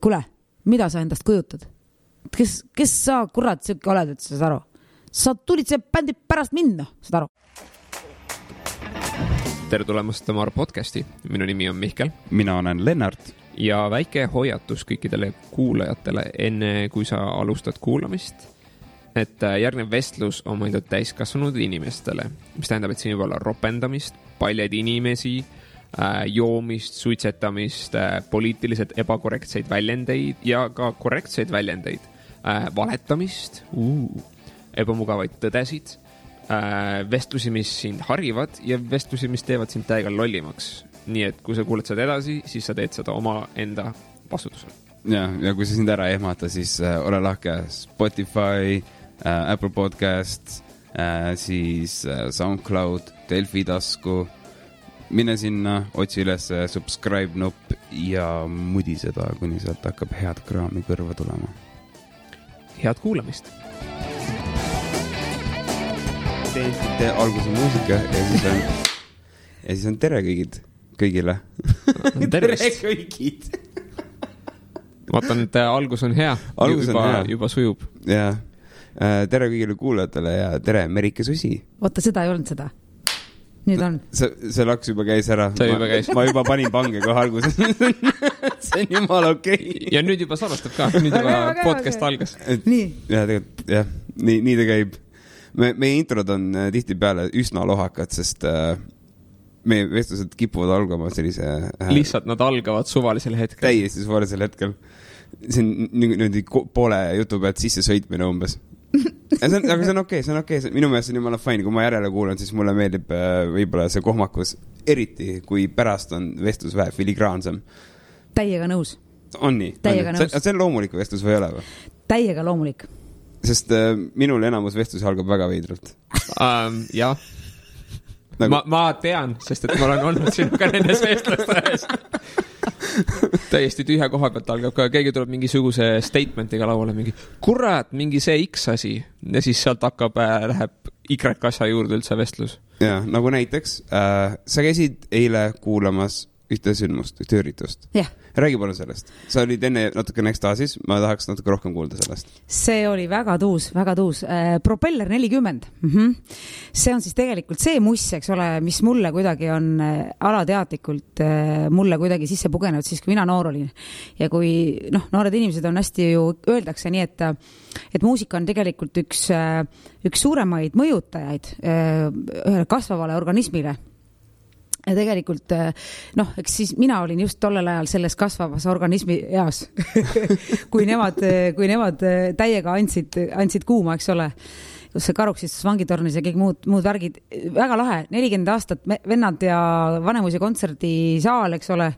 Kuule, mida sa endast kujutad? Kes sa kurat siuke oled, et sa saad aru? Sa tulid see bändi pärast minna, saad aru? Tere tulemast Tamar podcasti. Minu nimi on Mihkel. Mina olen Lennart. Ja väike hoiatus kõikidele kuulajatele enne, kui sa alustad kuulamist, et järgnev vestlus on mõeldud täiskasvanud inimestele, mis tähendab, et siin võib olla ropendamist, paljad inimesi, joomist, suitsetamist, poliitiliselt ebakorrektseid väljendeid ja ka korrektseid väljendeid, valetamist, ebamugavaid tõdesid, vestlusi, mis sind harivad ja vestlusi, mis teevad sind täiega lollimaks. Nii et kui sa kuuled seda edasi, siis sa teed seda oma enda vastutusel. Ja kui sa sind ära ehmata, siis ole lahke Spotify, Apple Podcast, siis SoundCloud, Delfi tasku. Mine sinna, otsi üles subscribe nupp ja mudi seda, kuni sealt hakkab head kraami kõrva tulema. Head kuulamist! Tee alguse muusika ja siis on tere kõigile. Tere kõigid! Vaatan, et algus on hea. Juba sujub. Ja, tere kõigile kuulajatele ja tere Merike Susi. Oota, seda ei olnud seda. Nüüd on. See laks juba käis ära. Ma juba panin pange kohe alguses. See on jumala okei. Ja nüüd juba salvestab ka. Nüüd juba podcast algas. Nii. Ja tegelikult, jah. Nii ta käib. Meie introd on tihti peale üsna lohakad, sest meie vestlused kipuvad algama sellise... Lihtsalt nad algavad suvalisel hetkel. Täiesti suvalisel hetkel. See on poole jutu pealt sisse sõitmine umbes. Aga see on okei. Minu meelest on jumala fine, kui ma järele kuulan, siis mulle meeldib võib-olla see kohmakus, eriti kui pärast on vestlus vähe filigraansem. Täiega nõus. On nii? Täiega nõus. See on loomulik vestlus või ei ole või? Täiega loomulik. Sest minul enamus vestlus algab väga veidralt. Jah. Ma tean, sest et ma olen olnud sinuga nendes vestlustes. Täiesti tühja koha pealt algab ka, keegi tuleb mingisuguse statementiga lauale, mingi kurat, mingi see X asi ja siis sealt läheb Y asja juurde üldse vestlus. Ja, nagu näiteks sa käisid eile kuulamas ühte sündmust, ühte üritust. Jah. Räägi palun sellest. Sa olid enne natuke ekstaasis, ma tahaks natuke rohkem kuulda sellest. See oli väga tuus. Propeller 40. See on siis tegelikult see muss, eks ole, mis mulle kuidagi on alateadlikult mulle kuidagi sisse pugenud siis, kui mina noor olin. Ja kui noored inimesed on hästi ju öeldakse nii, et muusika on tegelikult üks suuremaid mõjutajaid ühele kasvavale organismile. Ja tegelikult, eks siis mina olin just tollel ajal selles kasvavas organismi eas, kui nemad täiega andsid kuuma, eks ole, kus see karuksis vangitornis ja kõik muud värgid. Väga lahe, 40 aastat vennad ja Vanemuise kontserdisaal, eks ole,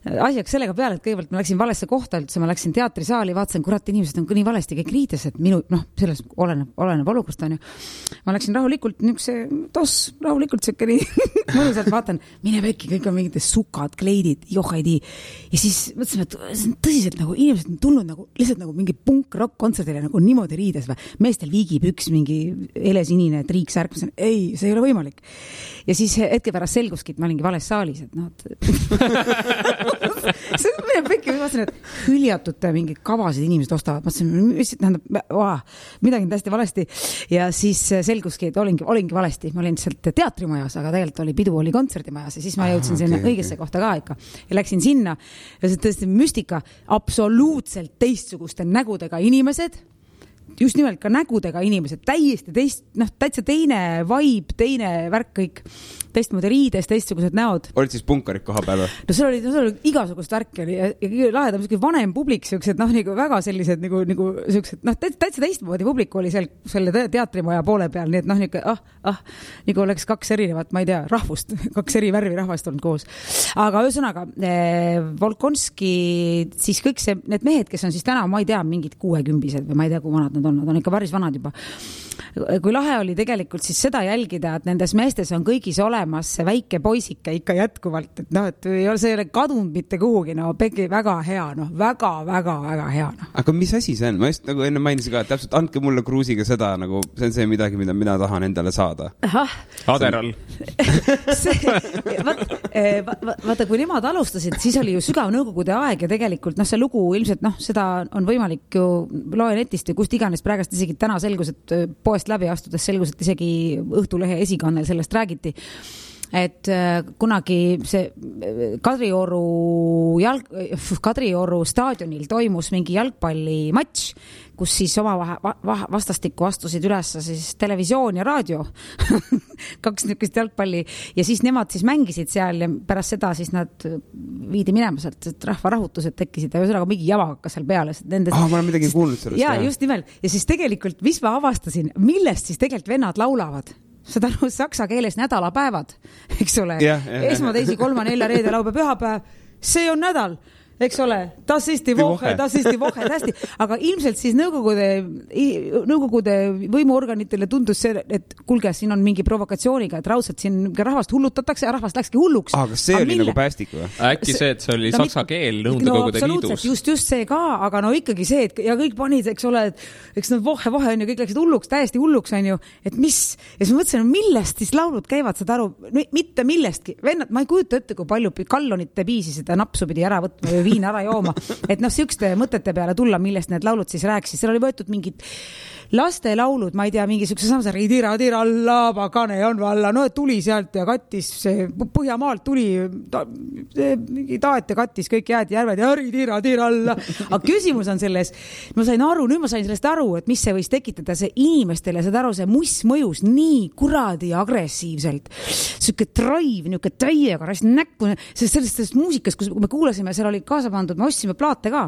asjaks sellega peale, et kõigepealt ma läksin valesse kohta üldse, ma läksin teatrisaali, vaatasin, kurat, inimesed on nii valesti kõik riides, et selles oleneb olukorrast on ju. Ma läksin rahulikult, rahulikult sökke nii, mõnusalt vaatan, mine pekki, kõik on mingid sukad, kleidid, johaidi. Ja siis mõtlesin, et see on tõsiselt nagu, inimesed on tulnud lihtsalt nagu mingi punk-rock kontserdile nagu niimoodi riides või meestel viigipüks, mingi helesinine triiksärk, ei, see ei ole võimalik. Ja siis hetke pärast selguski, et ma olingi vales saalis, see on mine pekki, ma mõtlesin, et hüljatute mingi kavasid inimesed ostavad, mõtlesin, midagi on täiesti valesti ja siis selguski, et olingi valesti, ma olin sealt teatrimajas, aga tegelikult oli pidu, oli kontserdimajas ja siis ma jõudsin sinna õigesse kohta ka ikka ja läksin sinna ja see tõesti müstika, absoluutselt teistsuguste nägudega inimesed, just nimelt ka nägudega inimesed, täiesti täitsa teine vibe, teine värk kõik, teistmoodi riides, teistsugused näod. Olid siis punkarid koha peal? No see oli igasugust värki ja lahedam vanem publik, siuksed, nagu väga sellised, nagu siuksed, täitsa teistmoodi publik oli selle teatrimaja poole peal, nii et nagu oleks kaks erinevat, ma ei tea, rahvust, kaks eri värvi rahvast olnud koos. Aga ühesõnaga, Volkonski, siis kõik need mehed, kes on siis täna, ma ei tea, mingid 60-sed või ma ei tea, kui vanad nad on ikka päris vanad juba. Kui lahe oli tegelikult siis seda jälgida, et nendes meestes on kõigis olemas see väike poisike ikka jätkuvalt, et noh, et ei ole see kadunud mitte kuhugi, no Pegi väga hea, noh, väga hea. No. Aga mis asi see on? Ma just nagu enne mainisin ka, et täpselt andke mulle Kruusiga seda, nagu see on see midagi, mida mina tahan endale saada. Aderal. Vaata, kui nemad alustasid, siis oli ju sügav nõukogude aeg ja tegelikult see lugu ilmselt, seda on võimalik ju loe netist ja kust iganes praegast isegi täna selgus, et poest läbi astudes selgus, et isegi Õhtulehe esikannel sellest räägiti. Et kunagi see Kadrioru staadionil toimus mingi jalgpallimatš, kus siis oma vastastikku astusid üles siis televisioon ja raadio. 2 niisugust jalgpalli ja siis nemad siis mängisid seal ja pärast seda siis nad viidi minema sealt, et rahvarahutused tekkisid ja ühesõnaga mingi java hakkas seal peale. Ma olen midagi kuulnud sellest. Ja just nimelt. Ja siis tegelikult, mis ma avastasin, millest siis tegelikult vennad laulavad? Seda saksa keeles nädalapäevad, eks ole. Esma, teisi, 3, 4, reede, laupäev, pühapäev. See on nädal. Eks ole, das ist die Woche, hästi. Aga ilmselt siis nõukogude võimuorganitele tundus see, et kuulge, siin on mingi provokatsiooniga, et raudselt siin rahvast hullutatakse ja rahvast läkski hulluks. Aga see oli nagu päästik või? Äkki see, et see oli saksa keel Nõukogude liidus. Just see ka, aga ikkagi see, et ja kõik panid, eks ole, et eks nad vohe on ju, kõik läksid hulluks, täiesti hulluks on ju, et mis, ja siis mõtlesin, millest siis laulud käivad, saad aru, mitte millestki. Vennad, ma ei kujuta ette, kui palju kallonite piisi seda napsu pidi ära võtma või viin ära jooma. Et sihukeste mõtete peale tulla, millest need laulud siis rääkisid. Seal oli võetud mingid laste laulud, ma ei tea, mingi sihukese samsari tira alla, pakane on valla, no et tuli sealt ja kattis, Põhjamaalt tuli mingi taat ja kattis kõik jääd järved ja tira alla. Aga küsimus on selles, nüüd ma sain sellest aru, et mis see võis tekitada see inimestele, saad aru, see muss mõjus nii kuradi agressiivselt. Sihuke drive, nihuke täiega rast näkku, sellest muusikas, kus me kuulasime, seal oli kaasa pandud, me ostsime plaate ka.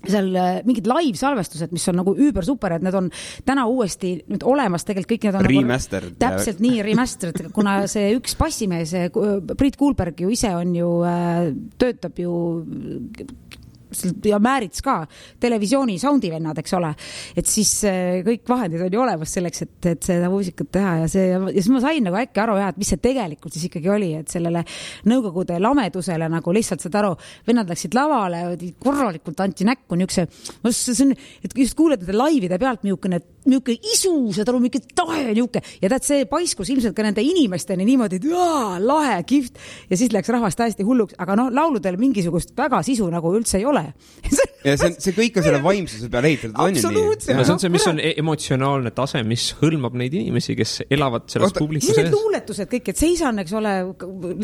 Seal mingid live-salvestused, mis on nagu üüber super, et need on täna uuesti nüüd olemas, tegelikult kõik need on remastered. Nagu, täpselt nii remastered, kuna see üks bassimees, Priit Kuulberg ju ise on ju, töötab ju ja Määrits ka, televisiooni soundivennad, eks ole, et siis kõik vahendid on ju olemas selleks, et seda muusikat teha ja siis ma sain nagu äkki aru, et mis see tegelikult siis ikkagi oli, et sellele nõukogude lamedusele nagu lihtsalt saad aru, vennad läksid lavale, korralikult anti näkku et just kuulete laivide pealt miukene isu, saad aru, miuke tahe niuke ja tead, see paiskus ilmselt ka nende inimesteni niimoodi, et lahe, kihvt ja siis läks rahvast täiesti hulluks, aga lauludel mingisugust väga sisu nagu üldse ei ole. Ja see kõik on selle vaimsuse peale ehitatud. Absoluutselt. See on see, mis on emotsionaalne tase, mis hõlmab neid inimesi, kes elavad selles publiku sees. Need luuletused kõik, et seisan, eks ole,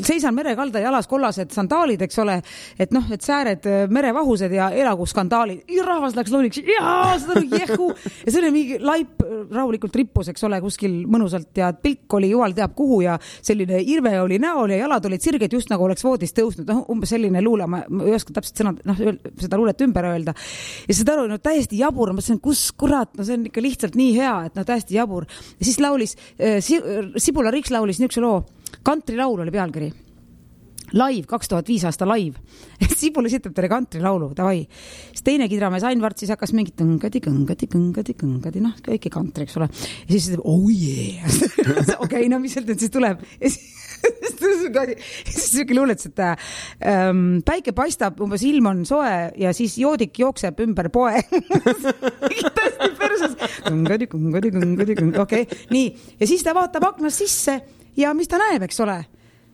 seisan merekalda jalas kollased sandaalid, eks ole, et et sääred merevahused ja elagu skandaalid. Ja rahvas läks looliks, seda jehu. Ja see oli mingi laip rahulikult rippus, eks ole, kuskil mõnusalt ja pilk oli jumal teab kuhu ja selline irve oli näol ja jalad olid sirged just nagu oleks voodist tõusnud. Umbes selline luule, ma ei oska täpselt seda luulet ümber öelda. Ja seda aru, täiesti jabur, ma mõtlesin, kus kurat, see on ikka lihtsalt nii hea, et täiesti jabur. Ja siis laulis, Sibula Riks laulis niisuguse loo, Kantrilaul oli pealkiri. Live, 2005 aasta live. Sibul esitab talle kantrilaulu, davai. Siis teine kidramees Ain Vart siis hakkas mingit kõngadi, kõiki kantri, eks ole. Ja siis ütleb, oh yeah. Okei, mis sealt nüüd siis tuleb? Ja siis selline luuletus, et päike paistab, umbes ilm on soe ja siis joodik jookseb ümber poe. Tõesti perses. Kõngadi, okei. Nii, ja siis ta vaatab aknast sisse ja mis ta näeb, eks ole?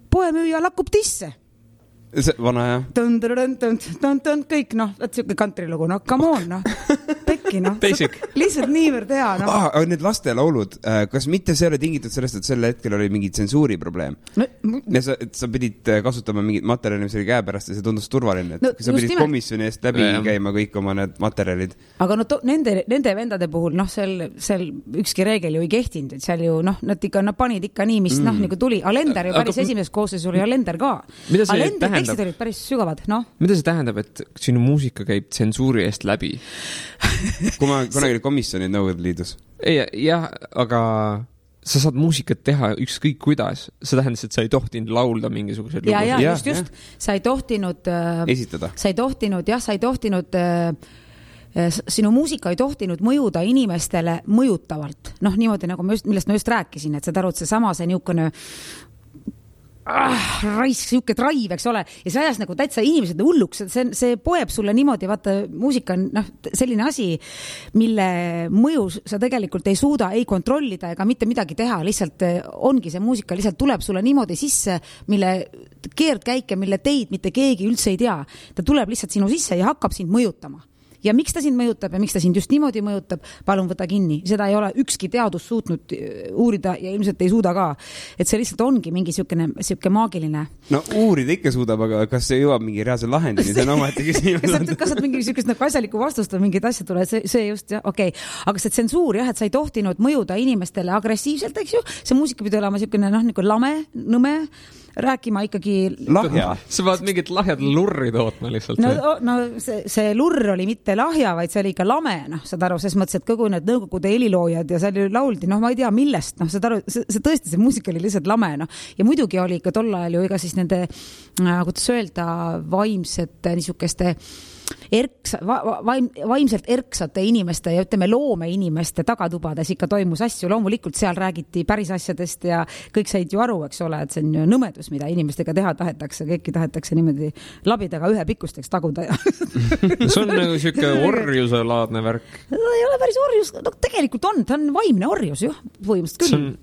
Poemüüja lakkub tisse. See vana, jah. Kõik, et siuke kantrilugu, come on, Pekki, Basic. Lihtsalt niivõrd hea, Need lastelaulud, kas mitte see oli tingitud sellest, et sel hetkel oli mingi tsensuuri probleem? Ja sa pidid kasutama mingit materjali, mis oli käepärast ja see tundus turvaline, et sa pidid komisjoni eest läbi käima kõik oma need materjalid. Aga nende vendade puhul, seal ükski reegel ju ei kehtinud, et seal ju, nad panid ikka nii, mis nagu tuli. Alender ju päris esimeses koosseis oli Alender ka. Tekstid olid päris sügavad, Mida see tähendab, et sinu muusika käib tsensuuri eest läbi? Kui ma kunagi komisjonid Nõukogude Liidus. Jah, aga sa saad muusikat teha ükskõik kuidas. See tähendas, et sa ei tohtinud laulda mingisugused lugu. Just. Sa ei tohtinud esitada. Sa ei tohtinud sinu muusika ei tohtinud mõjuda inimestele mõjutavalt. Noh, niimoodi nagu millest ma just rääkisin, et sa tarud seesama see niisugune raisk, siuke drive, eks ole, ja see ajas nagu täitsa inimesed hulluks, see poeb sulle niimoodi, vaata, muusika on selline asi, mille mõju sa tegelikult ei suuda ei kontrollida ega mitte midagi teha, lihtsalt ongi see muusika, lihtsalt tuleb sulle niimoodi sisse, mille keerdkäike, mille teid mitte keegi üldse ei tea. Ta tuleb lihtsalt sinu sisse ja hakkab sind mõjutama. Ja miks ta sind mõjutab ja miks ta sind just niimoodi mõjutab, palun võta kinni. Seda ei ole ükski teadus suutnud uurida ja ilmselt ei suuda ka. Et see lihtsalt ongi mingi siuke maagiline. No uurida ikka suudab, aga kas see jõuab mingi reaalse lahendini? See on ometi küsimus. Kas saad mingi siukest nagu asjalikku vastust või mingid asjad tuleb? See just, jah, okei. Aga see tsensuur, jah, et sa ei tohtinud mõjuda inimestele agressiivselt, eks ju? See muusika pidi olema siukene, nagu lame, nõme, rääkima ikkagi lahja. Sa vaad mingit lahjad lurri tootma lihtsalt. No see lurr oli mitte lahja, vaid see oli ikka lame, saad aru, ses mõttes, et kogu need nõukogude heliloojad ja seal lauldi, ma ei tea millest, saad aru, see tõesti, see muusika oli lihtsalt lame, ja muidugi oli ikka tol ajal ju iga siis nende, kuidas öelda, vaimsete niisugeste vaimselt erksate inimeste ja ütleme loome inimeste tagatubades ikka toimus asju, loomulikult seal räägiti päris asjadest ja kõik said ju aru, eks ole, et see on ju nõmedus, mida inimestega teha tahetakse, kõiki tahetakse niimoodi labidaga ühe pikkusteks taguda. See on nagu siuke orjuse laadne värk. Ei ole päris orjus, tegelikult on, ta on vaimne orjus ju, põhimõtteliselt küll.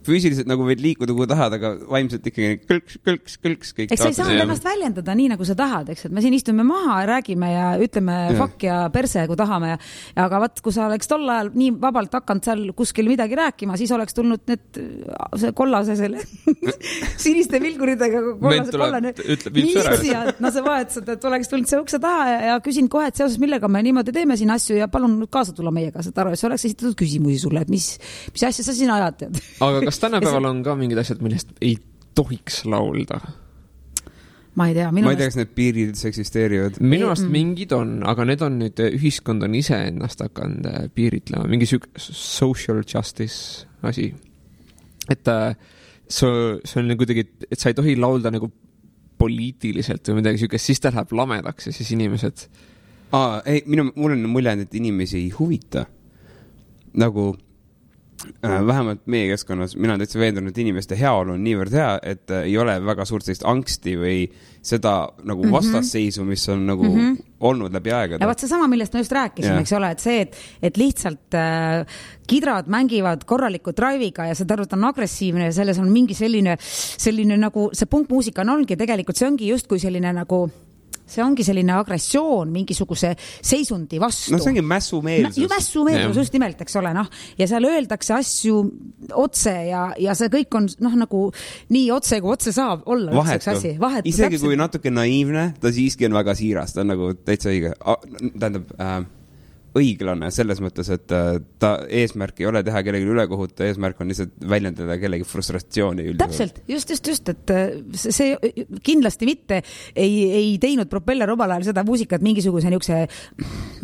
Füüsiliselt nagu võid liikuda kui tahad, aga vaimselt ikkagi kõlks kõik. Eks sa ei saa ennast väljendada nii, nagu sa tahad, eks, et me siin istume maha, räägime ja ütleme fuck ja perse, kui tahame. Aga vaat, kui sa oleks tol ajal nii vabalt hakanud seal kuskil midagi rääkima, siis oleks tulnud see kollase selle siniste vilguridega kollane militsia. No sa vahetused, et oleks tulnud see ukse taha ja küsin kohe, et seoses millega me niimoodi teeme siin asju ja palun kaasa tulla meiega, saad aru, et see oleks esitatud küsimusi sulle, et mis asja sa siin ajad, tead. Aga kas tänapäeval on ka mingid asjad, millest ei tohiks laulda? Ma ei tea. Ma ei tea, kas need piirid eksisteerivad. Minu arust mingid on, aga need on nüüd, ühiskond on ise ennast hakanud piiritlema. Mingi social justice asi. Et see on kuidagi, et sa ei tohi laulda nagu poliitiliselt või midagi siukest, siis ta läheb lamedaks ja siis inimesed... Mul on mulje, et inimesi ei huvita. Nagu... vähemalt meie keskkonnas, mina olen täitsa veendunud, et inimeste heaolu on niivõrd hea, et ei ole väga suurt sellist angsti või seda nagu vastasseisu, mis on nagu olnud läbi aegade. Ja vaat see sama, millest ma just rääkisin, eks ole, et see, et lihtsalt kidrad mängivad korraliku drive'iga ja see tarvut on agressiivne ja selles on mingi selline nagu, see punkmuusika on ongi tegelikult, see ongi just kui selline nagu see ongi selline agressioon mingisuguse seisundi vastu. No see ongi mässumeelsus. Mässumeelsus just nimelt, eks ole, ja seal öeldakse asju otse ja see kõik on nagu nii otse, kui otse saab olla. Vahetu. Isegi täpselt. Kui natuke naiivne, ta siiski on väga siiras, ta on nagu täitsa õige. Tähendab, õiglane selles mõttes, et ta eesmärk ei ole teha kellegi ülekohut, eesmärk on lihtsalt väljendada kellegi frustratsiooni üldiselt. Täpselt, just, et see kindlasti mitte ei teinud Propeller omal ajal seda muusikat mingisuguse niisuguse,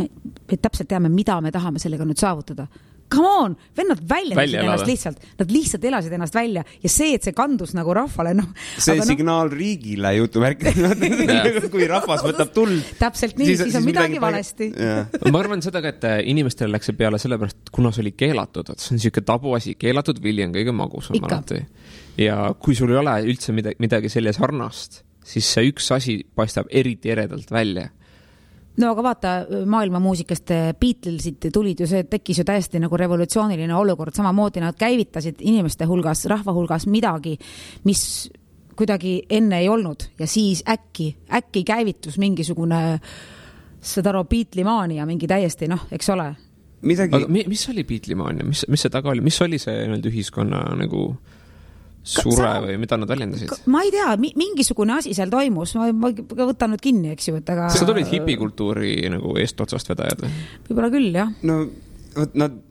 me täpselt teame, mida me tahame sellega nüüd saavutada. Come on, vennad väljendasid ennast lihtsalt. Nad lihtsalt elasid ennast välja ja see, et see kandus nagu rahvale. See signaal riigile jutuvärk, kui rahvas võtab tuld. Täpselt nii, siis on midagi valesti. Ma arvan seda ka, et inimestele läks see peale sellepärast, kuna see oli keelatud. See on siuke tabuasi, keelatud vili on kõige magusam alati. Ja kui sul ei ole üldse midagi selle sarnast, siis see üks asi paistab eriti eredalt välja. No aga vaata, maailma muusikast Beatlesid tulid ju, see tekkis ju täiesti nagu revolutsiooniline olukord, samamoodi nad käivitasid inimeste hulgas, rahva hulgas midagi, mis kuidagi enne ei olnud ja siis äkki käivitus mingisugune seda Beatlemania mingi täiesti, eks ole. Aga mis oli Beatlemania? Mis see taga oli? Mis oli see ühiskonna nagu... sure või mida nad väljendasid? Ma ei tea, mingisugune asi seal toimus, ma võtan nüüd kinni, eks ju, et aga... Sa tulid hipikultuuri nagu eestotsast vedajad? Võib-olla küll, jah. No,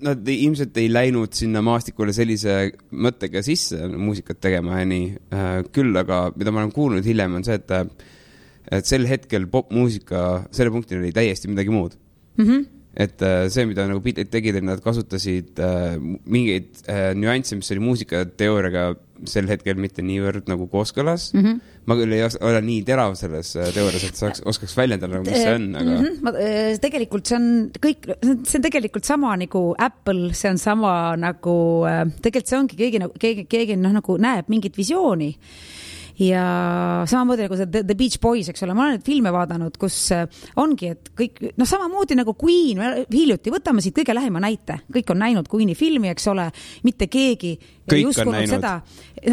nad ilmselt ei läinud sinna maastikule sellise mõttega sisse muusikat tegema ja nii. Küll, aga mida ma olen kuulnud hiljem on see, et sel hetkel popmuusika selle punktil oli täiesti midagi muud. Et see, mida nagu Beatles tegid, et nad kasutasid mingeid nüansse, mis oli muusikateooriaga sel hetkel mitte niivõrd nagu kooskõlas. Ma küll ei ole nii terav selles teoorias, et oskaks väljendada, mis see on, aga... Tegelikult see on tegelikult sama nagu Apple, see on sama nagu... Tegelikult see ongi keegi nagu näeb mingit visiooni. Ja samamoodi nagu see The Beach Boys, eks ole, ma olen neid filme vaadanud, kus ongi, et kõik, samamoodi nagu Queen, hiljuti, võtame siit kõige lähema näite, kõik on näinud Queeni filmi, eks ole, mitte keegi kõik on näinud. Seda,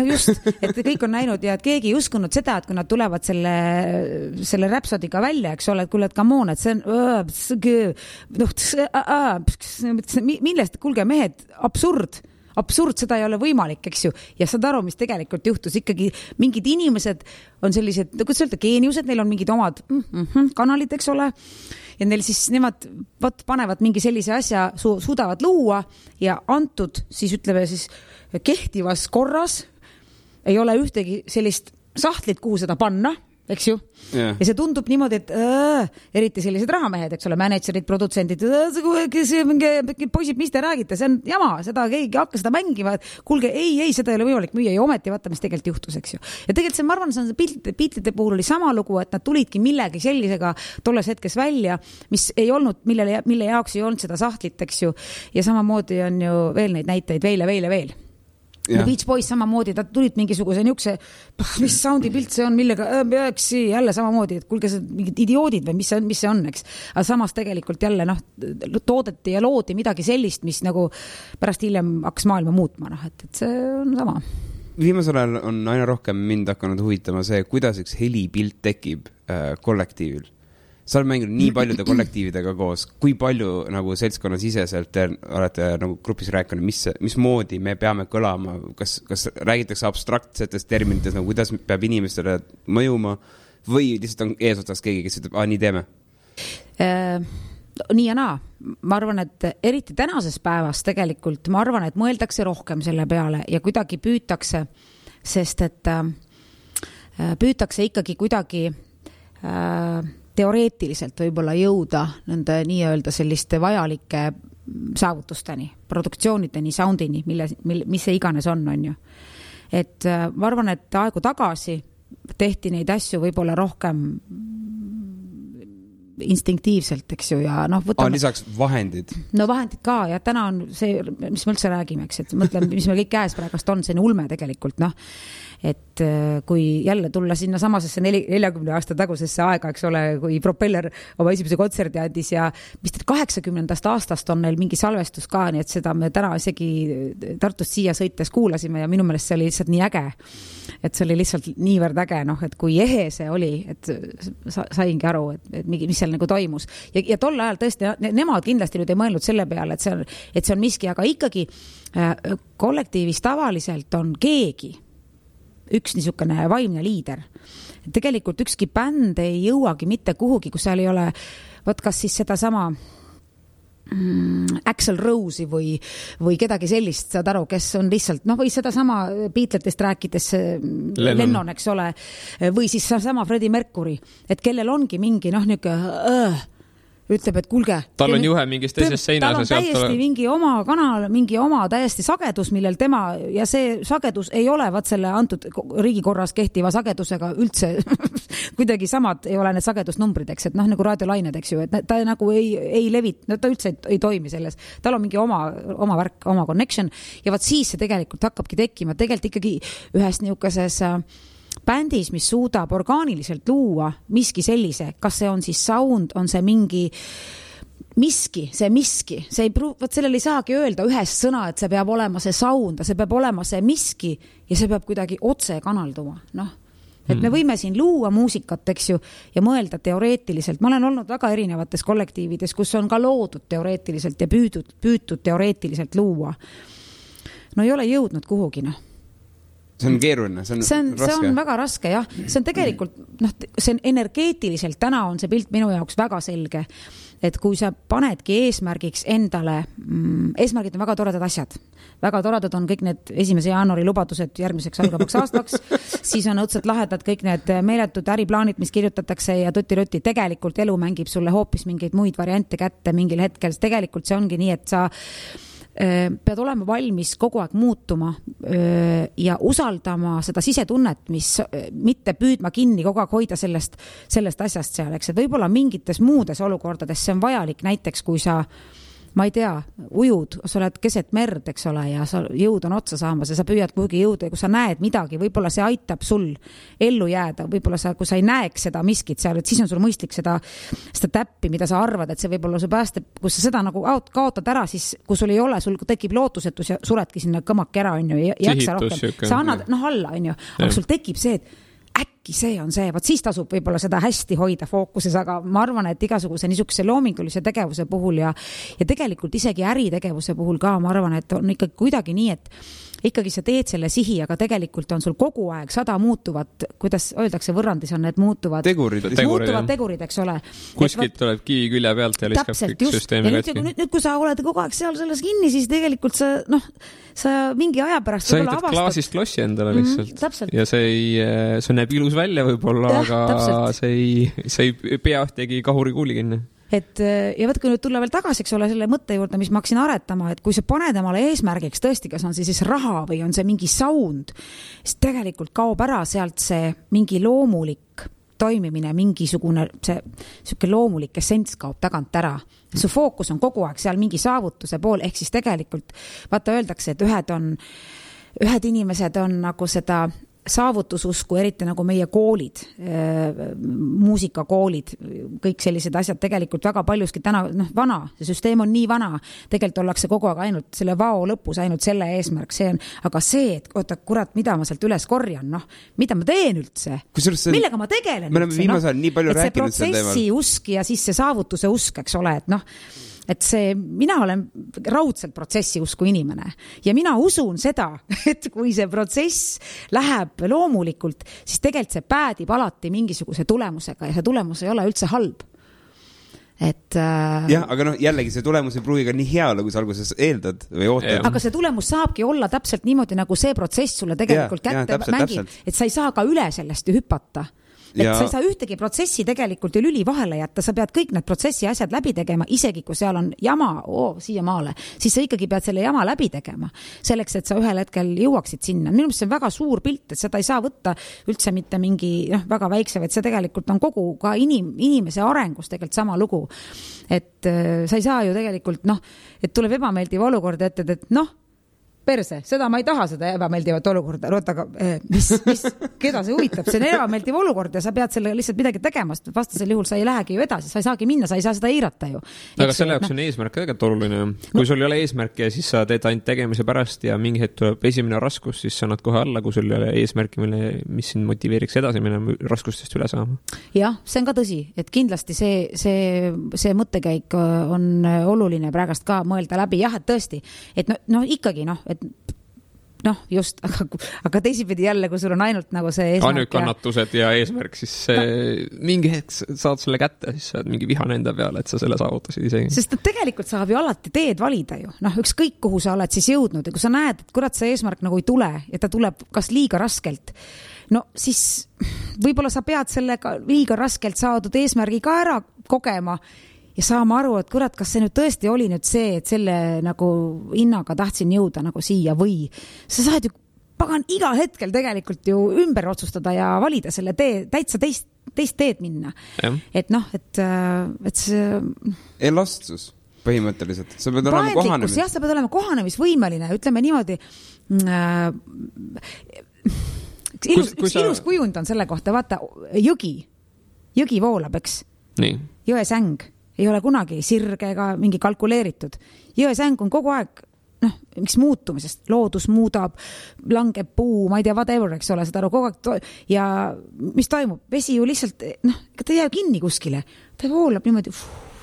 just, et kõik on näinud ja et keegi ei uskunud seda, et kui nad tulevad selle Rhapsodiga välja, eks ole, et kuule, et come on, et see on millest, kuulge mehed, absurd, seda ei ole võimalik, eks ju, ja saad aru, mis tegelikult juhtus, ikkagi mingid inimesed on sellised, kuidas öelda, geeniused, neil on mingid omad kanalid, eks ole, ja neil siis nemad panevad mingi sellise asja, suudavad luua ja antud, siis ütleme siis kehtivas korras ei ole ühtegi sellist sahtlit, kuhu seda panna, eks ju, ja see tundub niimoodi, et eriti sellised rahamehed, eks ole, managerid, produtsendid, poisid, mis te räägite, see on jama, seda keegi hakka seda mängima, kuulge, ei, seda ei ole võimalik müüa ja ometi vaata, mis tegelikult juhtus, eks ju. Ja tegelikult see, ma arvan, see on piltide puhul oli sama lugu, et nad tulidki millegi sellisega tolles hetkes välja, mis ei olnud, mille jaoks ei olnud seda sahtlit, eks ju, ja samamoodi on ju veel neid näiteid veel. Ja. Beach Boys samamoodi, ta tulid mingisuguse niukse, mis soundi pilt see on, millega jälle samamoodi, et kuulge see mingid idioodid või mis see on, eks. Aga samas tegelikult jälle toodeti ja loodi midagi sellist, mis nagu pärast hiljem hakkas maailma muutma, et see on sama. Viimasel ajal on aina rohkem mind hakanud huvitama see, kuidas üks helipilt tekib kollektiivil. Sa oled mänginud nii paljude kollektiividega koos, kui palju nagu seltskonna siseselt olete nagu grupis rääkinud, mis moodi me peame kõlama, kas räägitakse abstraktsetes terminites, nagu kuidas peab inimestele mõjuma või lihtsalt on eesotsas keegi, kes ütleb, nii teeme? Nii ja naa. Ma arvan, et eriti tänases päevas tegelikult, ma arvan, et mõeldakse rohkem selle peale ja kuidagi püütakse, sest et püütakse ikkagi kuidagi teoreetiliselt võib-olla jõuda nende nii-öelda selliste vajalike saavutusteni, produktsioonideni, soundini, mis see iganes on ju. Et ma arvan, et aegu tagasi tehti neid asju võib-olla rohkem instinktiivselt, eks ju, ja võtame... lisaks vahendid. Vahendid ka, ja täna on see, mis me üldse räägime, eks, et mõtleme, mis meil kõik käes praegust on, see on ulme tegelikult, et kui jälle tulla sinna samasesse 40 aasta tagusesse aega, eks ole, kui Propeller oma esimese kontserdi andis ja mis 80. aastast on neil mingi salvestus ka, nii et seda me täna isegi Tartust siia sõites kuulasime ja minu meelest see oli lihtsalt nii äge, et see oli lihtsalt niivõrd äge, et kui ehe see oli, et saingi aru, et mis seal nagu toimus. Ja tol ajal tõesti, nemad kindlasti nüüd ei mõelnud selle peale, et see on miski, aga ikkagi kollektiivis tavaliselt on keegi, üks niisugune vaimne liider. Tegelikult ükski bänd ei jõuagi mitte kuhugi, kus seal ei ole, kas siis seda sama Axl Rose'i või kedagi sellist, saad aru, kes on lihtsalt, või seda sama Beatletest rääkides Lennon, eks ole, või siis sama Freddie Mercury, et kellel ongi mingi, ütleb, et kuulge. Tal on juhe mingist teisest seinas. Tal on täiesti mingi oma kanal, mingi oma täiesti sagedus, millel tema, ja see sagedus ei ole selle antud riigikorras kehtiva sagedusega üldse kuidagi samad ei ole need sagedusnumbrid, eks, et nagu raadiolained, eks ju, et ta nagu ei levit, ta üldse ei toimi selles. Tal on mingi oma värk, oma connection ja vaat siis see tegelikult hakkabki tekkima. Tegelikult ikkagi ühes niukeses bändis, mis suudab orgaaniliselt luua miski sellise, kas see on siis sound, on see mingi miski, see ei võt sellele ei saagi öelda ühest sõna, et see peab olema see sound, see peab olema see miski ja see peab kuidagi otse kanalduma, et me võime siin luua muusikat, eks ju, ja mõelda teoreetiliselt. Ma olen olnud väga erinevates kollektiivides, kus on ka loodud teoreetiliselt ja püütud teoreetiliselt luua. Ei ole jõudnud kuhugi, See on keeruline, see on raske. See on väga raske, jah. See on tegelikult, see on energeetiliselt, täna on see pilt minu jaoks väga selge, et kui sa panedki eesmärgiks endale, eesmärgid on väga toredad asjad. Väga toredad on kõik need 1. jaanuari lubadused järgmiseks algavaks aastaks, siis on õudselt lahedad kõik need meeletud äriplaanid, mis kirjutatakse ja tuti-ruti. Tegelikult elu mängib sulle hoopis mingeid muid variante kätte mingil hetkel. Tegelikult see ongi nii, et pead olema valmis kogu aeg muutuma ja usaldama seda sisetunnet, mis mitte püüdma kinni kogu aeg hoida sellest asjast seal, eks, et võib-olla mingites muudes olukordades see on vajalik, näiteks kui sa ma ei tea, ujud, sa oled keset merd, eks ole, ja sa jõud on otsa saamas ja sa püüad kuhugi jõuda ja kui sa näed midagi, võib-olla see aitab sul ellu jääda, võib-olla kui sa ei näeks seda miskit seal, et siis on sul mõistlik seda täppi, mida sa arvad, et see võib-olla su päästab, kus sa seda nagu kaotad ära, siis kui sul ei ole, sul tekib lootusetus ja suredki sinna kõmaki ära, on ju, ja jaksa rohkem. Sa annad, alla, on ju, aga sul tekib see, et äkki see on see, vaat siis tasub võib-olla seda hästi hoida fookuses, aga ma arvan, et igasuguse niisuguse loomingulise tegevuse puhul ja tegelikult isegi äritegevuse puhul ka, ma arvan, et on ikkagi kuidagi nii, et ikkagi sa teed selle sihi, aga tegelikult on sul kogu aeg 100 muutuvat, kuidas öeldakse võrrandis on need muutuvad tegurid, eks ole. Kuskilt tuleb kivi külje pealt ja liskab kõik süsteemi katki. Nüüd, kui sa oled kogu aeg seal selles kinni, siis tegelikult sa mingi aja pärast sa ehitad klaasist klossi endale lihtsalt. Ja see näeb ilus välja võib-olla, aga see ei pea ühtegi kahuri kuuli kinni. Ja võtku nüüd tulla veel tagasi, eks ole, selle mõtte juurde, mis ma hakkasin aretama, et kui sa paned emale eesmärgiks tõesti, kas on siis raha või on see mingi sound, siis tegelikult kaob ära sealt see mingi loomulik toimimine, mingisugune see loomulik essents kaob tagant ära. Su fookus on kogu aeg seal mingi saavutuse pool, ehk siis tegelikult vaata öeldakse, et ühed inimesed on nagu seda saavutususku, eriti nagu meie koolid, muusikakoolid, kõik sellised asjad tegelikult väga paljuski täna, vana, see süsteem on nii vana, tegelikult ollakse kogu aeg ainult selle vao lõpus, ainult selle eesmärk, see on, aga see, et oota, kurat, mida ma sealt üles korjan, mida ma teen üldse? millega ma tegelen üldse? Viimasel nii palju rääkinud see protsessi usk ja siis see saavutuse usk, eks ole, et mina olen raudselt protsessi usku inimene ja mina usun seda, et kui see protsess läheb loomulikult, siis tegelikult see päädib alati mingisuguse tulemusega ja see tulemus ei ole üldse halb. Jah, aga jällegi see tulemus ei pruugi ka nii hea, kui sa alguses eeldad või ootad. Aga see tulemus saabki olla täpselt niimoodi, nagu see protsess sulle tegelikult kätte mängib, et sa ei saa ka üle sellest hüpata. Et sa ei saa ühtegi protsessi tegelikult ju lüli vahele jätta, sa pead kõik need protsessi asjad läbi tegema, isegi kui seal on jama siia maale, siis sa ikkagi pead selle jama läbi tegema, selleks, et sa ühel hetkel jõuaksid sinna. Minu meelest see on väga suur pilt, et seda ei saa võtta üldse mitte mingi väga väikse, et see tegelikult on kogu ka inimese arengus tegelikult sama lugu. Et sa ei saa ju tegelikult, et tuleb ebameeldiv olukord ette, et perse, seda ma ei taha, seda ebameeldivat olukorda, aga keda see huvitab, see on ebameeldiv olukord ja sa pead selle lihtsalt midagi tegema, vastasel juhul sa ei lähegi ju edasi, sa ei saagi minna, sa ei saa seda eirata ju. Aga selle jaoks on eesmärk tegelikult oluline. Kui sul ei ole eesmärki ja siis sa teed ainult tegemise pärast ja mingi hetk tuleb esimene raskus, siis sa annad kohe alla, kui sul ei ole eesmärki, mis sind motiveeriks edasi minema raskustest üle saama. Jah, see on ka tõsi, et kindlasti see mõttekäik on oluline praegast ka mõelda läbi. Jah, et tõesti, et ikkagi et just, aga teisipidi jälle, kui sul on ainult nagu see eesmärk. Ainult kannatused ja eesmärk, siis mingi hetk saad selle kätte, siis saad mingi vihane enda peale, et sa selle saavutasid isegi. Sest tegelikult saab ju alati teed valida ju. Ükskõik kuhu sa oled siis jõudnud ja kui sa näed, et kurat see eesmärk nagu ei tule ja ta tuleb kas liiga raskelt, siis võib-olla sa pead sellega liiga raskelt saadud eesmärgi ka ära kogema ja saama aru, et kurat, kas see nüüd tõesti oli nüüd see, et selle nagu hinnaga tahtsin jõuda nagu siia või sa saad ju pagan igal hetkel tegelikult ju ümber otsustada ja valida selle tee, täitsa teist teed minna. Ja. Et see... Elastsus põhimõtteliselt. Sa pead olema kohanemis. Jah, sa pead olema kohanemisvõimeline, ütleme niimoodi... Ilus kujund on selle kohta, vaata, jõgi voolab, eks? Nii. Jõesäng ei ole kunagi sirge ega mingi kalkuleeritud. Jõesäng on kogu aeg, miks muutumisest, loodus muudab, langeb puu, ma ei tea, whatever, eks ole, seda kogu aeg ja mis toimub? Vesi ju lihtsalt, ta ei jää kinni kuskile, ta voolab niimoodi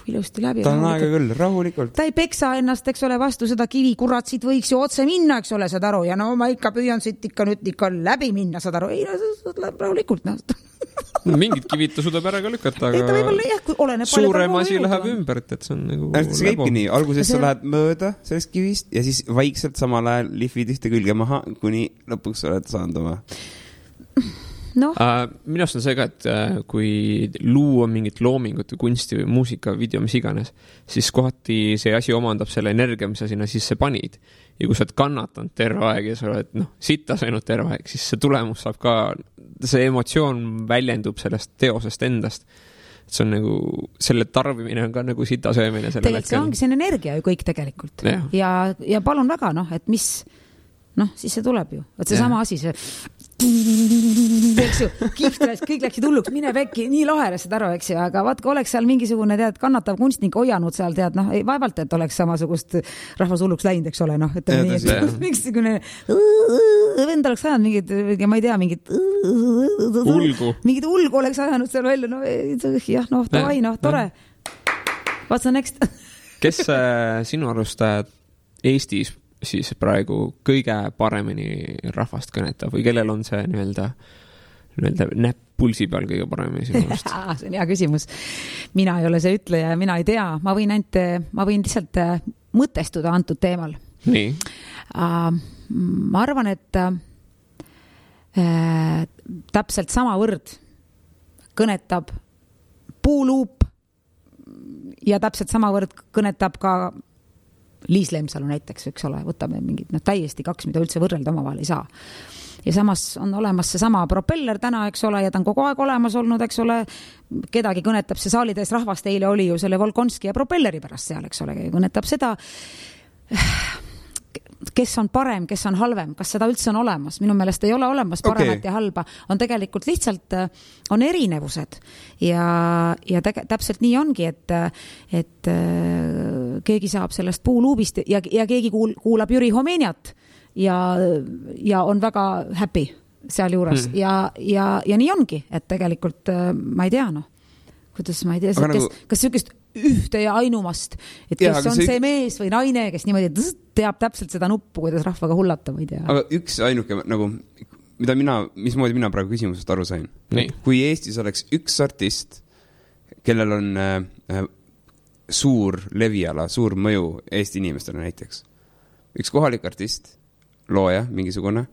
ilusti läbi. Ta on aega küll, rahulikult. Ta ei peksa ennast, eks ole, vastu seda kivi, kurat, siit võiks ju otse minna, eks ole, saad aru, ja ma ikka püüan siit ikka läbi minna, saad aru, ei, rahulikult, Mingid kivid ta suudab ära ka lükata, aga suurem asi läheb ümber, et see on nagu see käibki nii, alguses sa lähed mööda sellest kivist ja siis vaikselt samal ajal lihvid ühte külge maha, kuni lõpuks oled saanud oma. minu arust on see ka, et kui luua mingit loomingut või kunsti või muusika, video, mis iganes, siis kohati see asi omandab selle energia, mis sa sinna sisse panid. Ja kui sa oled kannatanud terve aeg ja sa oled sitta saanud terve aeg, siis see tulemus saab ka, see emotsioon väljendub sellest teosest endast. See on nagu, selle tarbimine on ka nagu sita söömine. Tegelikult see ongi, see on energia ju kõik tegelikult. Ja palun väga, et mis, siis see tuleb ju. Et see sama asi, see eks ju, kõik läksid hulluks, mine pekki, nii lahelased aru, eks ju, aga vaat, kui oleks seal mingisugune, kannatav kunstnik hoianud seal, ei vaevalt, et oleks samasugust rahvas hulluks läinud, eks ole, et mingisugune vend oleks ajanud mingid, ma ei tea, mingid ulgu oleks ajanud seal välja, davai, tore. What's the next? Kes sinu arust Eestis siis praegu kõige paremini rahvast kõnetab või kellel on see nii-öelda näpp pulsi peal kõige paremini sinu arust? See on hea küsimus. Mina ei ole see ütleja, mina ei tea. Ma võin lihtsalt mõtestuda antud teemal. Nii. Ma arvan, et täpselt sama võrd kõnetab puuluup ja täpselt sama võrd kõnetab ka Liis Lemsalu näiteks, eks ole, võtame mingid täiesti kaks, mida üldse võrrelda omavahel ei saa. Ja samas on olemas see sama propeller täna, eks ole, ja ta on kogu aeg olemas olnud, eks ole, kedagi kõnetab see saalides rahvast, eile oli ju selle Volkonski ja propelleri pärast seal, eks ole, kõnetab seda, kes on parem, kes on halvem, kas seda üldse on olemas. Minu meelest ei ole olemas paremat ja halba. On tegelikult lihtsalt on erinevused ja täpselt nii ongi, et keegi saab sellest puuluubist ja keegi kuulab Jüri Homeniat ja on väga happy seal juures ja nii ongi, et tegelikult ma ei tea, kuidas ma ei tea, kas sükest ühte ja ainumast, et kes on see mees või naine, kes niimoodi teab täpselt seda nuppu, kuidas rahvaga hullata, ma ei tea. Aga üks ainuke, mismoodi mina praegu küsimusest aru sain. Kui Eestis oleks üks artist, kellel on suur leviala, suur mõju Eesti inimestele näiteks. Üks kohalik artist, looja, mingisugune,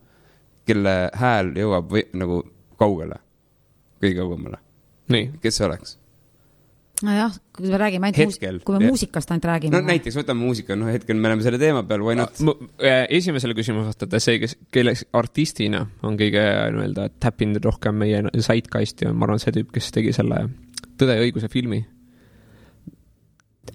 kelle hääl jõuab nagu kaugele, kõige kaugemale. Kes see oleks? Nojah, kui me räägime kui me muusikast ainult räägime. Näiteks võtame muusika, hetkel me oleme selle teema peal, why not? Esimesele küsimus vastada see, kelle artistina on kõige täppinud rohkem meie zeitgeisti, ma arvan see tüüp, kes tegi selle Tõde ja õiguse filmi.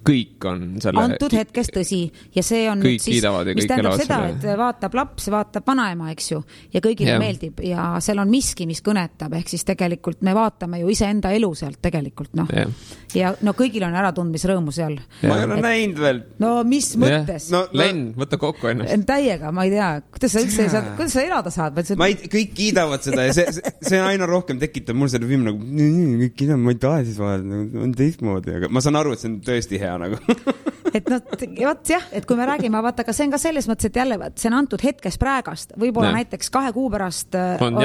Kõik on selle antud hetkes tõsi ja see on kõik siis, mis tähendab seda, et vaatab laps, vaatab vanaema, eks ju, ja kõigile meeldib ja seal on miski, mis kõnetab, ehk siis tegelikult me vaatame ju iseenda elu sealt tegelikult, ja kõigil on äratundmisrõõmu seal. Ma ei ole näinud veel. No mis mõttes? Len, võta kokku ennast. Täiega, ma ei tea, kuidas sa üldse saad, kuidas sa elada saad? Kõik kiidavad seda ja see aina rohkem tekitab mul selle film nagu, kõik kiidavad, ma ei taha siis vahel, on teistmoodi, aga ma saan aru, et see on tõesti hea nagu. et et kui me räägime, vaata, aga see on ka selles mõttes, et jälle see on antud hetkes praegast, võib-olla näiteks 2 kuu pärast on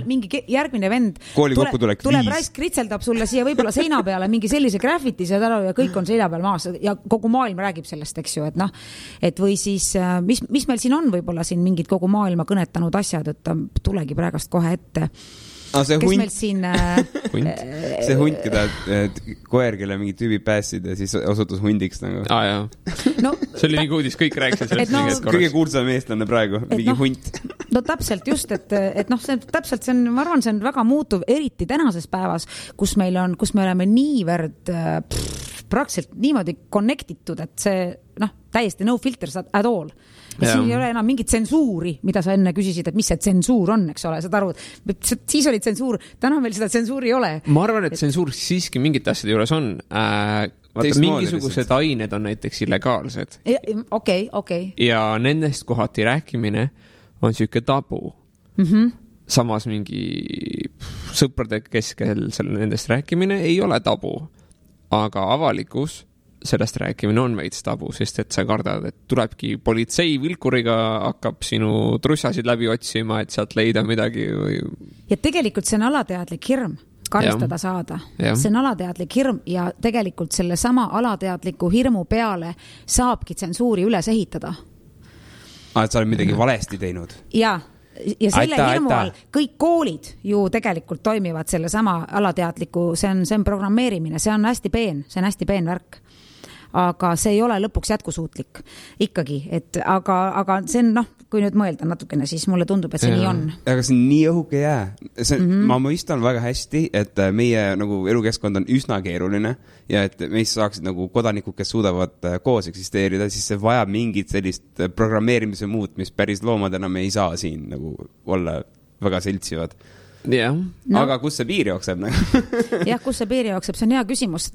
mingi järgmine vend tuleb raisk kritseldab sulle siia võib-olla seina peale mingi sellise graffiti ja kõik on seina peal maas ja kogu maailm räägib sellest, eks ju, et või siis mis meil siin on võib-olla siin mingid kogu maailma kõnetanud asjad, et ta tulegi praegast kohe ette. See kes hunt, meil siin see hunt, keda koer, kelle mingi tüübi päässid ja siis osutus hundiks nagu. See oli mingi uudis, kõik rääksid sellest kõige kuulsam eestlane praegu, mingi hunt. Täpselt just, et see on, ma arvan, see on väga muutuv, eriti tänases päevas, kus me oleme niivõrd praktiliselt niimoodi connectitud, et see täiesti no filters at all. Ja siin ei ole enam mingit tsensuuri, mida sa enne küsisid, et mis see tsensuur on, eks ole, saad aru, siis oli tsensuur, täna meil seda tsensuuri ei ole. Ma arvan, et tsensuur siiski mingite asjade juures on. Mingisugused ained on näiteks illegaalsed. Okei. Ja nendest kohati rääkimine on siuke tabu. Samas mingi sõprade keskel nendest rääkimine ei ole tabu, aga avalikus sellest rääkimine on veits tabu, sest et sa kardad, et tulebki politsei vilkuriga hakkab sinu trussasid läbi otsima, et sealt leida midagi või... Ja tegelikult see on alateadlik hirm karistada saada. See on alateadlik hirm ja tegelikult selle sama alateadliku hirmu peale saabki tsensuuri üles ehitada. Et sa oled midagi valesti teinud? Jaa. ja selle hirmu all kõik koolid ju tegelikult toimivad selle sama alateadliku, see on programmeerimine, see on hästi peen värk. Aga see ei ole lõpuks jätkusuutlik ikkagi, et aga see on, kui nüüd mõelda natukene, siis mulle tundub, et see nii on. Aga see on nii õhuke jää. Ma mõistan väga hästi, et meie nagu elukeskkond on üsna keeruline ja et meist saaksid nagu kodanikud, kes suudavad koos eksisteerida, siis see vajab mingit sellist programmeerimise muut, mis päris loomadena me ei saa siin nagu olla väga seltsivad. Yeah. No. Aga kus see piir jookseb? Jah, kus see piir jookseb, see on hea küsimus.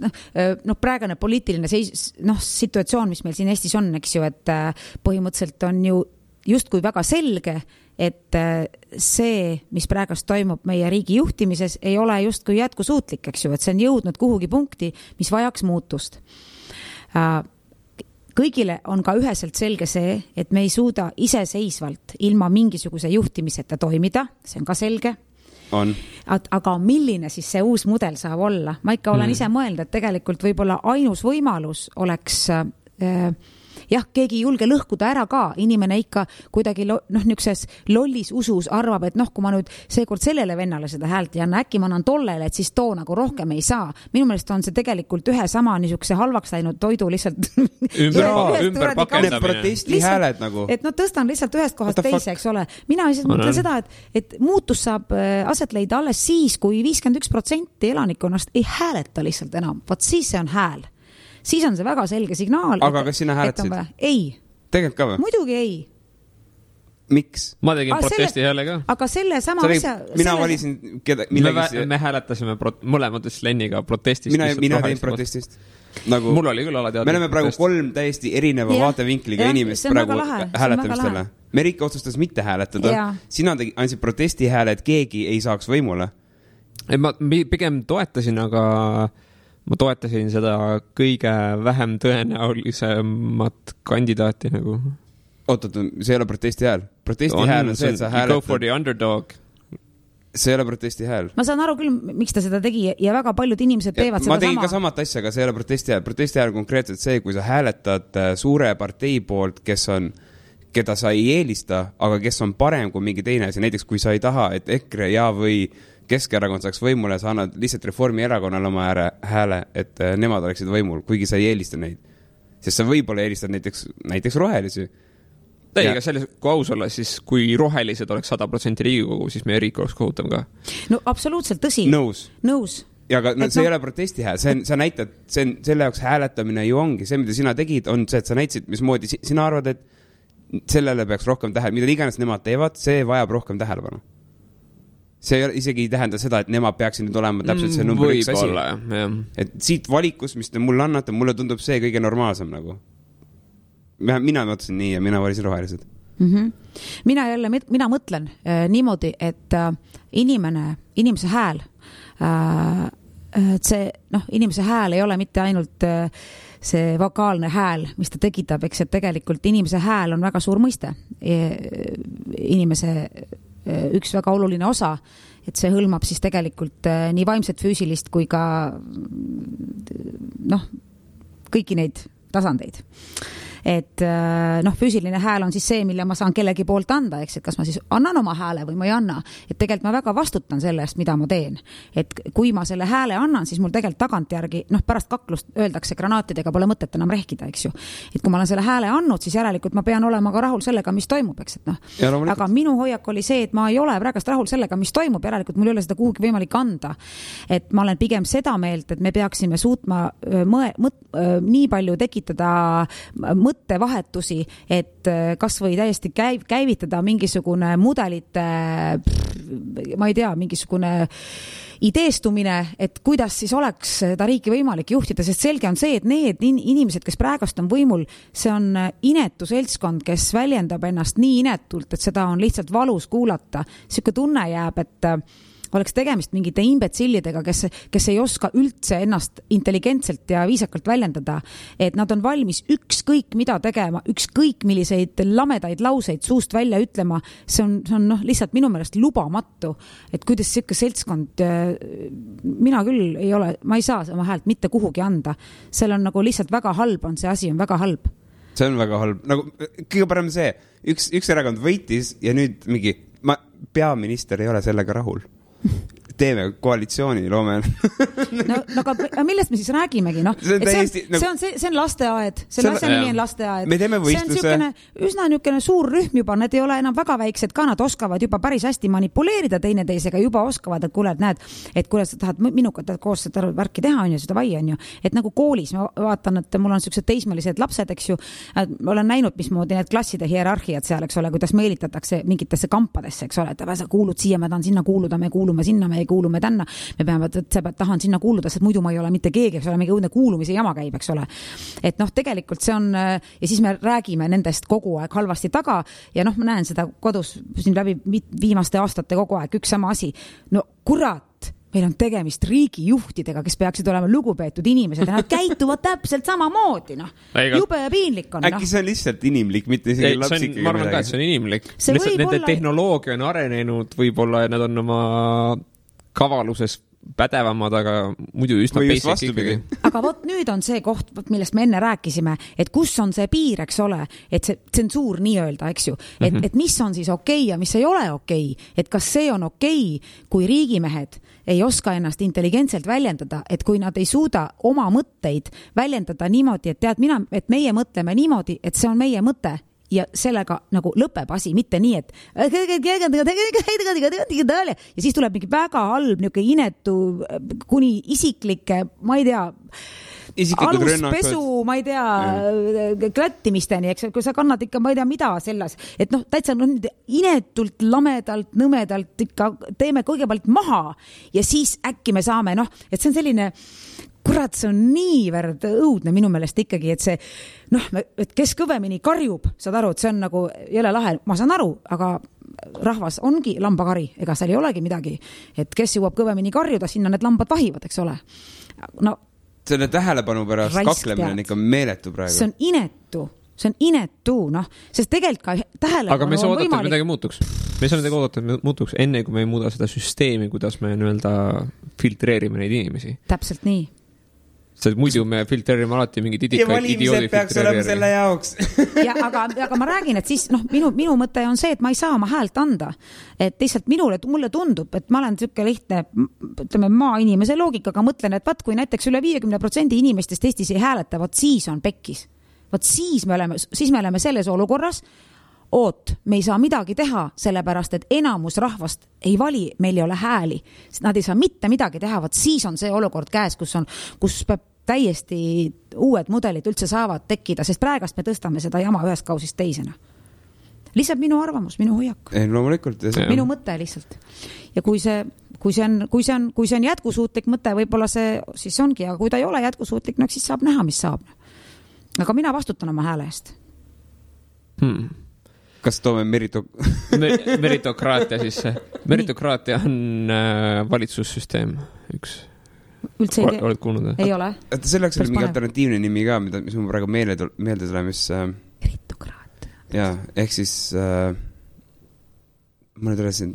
Praegune poliitiline situatsioon, mis meil siin Eestis on, eks ju, et põhimõtteliselt on ju justkui väga selge, et see, mis praegust toimub meie riigi juhtimises, ei ole justkui jätkusuutlik, eks ju, et see on jõudnud kuhugi punkti, mis vajaks muutust. Kõigile on ka üheselt selge see, et me ei suuda iseseisvalt ilma mingisuguse juhtimiseta toimida, see on ka selge. On. Aga milline siis see uus mudel saab olla? Ma ikka olen ise mõelnud, et tegelikult võib-olla ainus võimalus oleks keegi ei julge lõhkuda ära ka, inimene ikka kuidagi niukses lollis usus arvab, et kui ma nüüd seekord sellele vennale seda häält ei anna, äkki ma annan tollele, et siis too nagu rohkem ei saa. Minu meelest on see tegelikult ühe sama niisuguse halvaks läinud toidu lihtsalt ümber pakendamine. Protestihääled nagu. Et tõstan lihtsalt ühest kohast teise, eks ole. Mina lihtsalt mõtlen seda, et muutus saab aset leida alles siis, kui 51% elanikkonnast ei hääleta lihtsalt enam. Vaat siis see on hääl. Siis on see väga selge signaal. Aga kas sina hääletasid? Ei. Tegelikult ka või? Muidugi ei. Miks? Ma tegin protesti hääle ka. Aga selle sama asja... Mina valisin... Me hääletasime mõlemad Lenniga protestist. Mina tein protestist. Nagu, mul oli küll alateadlik. Me oleme praegu 3 täiesti erineva vaatevinkliga inimest praegu hääletamistele. Merike otsustas mitte hääletada. Sina andsid protesti hääle, et keegi ei saaks võimule. Ma pigem toetasin, aga... Ma toetasin seda kõige vähem tõenäolisemat kandidaati nagu. Oot, see ei ole protesti hääl. Protesti hääl on see, et sa hääletad. Go for the underdog. See ei ole protesti hääl. Ma saan aru küll, miks ta seda tegi ja väga paljud inimesed teevad seda sama. Ma tegin ka samat asja, aga see ei ole protesti hääl. Protesti hääl on konkreetselt see, kui sa hääletad suure partei poolt, keda sa ei eelista, aga kes on parem kui mingi teine asi. Näiteks, kui sa ei taha, et EKRE või Keskerakond saaks võimule, sa annad lihtsalt Reformierakonnale oma hääle, et nemad oleksid võimul, kuigi sa ei eelista neid. Sest sa võib-olla eelistad näiteks rohelisi. Ei, aga selles, kui aus olla, siis kui rohelised oleks 100% Riigikogu, siis meie riik oleks kohutav ka. No absoluutselt tõsi. Nõus. Ja aga see ei ole protesti hääl. Sa näitad, selle jaoks hääletamine ju ongi. See, mida sina tegid, on see, et sa näitasid, mismoodi sina arvad, et sellele peaks rohkem mida iganes nemad teevad, see vajab rohkem tähelepanu. See isegi ei tähenda seda, et nemad peaksid nüüd olema täpselt see number 1 asi. Jah. Et siit valikus, mis te mulle annate, mulle tundub see kõige normaalsem nagu. Mina mõtlesin nii ja mina valisin rohelised. Mina mõtlen niimoodi, et inimese hääl, inimese hääl ei ole mitte ainult see vokaalne hääl, mis ta tekitab, eks, et tegelikult inimese hääl on väga suur mõiste. Inimese üks väga oluline osa, et see hõlmab siis tegelikult nii vaimset, füüsilist kui ka kõiki neid tasandeid. Et füüsiline hääl on siis see, mille ma saan kellegi poolt anda, eks, et kas ma siis annan oma hääle või ma ei anna. Et tegelikult ma väga vastutan selle eest, mida ma teen. Et kui ma selle hääle annan, siis mul tegelikult tagantjärgi, pärast kaklust öeldakse granaatidega pole mõtet enam rehkida, eks ju. Et kui ma olen selle hääle andnud, siis järelikult ma pean olema ka rahul sellega, mis toimub, eks, et aga minu hoiak oli see, et ma ei ole praegust rahul sellega, mis toimub, järelikult mul ei ole seda kuhugi võimalik anda. Et ma olen pigem seda meelt, et me peaksime suutma nii palju tekitada mõttevahetusi, et kas või täiesti käivitada mingisugune mudelite, ma ei tea, mingisugune ideestumine, et kuidas siis oleks seda riiki võimalik juhtida, sest selge on see, et need inimesed, kes praegust on võimul, see on inetu seltskond, kes väljendab ennast nii inetult, et seda on lihtsalt valus kuulata. Siuke tunne jääb, et oleks tegemist mingite imbetsillidega, kes ei oska üldse ennast intelligentselt ja viisakalt väljendada, et nad on valmis ükskõik mida tegema, ükskõik milliseid lamedaid lauseid suust välja ütlema, see on lihtsalt minu meelest lubamatu, et kuidas siuke seltskond, mina küll ei ole, ma ei saa oma häält mitte kuhugi anda, seal on nagu lihtsalt väga halb on, see asi on väga halb. See on väga halb, nagu kõige parem see, üks erakond võitis ja nüüd mingi ma peaminister ei ole sellega rahul. Teeme koalitsiooni, loome. No aga millest me siis räägimegi, noh? See on lasteaed, selle asja nimi on lasteaed. Me teeme võistluse. See on üsna niisugune suur rühm juba, need ei ole enam väga väiksed ka, nad oskavad juba päris hästi manipuleerida teineteisega, juba oskavad, et kuule, et näed, et kuule, sa tahad minuga koos seda värki teha, on ju, seda vai, on ju. Et nagu koolis, ma vaatan, et mul on sellised teismelised lapsed, eks ju, olen näinud, mismoodi need klasside hierarhiad seal, eks ole, kuidas meelitatakse mingitesse kampadesse, eks ole, et sa kuulud siia, ma tahan sinna kuuluda, me kuulume sinna, me ei kuulume tänna, me peame, et tahan sinna kuuluda, sest muidu ma ei ole mitte keegi, eks ole, mingi õudne kuulumise jama käib, eks ole. Et noh, tegelikult see on, ja siis me räägime nendest kogu aeg halvasti taga ja noh, ma näen seda kodus siin läbi viimaste aastate kogu aeg, üks sama asi. No kurat, meil on tegemist riigijuhtidega, kes peaksid olema lugupeetud inimesed ja nad käituvad täpselt samamoodi, noh. Jube ja piinlik on. Äkki see on lihtsalt inimlik, mitte isegi lapsik. Ma arvan ka, et see on inimlik. Nende tehnoloogia on arenenud, võib-olla nad on oma kavaluses pädevamad, aga muidu üsna basic ikkagi. Aga vot nüüd on see koht, millest me enne rääkisime, et kus on see piir, eks ole, et see tsensuur nii öelda, eks ju, et mis on siis okei ja mis ei ole okei, et kas see on okei, kui riigimehed ei oska ennast intelligentselt väljendada, et kui nad ei suuda oma mõtteid väljendada niimoodi, et tead et meie mõtleme niimoodi, et see on meie mõte ja sellega nagu lõpeb asi, mitte nii, et ja siis tuleb mingi väga halb niuke inetu kuni isiklike, ma ei tea, aluspesu, ma ei tea, klättimisteni, eks, kui sa kannad ikka, ma ei tea, mida selles, et noh, täitsa inetult, lamedalt, nõmedalt ikka teeme kõigepealt maha ja siis äkki me saame, noh, et see on selline kurat, see on niivõrd õudne minu meelest ikkagi, et see, noh, et kes kõvemini karjub, saad aru, et see on nagu jõle lahe, ma saan aru, aga rahvas ongi lambakari, ega seal ei olegi midagi, et kes jõuab kõvemini karjuda, sinna need lambad vahivad, eks ole. No, selle tähelepanu pärast kaklemine on ikka meeletu praegu. See on inetu, noh, sest tegelikult ka tähelepanu aga me saa oodata, et midagi muutuks. Me saa midagi oodata, et muutuks enne, kui me ei muuda seda süsteemi, kuidas me nii-öelda filtreerime neid inimesi. Täpselt nii. Sest muidu me filtreerime alati mingid idioodi filtreerime. Ja valimised peaks olema selle jaoks. Ja, aga ma räägin, et siis minu mõte on see, et ma ei saa oma häält anda. Et lihtsalt mulle tundub, et ma olen selline lihtne, ütleme, maainimese loogikaga mõtlen, et vaat kui näiteks üle 50% inimestest Eestis ei hääleta, vaat siis on pekkis. Vaat siis me oleme selles olukorras, me ei saa midagi teha, sellepärast, et enamus rahvast ei vali, meil ei ole hääli. Nad ei saa mitte midagi teha, vaat siis on see olukord käes, kus peab täiesti uued mudelid üldse saavad tekkida, sest praegast me tõstame seda jama ühest kausist teisena. Lihtsalt minu arvamus, minu hoiak. Loomulikult. Minu mõte lihtsalt. Ja kui see on jätkusuutlik mõte, võib-olla see siis ongi, aga kui ta ei ole jätkusuutlik, no siis saab näha, mis saab. Aga mina vastutan oma hääle eest. Kas toome meritokraatia sisse? Meritokraatia on valitsussüsteem üks. Üldse oled kuulnud? Ei ole. Selleks oli mingi alternatiivne nimi ka, mis mul praegu meelde tuleb, mis... Meritokraatia. Jaa, ehk siis... ma nüüd rääsin...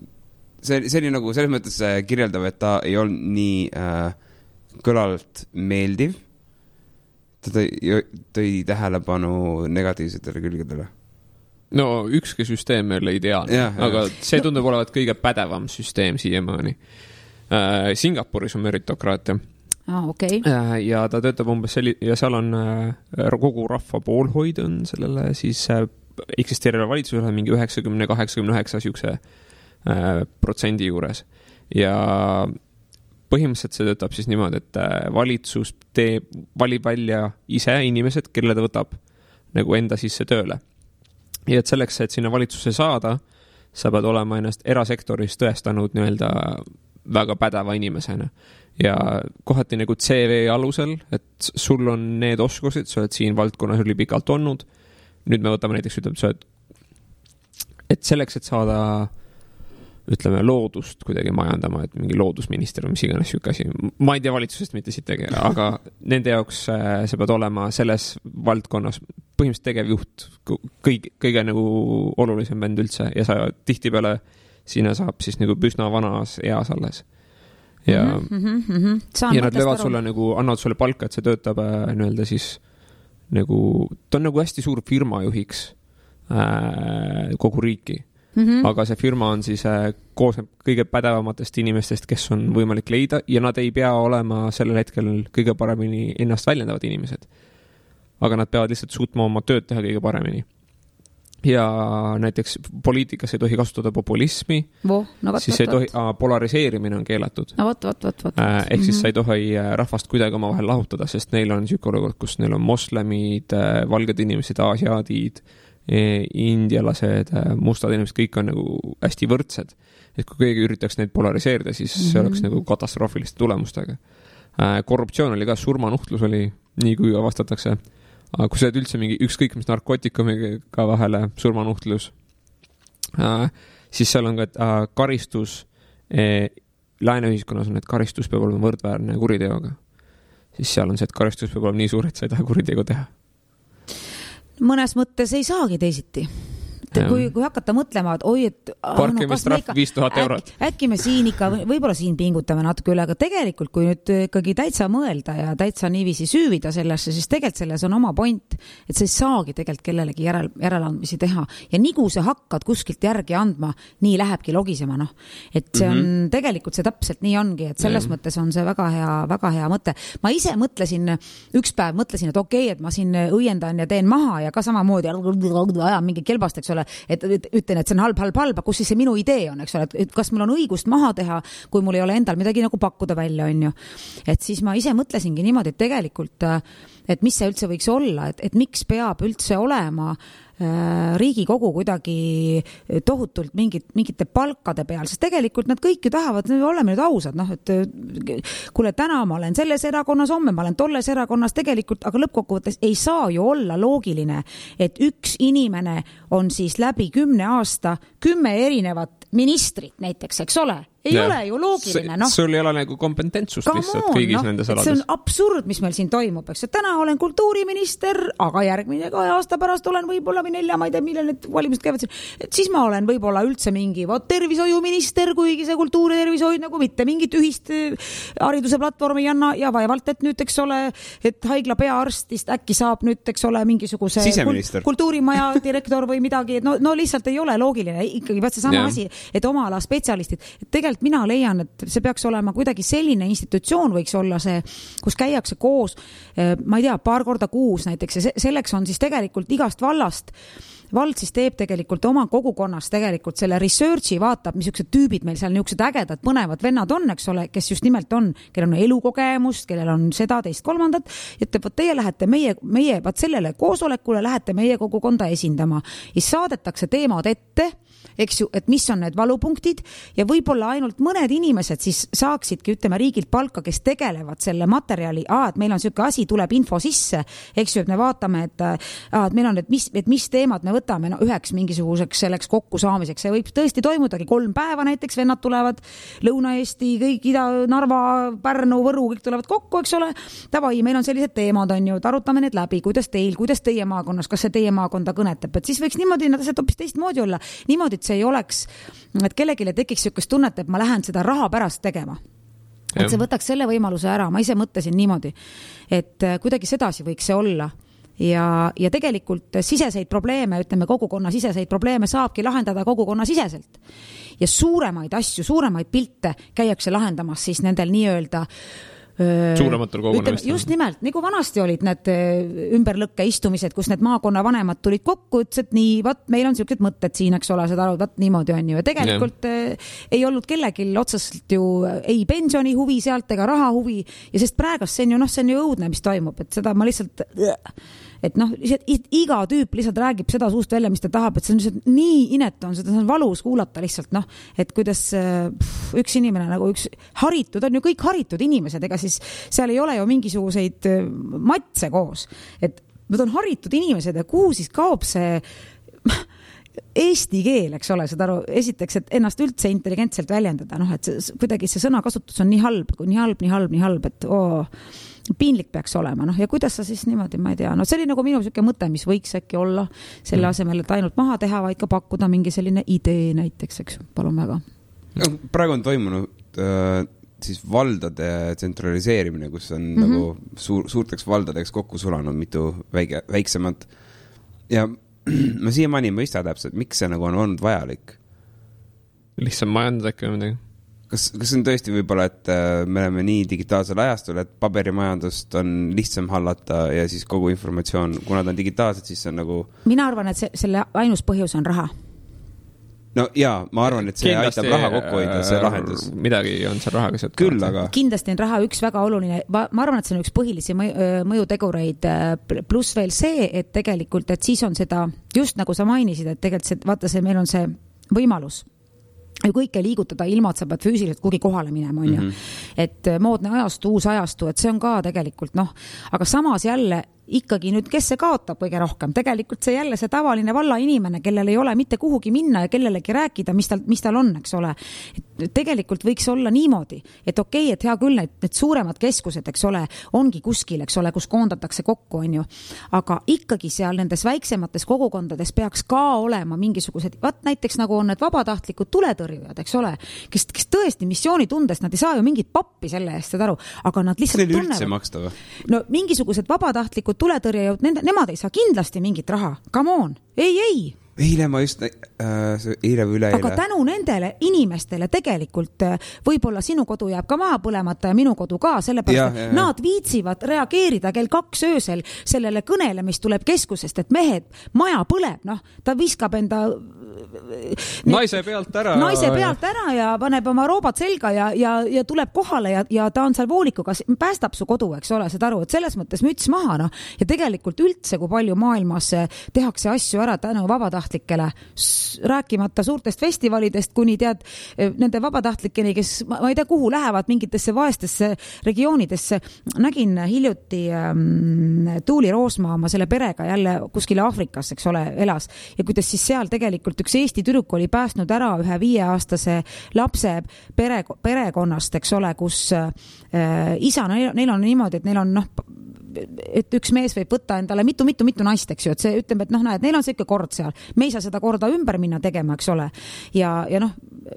See oli nagu selles mõttes kirjeldav, et ta ei olnud nii kõlalt meeldiv. Ta tõi tähelepanu negatiivsetele külgedele. No ükski süsteem ei ole ideaalne, aga see tundub olevat kõige pädevam süsteem siiamaani. Singapuris on meritokraatia. Okay. Ja ta töötab umbes ja seal on kogu rahva poolhoid on sellele siis eksisteerida valitsusele mingi 90-89 siukse protsendi juures. Ja põhimõtteliselt see töötab siis niimoodi, et valitsus valib välja ise inimesed, kelle ta võtab nagu enda sisse tööle. Ja et selleks, et sinna valitsusse saada, sa pead olema ennast erasektoris tõestanud nii-öelda väga pädeva inimesena. Ja kohati nagu CV alusel, et sul on need oskused, sa oled siin valdkonnas üli pikalt olnud. Nüüd me võtame näiteks, et selleks, et saada ütleme loodust kuidagi majandama, et mingi loodusminister või mis iganes siuke asi. Ma ei tea valitsusest mitte siit tegele, aga nende jaoks sa pead olema selles valdkonnas põhimõtteliselt tegevjuht, kõige nagu olulisem vend üldse ja sa tihtipeale sinna saab siis nagu püsna vanas eas alles. Ja, ja nad löövad sulle nagu, annavad sulle palka, et see töötab nii-öelda siis nagu, ta on nagu hästi suur firma juhiks kogu riiki. aga see firma on siis koosneb kõige pädevamatest inimestest, kes on võimalik leida ja nad ei pea olema sellel hetkel kõige paremini ennast väljendavad inimesed. Aga nad peavad lihtsalt suutma oma tööd teha kõige paremini. Ja näiteks poliitikas ei tohi kasutada populismi, siis ei tohi, polariseerimine on keelatud. Ehk siis sa ei tohi rahvast kuidagi oma vahel lahutada, sest neil on niisugune olukord, kus neil on moslemid, valged inimesed, aasiaadid, indialased, mustad inimesed, kõik on nagu hästi võrdsed. Et kui keegi üritaks neid polariseerida, siis see oleks nagu katastroofiliste tulemustega. Korruptsioon oli ka, surmanuhtlus oli, nii kui avastatakse. Aga kui sa oled üldse mingi ükskõik mis narkootikumiga vahele surmanuhtlus, siis seal on ka karistus, lääneühiskonnas on, et karistus peab olema võrdväärne kuriteoga. Siis seal on see, et karistus peab olema nii suur, et sa ei taha kuritegu teha. Mõnes mõttes ei saagi teisiti. Kui hakata mõtlema, et oi, et parkimistrahv 5000 eurot. Äkki me siin ikka, võib-olla siin pingutame natuke üle, aga tegelikult, kui nüüd ikkagi täitsa mõelda ja täitsa niiviisi süüvida sellesse, siis tegelikult selles on oma point, et sa ei saagi tegelikult kellelegi järeleandmisi teha. Ja nii kui sa hakkad kuskilt järgi andma, nii lähebki logisema, noh. Et see on, tegelikult see täpselt nii ongi, et selles mõttes on see väga hea mõte. Ma ise mõtlesin, üks päev mõtlesin, et okei, et ma siin õiendan ja teen maha ja ka samamoodi ajan mingi kelbast, eks ole, et ütlen, et see on halb, kus siis see minu idee on, eks ole, et kas mul on õigust maha teha, kui mul ei ole endal midagi nagu pakkuda välja, on ju. Et siis ma ise mõtlesingi niimoodi, et tegelikult, et mis see üldse võiks olla, et miks peab üldse olema Riigikogu kuidagi tohutult mingite palkade peal, sest tegelikult nad kõik ju tahavad, oleme nüüd ausad, noh, et kuule, täna ma olen selles erakonnas, homme ma olen tolles erakonnas tegelikult, aga lõppkokkuvõttes ei saa ju olla loogiline, et üks inimene on siis läbi 10 aasta 10 erinevat ministrit näiteks, eks ole? Ei ole ju loogiline, noh. Sul ei ole nagu kompetentsust lihtsalt kõigis nendes alades. See on absurd, mis meil siin toimub, eks. Täna olen kultuuriminister, aga järgmine 2 aasta pärast olen võib-olla või 4, ma ei tea, millal need valimised käivad siin. Et siis ma olen võib-olla üldse mingi tervishoiuminister, kuigi see kultuuri tervishoid nagu mitte mingit ühist hariduse platvormi ja vaevalt, et nüüd, eks ole, et haigla peaarstist äkki saab nüüd, eks ole, mingisuguse kultuurimaja direktor või midagi. No lihtsalt ei ole loogiline. Ikkagi vaat see sama asi, et oma ala spetsialistid, et tegelikult mina leian, et see peaks olema kuidagi selline institutsioon võiks olla see, kus käiakse koos, ma ei tea, paar korda kuus näiteks ja selleks on siis tegelikult igast vallast. Vald siis teeb tegelikult oma kogukonnas tegelikult selle researchi, vaatab, missugused tüübid meil seal niisugused ägedad, põnevad vennad on, eks ole, kes just nimelt on, kellel on elukogemust, kellel on seda, teist, kolmandat, et teie lähete meie vaat sellele koosolekule, lähete meie kogukonda esindama ja saadetakse teemad ette, eks ju, et mis on need valupunktid ja võib-olla ainult mõned inimesed siis saaksidki, ütleme, riigilt palka, kes tegelevad selle materjali, et meil on selline asi, tuleb info sisse, eks ju, et me vaatame, et meil on, et mis teemad me võtame üheks mingisuguseks selleks kokkusaamiseks. See võib tõesti toimudagi 3 päeva, näiteks vennad tulevad Lõuna-Eesti, kõik Ida, Narva, Pärnu, Võru, kõik tulevad kokku, eks ole. Tavai, meil on sellised teemad, on ju, et arutame need läbi, kuidas teie maakonnas, kas see teie maakonda kõnetab, et siis võiks niimoodi, nad asjad hoopis teistmoodi olla. Niimoodi, et see ei oleks, et kellegile tekiks niisugust tunnet, et ma lähen seda raha pärast tegema. Et see võtaks selle võimaluse ära, ma ise mõtlesin niimoodi, et kuidagi sedasi võiks see olla. Ja tegelikult siseseid probleeme, ütleme kogukonna siseseid probleeme saabki lahendada kogukonna siseselt. Ja suuremaid asju, suuremaid pilte käiakse lahendamas siis nendel nii-öelda suurematel kogunemistel. Just nimelt, nagu vanasti olid need ümberlõkke istumised, kus need maakonna vanemad tulid kokku, ütles, et nii, vaat meil on sellised mõtted siin, eks ole, seda vaat niimoodi on ju. Ja tegelikult ei olnud kellegil otseselt ju ei pensioni huvi sealt ega raha huvi ja sest praegast see on ju õudne, mis toimub, et seda ma lihtsalt et noh, iga tüüp lihtsalt räägib seda suust välja, mis ta tahab, et see on lihtsalt nii inetu on, seda on valus kuulata lihtsalt, noh, et kuidas üks inimene nagu üks haritud, on ju kõik haritud inimesed, ega siis seal ei ole ju mingisuguseid matse koos, et nad on haritud inimesed ja kuhu siis kaob see eesti keel, eks ole, seda aru, esiteks, et ennast üldse intelligentselt väljendada, noh, et kuidagi see sõnakasutus on nii halb, et piinlik peaks olema, noh, ja kuidas sa siis niimoodi, ma ei tea, no see oli nagu minu selline mõte, mis võiks äkki olla selle asemel, et ainult maha teha, vaid ka pakkuda mingi selline idee näiteks, eks, palun väga. Praegu on toimunud siis valdade tsentraliseerimine, kus on nagu suurteks valdadeks kokku sulanud mitu väiksemat ja ma siiamaani ei mõista täpselt, miks see nagu on olnud vajalik. lihtsam majandada äkki või midagi. Kas on tõesti võib-olla, et me oleme nii digitaalsel ajastul, et paberimajandust on lihtsam hallata ja siis kogu informatsioon, kuna ta on digitaalselt, siis on nagu... Mina arvan, et selle ainus põhjus on raha. No jaa, ma arvan, et see kindlasti, aitab raha kokku hoida, see lahendus. Midagi on seal rahaga sealt. Küll, aga... Kindlasti on raha üks väga oluline, ma arvan, et see on üks põhilisi mõjutegureid, pluss veel see, et tegelikult, et siis on seda, just nagu sa mainisid, et tegelikult vaata see, meil on see võimalus ju kõike liigutada ilma, et sa pead füüsiliselt kuhugi kohale minema, on ju. Et moodne ajastu, uus ajastu, et see on ka tegelikult, aga samas jälle ikkagi nüüd, kes see kaotab kõige rohkem? Tegelikult see jälle see tavaline valla inimene, kellel ei ole mitte kuhugi minna ja kellelegi rääkida, mis tal on, eks ole. Et tegelikult võiks olla niimoodi, et okei, et hea küll, need suuremad keskused, eks ole, ongi kuskil, eks ole, kus koondatakse kokku, on ju. Aga ikkagi seal nendes väiksemates kogukondades peaks ka olema mingisugused, näiteks nagu on need vabatahtlikud tuletõrjujad, eks ole, kes tõesti missioonitundest, nad ei saa ju mingit pappi selle eest, aru, aga nad lihtsalt tunnevad. No mingisugused vabatahtlikud tuletõrjujad, nemad ei saa kindlasti mingit raha. Come on. Ei. Eile ma just, eile või üleeile. Aga tänu nendele inimestele tegelikult võib-olla sinu kodu jääb ka maha põlemata ja minu kodu ka, sellepärast, et nad viitsivad reageerida kell 2 öösel sellele kõnele, mis tuleb keskusest, et mehed, maja põleb, ta viskab enda naise pealt ära ja paneb oma roobad selga ja tuleb kohale ja ta on seal voolikuga, päästab su kodu, eks ole, saad aru, et selles mõttes müts maha, ja tegelikult üldse, kui palju maailmas tehakse asju ära tänu vabatahtlikele, rääkimata suurtest festivalidest, kuni tead nende vabatahtlikeni, kes ma ei tea, kuhu lähevad mingitesse vaestesse regioonidesse. Nägin hiljuti Tuuli Roosmaa oma selle perega jälle kuskile Aafrikas, eks ole, elas ja kuidas siis seal tegelikult üks Eesti tüdruk oli päästnud ära ühe 5-aastase lapse perekonnast, eks ole, kus isa, neil on niimoodi, et neil on et üks mees võib võtta endale mitu naist, eks ju, et see ütleb, et näed, neil on see ikka kord seal. Me ei saa seda korda ümber minna tegema, eks ole. Ja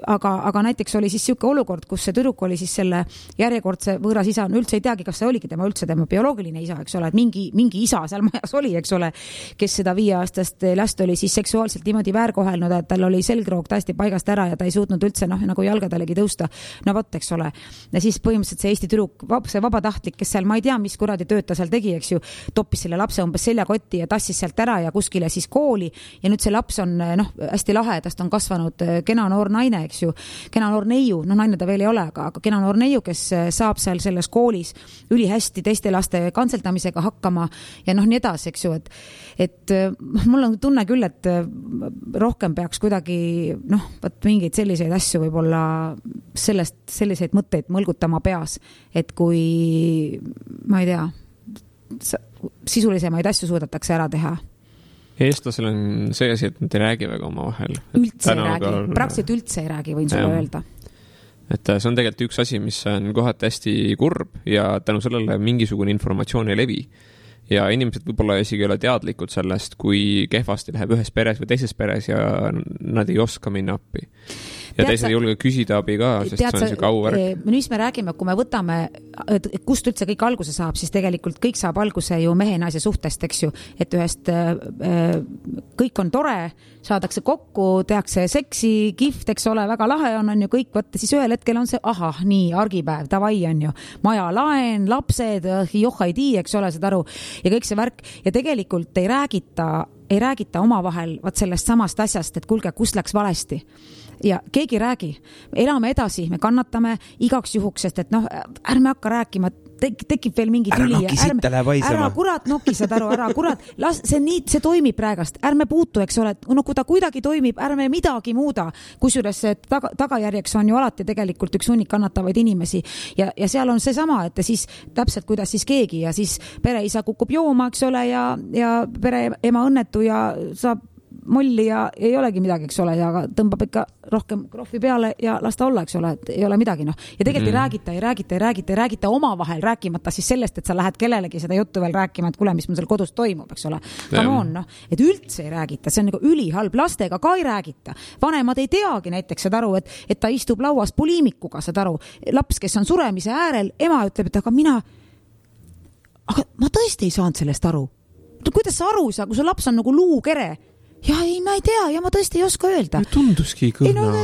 aga näiteks oli siis siuke olukord, kus see tüdruk oli siis selle järjekordse võõras isa, üldse ei teagi, kas see oligi tema bioloogiline isa, eks ole, et mingi isa seal majas oli, eks ole, kes seda 5-aastast last oli siis seksuaalselt niimoodi väärkohelnud, et tal oli selgroog täiesti paigast ära ja ta ei suutnud üldse nagu jalgadalegi tõusta. No võt, eks ole. Ja siis põhimõtteliselt see Eesti tüdruk, see vabatahtlik, kes seal, ma ei tea, mis kuradi tööta seal tegi, eks ju, toppis selle lapse umbes seljakotti ja tassis sealt ära ja kuskile siis kooli ja nüüd see laps on hästi lahe, tast on kasvanud kena noor naine, eks ju, kena noor neiu, naine ta veel ei ole, aga kena noor neiu, kes saab seal selles koolis ülihästi teiste laste kantseldamisega hakkama ja nii edasi, eks ju, et mul on tunne küll, et rohkem peaks kuidagi mingeid selliseid asju võib-olla selliseid mõtteid mõlgutama peas, et kui ma ei tea, sisulisemaid asju suudetakse ära teha. Eestlasel on see asi, et nad ei räägi väga oma vahel. Üldse ei räägi, praktiliselt üldse ei räägi, võin sulle öelda. Et see on tegelikult üks asi, mis on kohati hästi kurb ja tänu sellele mingisugune informatsioon ei levi. Ja inimesed võib-olla isegi ei ole teadlikud sellest, kui kehvasti läheb ühes peres või teises peres ja nad ei oska minna appi. Ja teised ei julge küsida abi ka, sest see on see kauvärk. Nüüd me räägime, kui me võtame, kust üldse kõik alguse saab, siis tegelikult kõik saab alguse ju mehe-naise suhtest, eks ju, et ühest kõik on tore, saadakse kokku, tehakse seksi, kihvt, eks ole, väga lahe on ju kõik, võtta siis ühel hetkel on see, nii, argipäev, tavai on ju, maja laen, lapsed, johhaidi, eks ole, saad aru, ja kõik see värk, ja tegelikult ei räägita omavahel sellest samast asjast, et kuulge, kus läks valesti. Ja keegi räägi, elame edasi, me kannatame igaks juhuks, sest et ärme hakka rääkima, tekib veel mingi tüli. Ära kurat noki, saad aru, ära kurat, see toimib praegast, ärme puutu, eks ole, kui ta kuidagi toimib, ärme midagi muuda, kusjuures tagajärjeks on ju alati tegelikult üks hunnik kannatavaid inimesi ja seal on see sama, et siis täpselt kuidas siis keegi ja siis pereisa kukub jooma, eks ole, ja pere ema õnnetu ja saab molli ja ei olegi midagi, eks ole, ja tõmbab ikka rohkem krohvi peale ja las ta olla, eks ole, et ei ole midagi, ja tegelikult ei räägita omavahel, rääkimata siis sellest, et sa lähed kellelegi seda juttu veel rääkima, et kuule, mis mul seal kodus toimub, eks ole. Come on, et üldse ei räägita, see on nagu ülihalb, lastega ka ei räägita. Vanemad ei teagi näiteks, saad aru, et ta istub lauas poliimikuga, saad aru, laps, kes on suremise äärel, ema ütleb, et aga ma tõesti ei saanud sellest aru. Kuidas sa aru ei saa, kui su laps on nagu luukere? Ja ei, ma ei tea, ja ma tõesti ei oska öelda. Tunduski kõrna.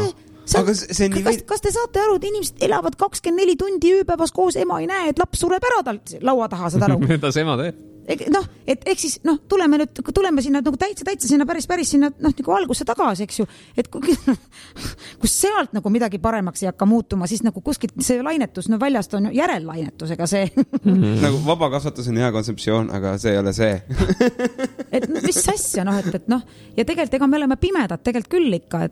Aga see on kas te saate aru, et inimesed elavad 24 tundi ööpäevas koos, ema ei näe, et laps sureb ära tal laua taha, saad aru? Mida see ema teeb? Noh, et eks siis, tuleme sinna nagu täitsa sinna päris sinna, nagu algusse tagasi, eks ju, et kus sealt nagu midagi paremaks ei hakka muutuma, siis nagu kuskilt see lainetus, väljast on järellainetusega see. Nagu vabakasvatus on hea kontseptsioon, aga see ei ole see. Et mis asja, ja tegelikult ega me oleme pimedad tegelikult küll ikka,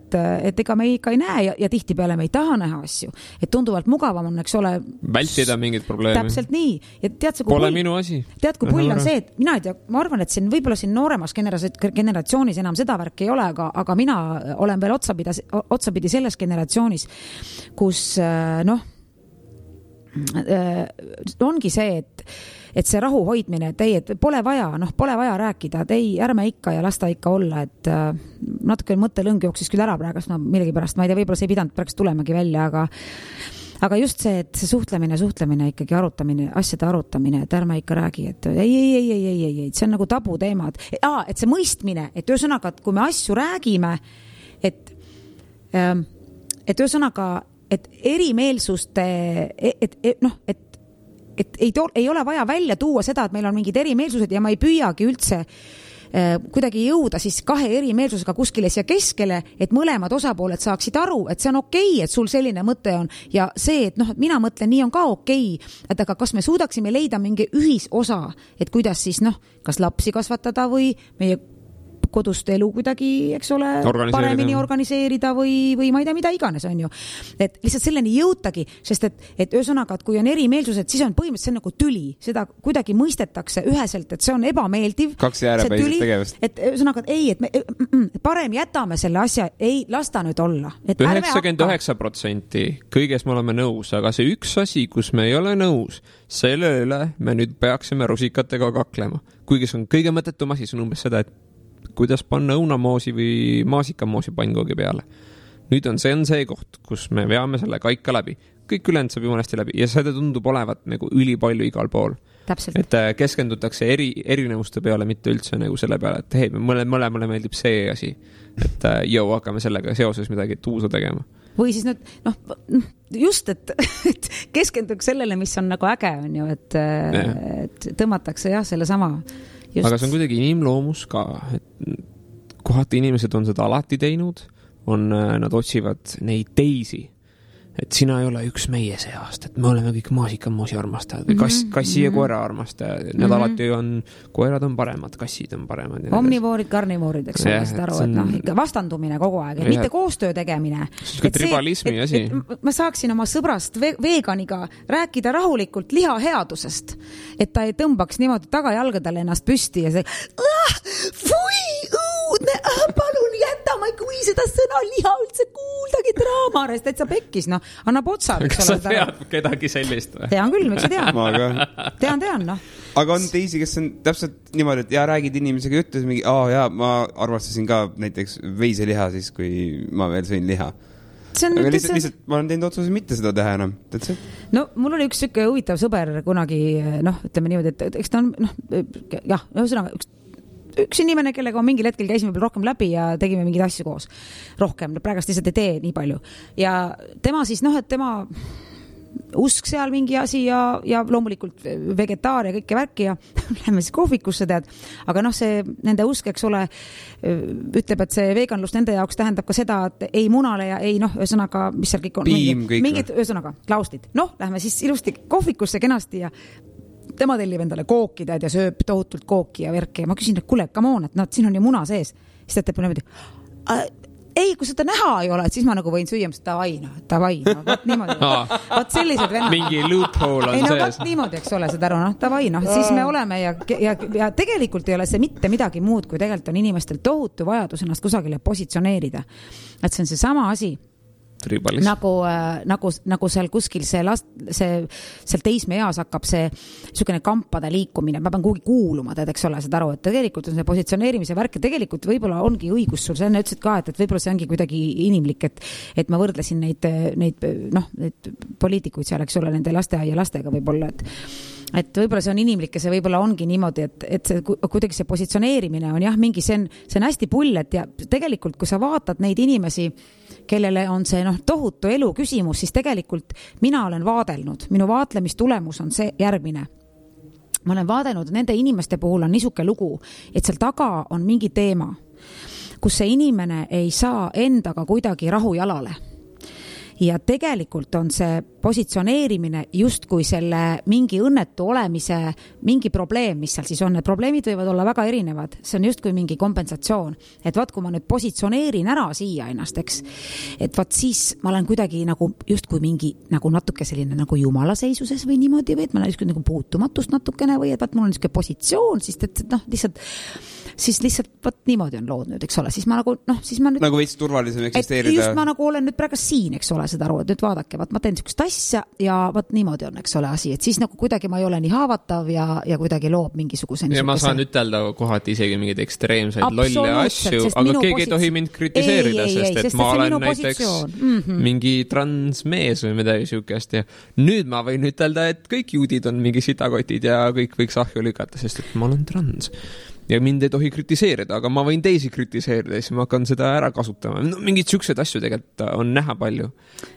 et ega me ikka ei näe ja tihtipeale me ei taha näha asju, et tunduvalt mugavam on, eks ole, vältida mingit probleemi. Täpselt nii. Ja tead, pole minu asi. Tead, kui pull on see, et mina ei tea, ma arvan, et võib-olla siin nooremas generatsioonis enam seda värk ei ole, aga mina olen veel otsapidi selles generatsioonis, kus ongi see, et see rahu hoidmine, et pole vaja rääkida, ärme ikka ja lasta ikka olla, et natuke mõttelõng jooksis küll ära praegu, millegipärast, ma ei tea, võib-olla see ei pidanud praegu tulemagi välja, aga just see, et see suhtlemine ikkagi asjade arutamine, et ärme ikka räägi, et ei, see on nagu tabu teema, et see mõistmine, et ühesõnaga, et kui me asju räägime, et ühesõnaga, et erimeelsuste, et ei ole vaja välja tuua seda, et meil on mingid erimeelsused ja ma ei püüagi üldse kuidagi jõuda siis kahe erimeelsusega kuskile siia keskele, et mõlemad osapooled saaksid aru, et see on okei, et sul selline mõte on ja see, et mina mõtlen, nii on ka okei, et aga kas me suudaksime leida mingi ühisosa, et kuidas siis kas lapsi kasvatada või meie kodust elu kuidagi, eks ole, paremini organiseerida või ma ei tea, mida iganes on ju. Et lihtsalt selleni jõutagi, sest et ühesõnaga, et kui on erimeelsused, siis on põhimõtteliselt nagu tüli. Seda kuidagi mõistetakse üheselt, et see on ebameeldiv. Kaks jäärepäiselt tegevust. Et ühesõnaga, et ei, et me parem jätame selle asja, ei, lasta nüüd olla. 99% kõiges me oleme nõus, aga see üks asi, kus me ei ole nõus, selle üle me nüüd peaksime rusikatega kaklema. Kuigi see on kõige mõttetum asi, see on umbes seda, et kuidas panna õunamoosi või maasikamoosi pannkoogi peale. Nüüd on see koht, kus me veame selle kaika läbi. Kõik ülend saab jumalesti läbi ja seda tundub olevat nagu ülipalju igal pool. Täpselt. Et keskendutakse erinevuste peale, mitte üldse nagu selle peale, et hei, mõlemale meeldib see asi. Et hakkame sellega seoses midagi tuusa tegema. Või siis just, et keskenduks sellele, mis on nagu äge, on ju, et tõmmatakse selle sama. Just. Aga see on kuidagi inimloomus ka, et kohati inimesed on seda alati teinud, nad otsivad neid teisi, et sina ei ole üks meie seast, et me oleme kõik maasikamoosi armastajad või kassi ja koera armastajad, need alati on, koerad on paremad, kassid on paremad. Omnivoorid, karnivoorid, eks ole, seda aru, et ikka vastandumine kogu aeg, mitte koostöö tegemine. See tribalismi asi. Ma saaksin oma sõbrast veganiga rääkida rahulikult lihaheadusest, et ta ei tõmbaks niimoodi tagajalgadele ennast püsti ja fui, õudne, palun jäta, ma ei kui seda sõna liha üldse kuuldagi draamarest, et sa pekkis, annab otsad. Kas sa tead kedagi sellist või? Tean küll, miks sa tead? Ma ka. Tean, Aga on teisi, kes on täpselt niimoodi, et räägid inimesega ütles mingi, ma arvastasin ka näiteks veiseliha siis, kui ma veel sõin liha. Aga lihtsalt ma olen teinud otsuse mitte seda teha enam. Mul oli üks süke huvitav sõber kunagi, ütleme niimoodi, et eks ta on, ühesõnaga, üks inimene, kellega mingil hetkel käisime rohkem läbi ja tegime mingeid asju koos. Rohkem, praegast lihtsalt ei tee nii palju. Ja tema siis, et tema usk seal mingi asi ja loomulikult vegetaar ja kõike värki ja lähme siis kohvikusse, tead. Aga see nende usk, eks ole, ütleb, et see veganlus nende jaoks tähendab ka seda, et ei munale ja ei, ühesõnaga, mis seal kõik on. Mingid, ühesõnaga, klauslid. Lähme siis ilusti kohvikusse kenasti ja tema tellib endale kooki, tead, ja sööb tohutult kooki ja värki. Ja ma küsin, et kuule, come on, et siin on ju muna sees. Siis ta teeb niimoodi, ei, kui seda näha ei ole, et siis ma nagu võin süüa, tavai, võt niimoodi. Võt sellised vennad. Mingi loophole on sees. Võt niimoodi, eks ole, seda aru, tavai, siis me oleme ja tegelikult ei ole see mitte midagi muud, kui tegelikult on inimestel tohutu vajadus ennast kusagile positsioneerida. Et see on see sama asi. Nagu seal kuskil seal teismeeas hakkab see niisugune kampade liikumine, ma pean kuhugi kuuluma, eks ole, seda aru, et tegelikult on see positsioneerimise värk ja tegelikult võib-olla ongi õigus sul, sa enne ütlesid ka, et võib-olla see ongi kuidagi inimlik, et ma võrdlesin neid poliitikuid seal, eks ole, nende lasteaia lastega võib-olla, et võib-olla see on inimlik ja see võib-olla ongi niimoodi, et see, kuidagi see positsioneerimine on jah, mingi see on hästi pull, et ja tegelikult, kui sa vaatad neid inimesi, kellele on see tohutu elu küsimus, siis tegelikult mina olen vaadelnud, minu vaatlemistulemus on see järgmine. Ma olen vaadelnud, nende inimeste puhul on niisuke lugu, et seal taga on mingi teema, kus see inimene ei saa endaga kuidagi rahu jalale. Ja tegelikult on see positsioneerimine justkui selle mingi õnnetu olemise mingi probleem, mis seal siis on. Need probleemid võivad olla väga erinevad. See on justkui mingi kompensatsioon. Et vaat, kui ma nüüd positsioneerin ära siia ennast, eks, et vaat siis ma olen kuidagi nagu justkui mingi nagu natuke selline nagu jumala seisuses või niimoodi, või et ma olen justkui nagu puutumatust natukene või et vaat mul on niisugune positsioon, siis lihtsalt vaat niimoodi on lood nüüd, eks ole. Siis ma nagu, siis ma nüüd... Nagu veits turvalisem eksisteerida. Just ma nagu olen nüüd praegu siin, eks ole, seda aru, et nüüd vaadake, vaat ma teen niisugust asja ja vaat niimoodi on, eks ole, asi, et siis nagu kuidagi ma ei ole nii haavatav ja kuidagi loob mingisuguse ja ma saan ütelda kohati isegi mingeid ekstreemseid lolle asju, aga keegi ei tohi mind kritiseerida, sest ma olen näiteks mingi transmees või midagi siukest ja nüüd ma võin ütelda, et kõik juudid on mingi sitakotid ja kõik võiks ahju lükata, sest et ma olen trans. Ja mind ei tohi kritiseerida, aga ma võin teisi kritiseerida ja siis ma hakkan seda ära kasutama. Mingid siuksed asju tegelikult on näha palju.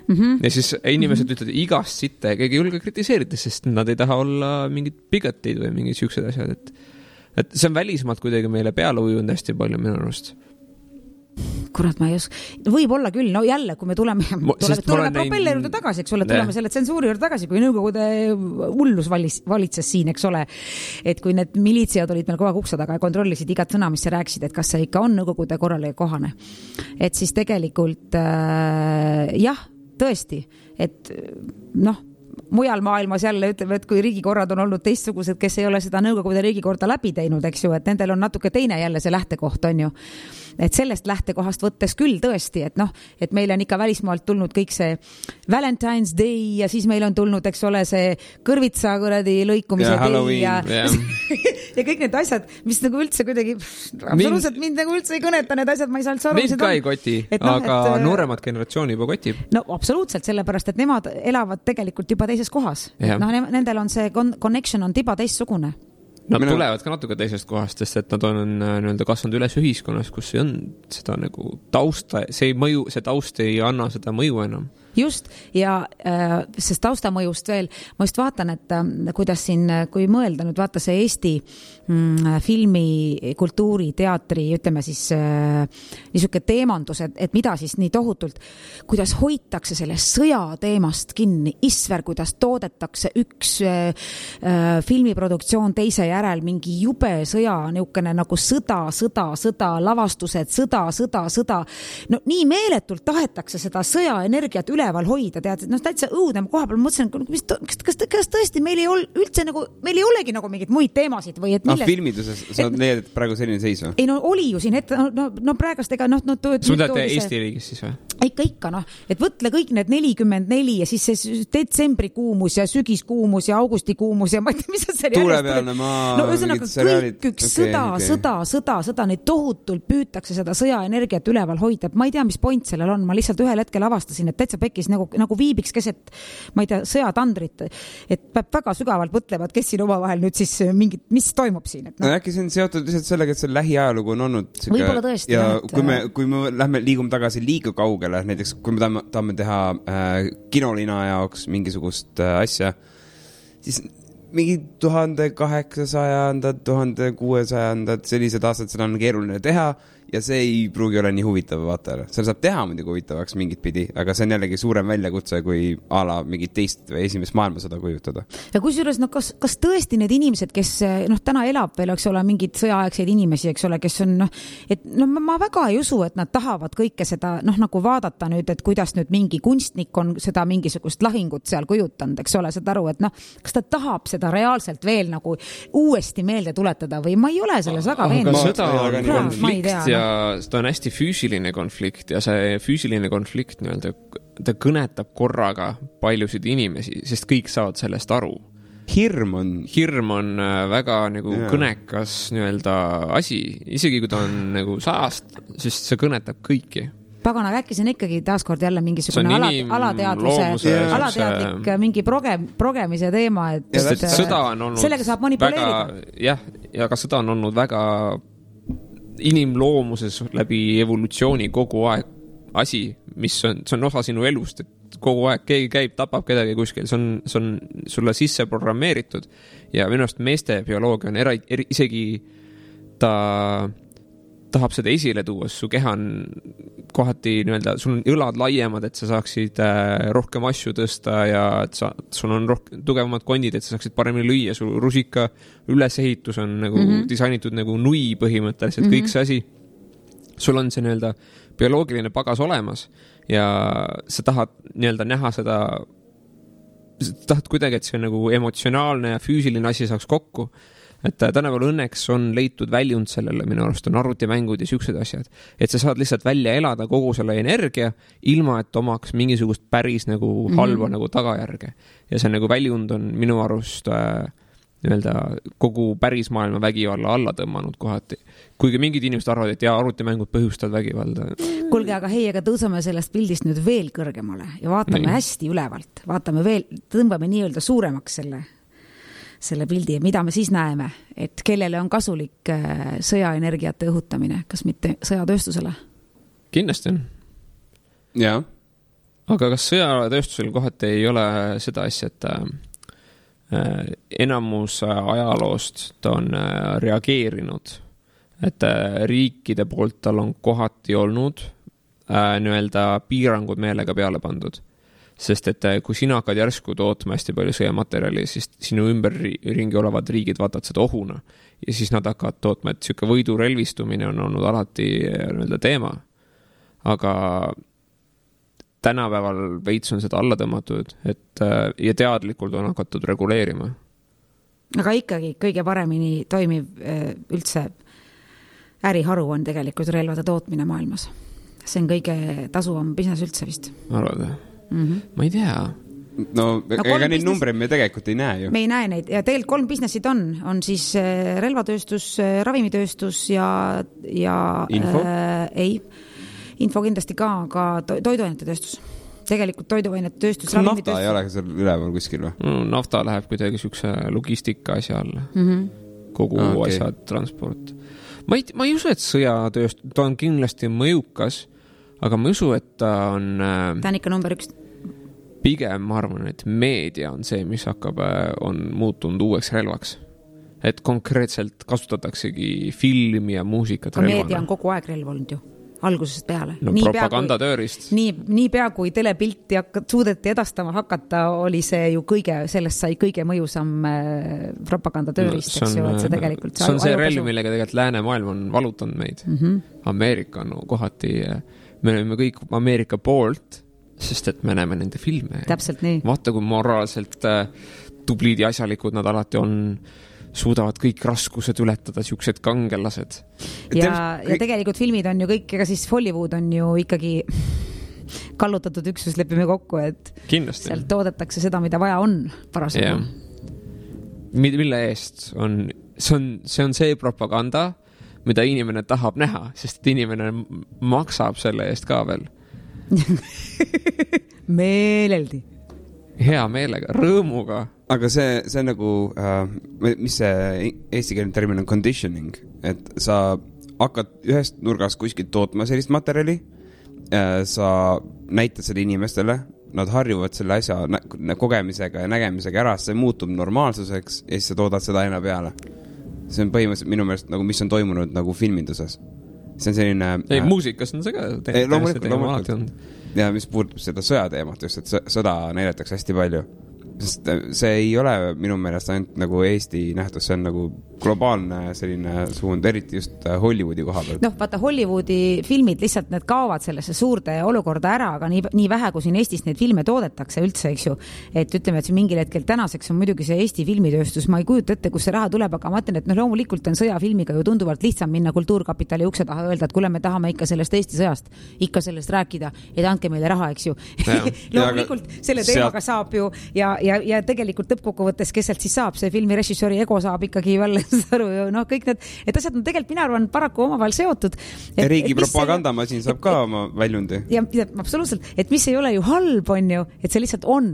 Ja siis inimesed ütlevad igast sitte ja keegi ei julge kritiseerida, sest nad ei taha olla mingid bigatid või mingid siuksed asjad. Et see on välismaalt kuidagi meile peale ujunud hästi palju minu arust. Kurat, ma ei oska. Võib-olla küll, no jälle, kui me tuleme propelleri juurde tagasi, eks ole, tuleme selle tsensuuri juurde tagasi, kui Nõukogude hullus valitses siin, eks ole, et kui need militsiad olid meil kogu aeg ukse taga ja kontrollisid igat sõna, mis sa rääkisid, et kas see ikka on Nõukogude korrale kohane. Et siis tegelikult jah, tõesti, et mujal maailmas jälle ütleme, et kui riigikorrad on olnud teistsugused, kes ei ole seda Nõukogude riigikorda läbi teinud, eks ju, et nendel on natuke teine jälle see lähtekoht, on ju. Et sellest lähtekohast võttes küll tõesti, et meil on ikka välismaalt tulnud kõik see Valentine's Day ja siis meil on tulnud, eks ole, see kõrvitsa kuradi lõikumise day ja kõik need asjad, mis nagu üldse kuidagi absoluutselt mind nagu üldse ei kõneta, need asjad, ma ei saa üldse aru. Mind ka ei koti, aga nooremad generatsiooni juba kotib. No absoluutselt, sellepärast, et nemad elavad tegelikult juba teises kohas. Nendel on see connection on tiba teistsugune. Nad tulevad ka natuke teisest kohast, sest et nad on kasvanud üles ühiskonnas, kus ei on seda nagu tausta, see taust ei anna seda mõju enam. Just, ja sest taustamõjust veel, ma just vaatan, et kuidas siin, kui mõelda nüüd vaata see Eesti filmi, kultuuri, teatri, ütleme siis niisuke teemandus, et mida siis nii tohutult, kuidas hoitakse selle sõja teemast kinni, isver, kuidas toodetakse üks filmiproduktsioon teise järel, mingi jube sõja, niukene nagu sõda, lavastused, sõda. No nii meeletult tahetakse seda sõjaenergiat üleval hoida, tead, täitsa õudne koha peal mõtlesin, kas tõesti meil ei ole üldse nagu, meil ei olegi nagu mingid muid teemasid või et milles... filmiduses sa leiad, et praegu selline seis või? Ei, no oli ju siin ette, no praegast ega Sudate Eesti riigis siis või? Ikka, et võtle kõik need 44 ja siis see detsembrikuumus ja sügiskuumus ja augustikuumus ja ma ei tea, mis on see tuulepealne maa. No ühesõnaga kõik üks sõda, neid tohutult püütakse seda sõjaenergiat üleval hoida. Ma ei tea, mis point sellel on, ma lihtsalt ühel hetkel avastasin, et täitsa pekkis nagu viibiks keset, ma ei tea, sõjatandrit, et peab väga sügavalt mõtlevad, kes siin omavahel nüüd siis mingid, mis toimub siin. Et no äkki see on seotud lihtsalt sellega, et see lähiajalugu on olnud võib-olla tõesti. Ja kui me liigume tagasi liiga kaugele, näiteks kui me tahame teha kinolina jaoks mingisugust asja, siis mingi 1800, 1600 sellised aastad, seda on keeruline teha ja see ei pruugi ole nii huvitav vaatajale. Seal saab teha muidugi huvitavaks mingit pidi, aga see on jällegi suurem väljakutse kui ala mingit teist või esimest maailmasõda kujutada. Ja kusjuures, kas tõesti need inimesed, kes täna elab veel, eks ole, mingid sõjaaegseid inimesi, eks ole, kes on, ma väga ei usu, et nad tahavad kõike seda, nagu vaadata nüüd, et kuidas nüüd mingi kunstnik on seda mingisugust lahingut seal kujutanud, eks ole, seda aru, et kas ta tahab seda reaalselt veel nagu uuesti meelde tuletada või ma ei ole selles väga veendunud. Sõda on konflikt ja ta on hästi füüsiline konflikt ja see füüsiline konflikt ta kõnetab korraga paljusid inimesi, sest kõik saavad sellest aru. Hirm on väga nagu kõnekas asi, isegi kui ta on nagu 100, sest see kõnetab kõiki. Pagana, äkki see on ikkagi taaskord jälle mingisugune alateadlik mingi progemise teema, et sõda on olnud sellega saab manipuleerida. Ja ka sõda on olnud väga inimloomuses läbi evolutsiooni kogu aeg asi, mis see on osa sinu elust, et kogu aeg keegi käib, tapab kedagi kuskil, see on sulle sisse programmeeritud ja minu arust meeste bioloogia on isegi ta tahab seda esile tuua, su keha on kohati sul on õlad laiemad, et sa saaksid rohkem asju tõsta ja et sul on tugevamad kondid, et sa saaksid paremini lüüa, su rusika ülesehitus on nagu disainitud nagu nui põhimõtteliselt, kõik see asi. Sul on see bioloogiline pagas olemas ja sa tahad näha seda, sa tahad kuidagi, et see nagu emotsionaalne ja füüsiline asi saaks kokku. Et tänapäeval õnneks on leitud väljund sellele, minu arust on arvutimängud ja siuksed asjad, et sa saad lihtsalt välja elada kogu selle energia, ilma et omaks mingisugust päris nagu halva nagu tagajärge. Ja see nagu väljund on minu arust kogu päris maailma vägivalla alla tõmmanud kohati. Kuigi mingid inimesed arvavad, et arvutimängud põhjustavad vägivalda. Kuulge, aga aga tõusame sellest pildist nüüd veel kõrgemale ja vaatame hästi ülevalt. Vaatame veel, tõmbame nii-öelda suuremaks selle pildi ja mida me siis näeme, et kellele on kasulik sõjaenergiate õhutamine, kas mitte sõjatööstusele? Kindlasti on. Jaa. Aga kas sõjatööstusel kohati ei ole seda asja, et enamus ajaloost ta on reageerinud, et riikide poolt tal on kohati olnud piirangud meelega peale pandud. Sest et kui sina hakkad järsku tootma hästi palju sõjamaterjali, siis sinu ümberringi olevad riigid vaatavad seda ohuna ja siis nad hakkavad tootma, et siuke võidurelvistumine on olnud alati teema. Aga tänapäeval veits on seda alla tõmmatud, ja teadlikult on hakatud reguleerima. Aga ikkagi kõige paremini toimiv üldse äriharu on tegelikult relvade tootmine maailmas. See on kõige tasuvam business üldse vist. Arvada? Ma ei tea. No ega neid numbreid me tegelikult ei näe ju. Me ei näe neid ja tegelikult 3 businessid on siis relvatööstus, ravimitööstus ja info? Info kindlasti ka toiduainete tööstus. Tegelikult toiduainete tööstus, ravimitööstus. Nafta ei ole seal üleval kuskil või? Nafta läheb kuidagi siukse logistika asja alla. Kogu asja transport. Ma ei usu, et sõjatööstus, ta on kindlasti mõjukas, aga ma usu, et ta on ikka number 1. Pigem ma arvan, et meedia on see, mis on muutunud uueks relvaks. Et konkreetselt kasutataksegi filmi ja muusikat relvana. Meedia on kogu aeg relv olnud ju, algusest peale. No propagandatöörist. Nii pea kui telepilti suudeti edastama hakata, oli see ju sellest sai kõige mõjusam propagandatöörist, eks ju, et see tegelikult... See on see relv, millega tegelikult läänemaailm on valutanud meid. Ameerika on kohati... Me oleme kõik Ameerika poolt, sest et me näeme nende filme. Täpselt nii. Vaata, kui moraalselt tublid ja asjalikud nad alati on, suudavad kõik raskused ületada, siuksed kangelased. Ja tegelikult filmid on ju kõik, ega siis Hollywood on ju ikkagi kallutatud üksus, lepime kokku, et kindlasti. Sealt toodetakse seda, mida vaja on parasjagu. Mille eest on, see on see propaganda, mida inimene tahab näha, sest inimene maksab selle eest ka veel. Meeleldi. Hea meelega, rõõmuga. Aga see nagu, mis see eestikeelne termin on conditioning, et sa hakkad ühest nurgast kuskilt tootma sellist materjali, sa näitad selle inimestele, nad harjuvad selle asja kogemisega ja nägemisega ära, see muutub normaalsuseks ja siis sa toodad seda aina peale. See on põhimõtteliselt minu meelest, nagu, mis on toimunud nagu filminduses. See on selline... muusikas on see ka. Loomulikult. Ja mis puudutab seda sõjateemat just, et sõda näidatakse hästi palju. Sest see ei ole minu meelest ainult nagu Eesti nähtus, see on nagu globaalne selline suund, eriti just Hollywoodi koha pealt. Vaata, Hollywoodi filmid lihtsalt need kaovad sellesse suurde olukorda ära, aga nii vähe, kui siin Eestis neid filme toodetakse üldse, eks ju. Et ütleme, et siin mingil hetkel tänaseks on muidugi see Eesti filmitööstus, ma ei kujuta ette, kus see raha tuleb, aga ma ütlen, et loomulikult on sõjafilmiga ju tunduvalt lihtsam minna Kultuurkapitali ukse taha öelda, et kuule, me tahame ikka sellest Eesti sõjast, ikka sellest rääkida, et andke meile raha, eks ju. Loomulikult selle teemaga saab ju ja tegelikult lõppkokkuvõttes, kes sealt siis saab, see filmi režissööri ego saab ikkagi veel aru ju, noh, kõik need, et asjad on tegelikult, mina arvan, paraku omavahel seotud. Riigi propagandamasin saab ka oma väljundi. Ja absoluutselt, et mis ei ole ju halb, on ju, et see lihtsalt on.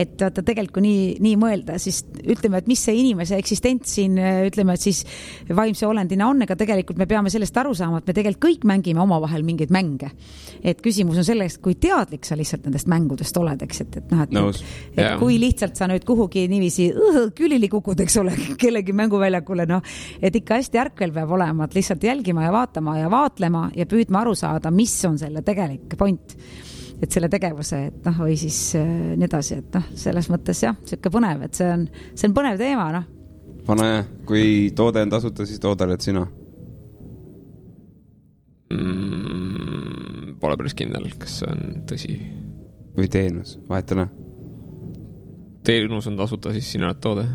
Et vaata tegelikult nii mõelda, siis ütleme, et mis see inimese eksistents siin, ütleme, et siis vaimse olendina on, ega tegelikult me peame sellest aru saama, et me tegelikult kõik mängime omavahel mingeid mänge. Et küsimus on sellest, kui teadlik sa lihtsalt nendest mängudest oled, eks, et noh, et kui lihtsalt sa nüüd kuhugi niiviisi külili kukud, eks ole, kellegi mänguväljakule, noh, et ikka hästi ärkvel peab olema, et lihtsalt jälgima ja vaatama ja vaatlema ja püüdma aru saada, mis on selle tegelik point, et selle tegevuse, et noh, või siis nii edasi, et noh, selles mõttes jah, siuke põnev, et see on põnev teema, noh. Pane, kui toode on tasuta, siis toodaled sina. Pole päris kindel, kas see on tõsi. Või teenus, vahetana. Teenus on tasuta, siis sina oled toode.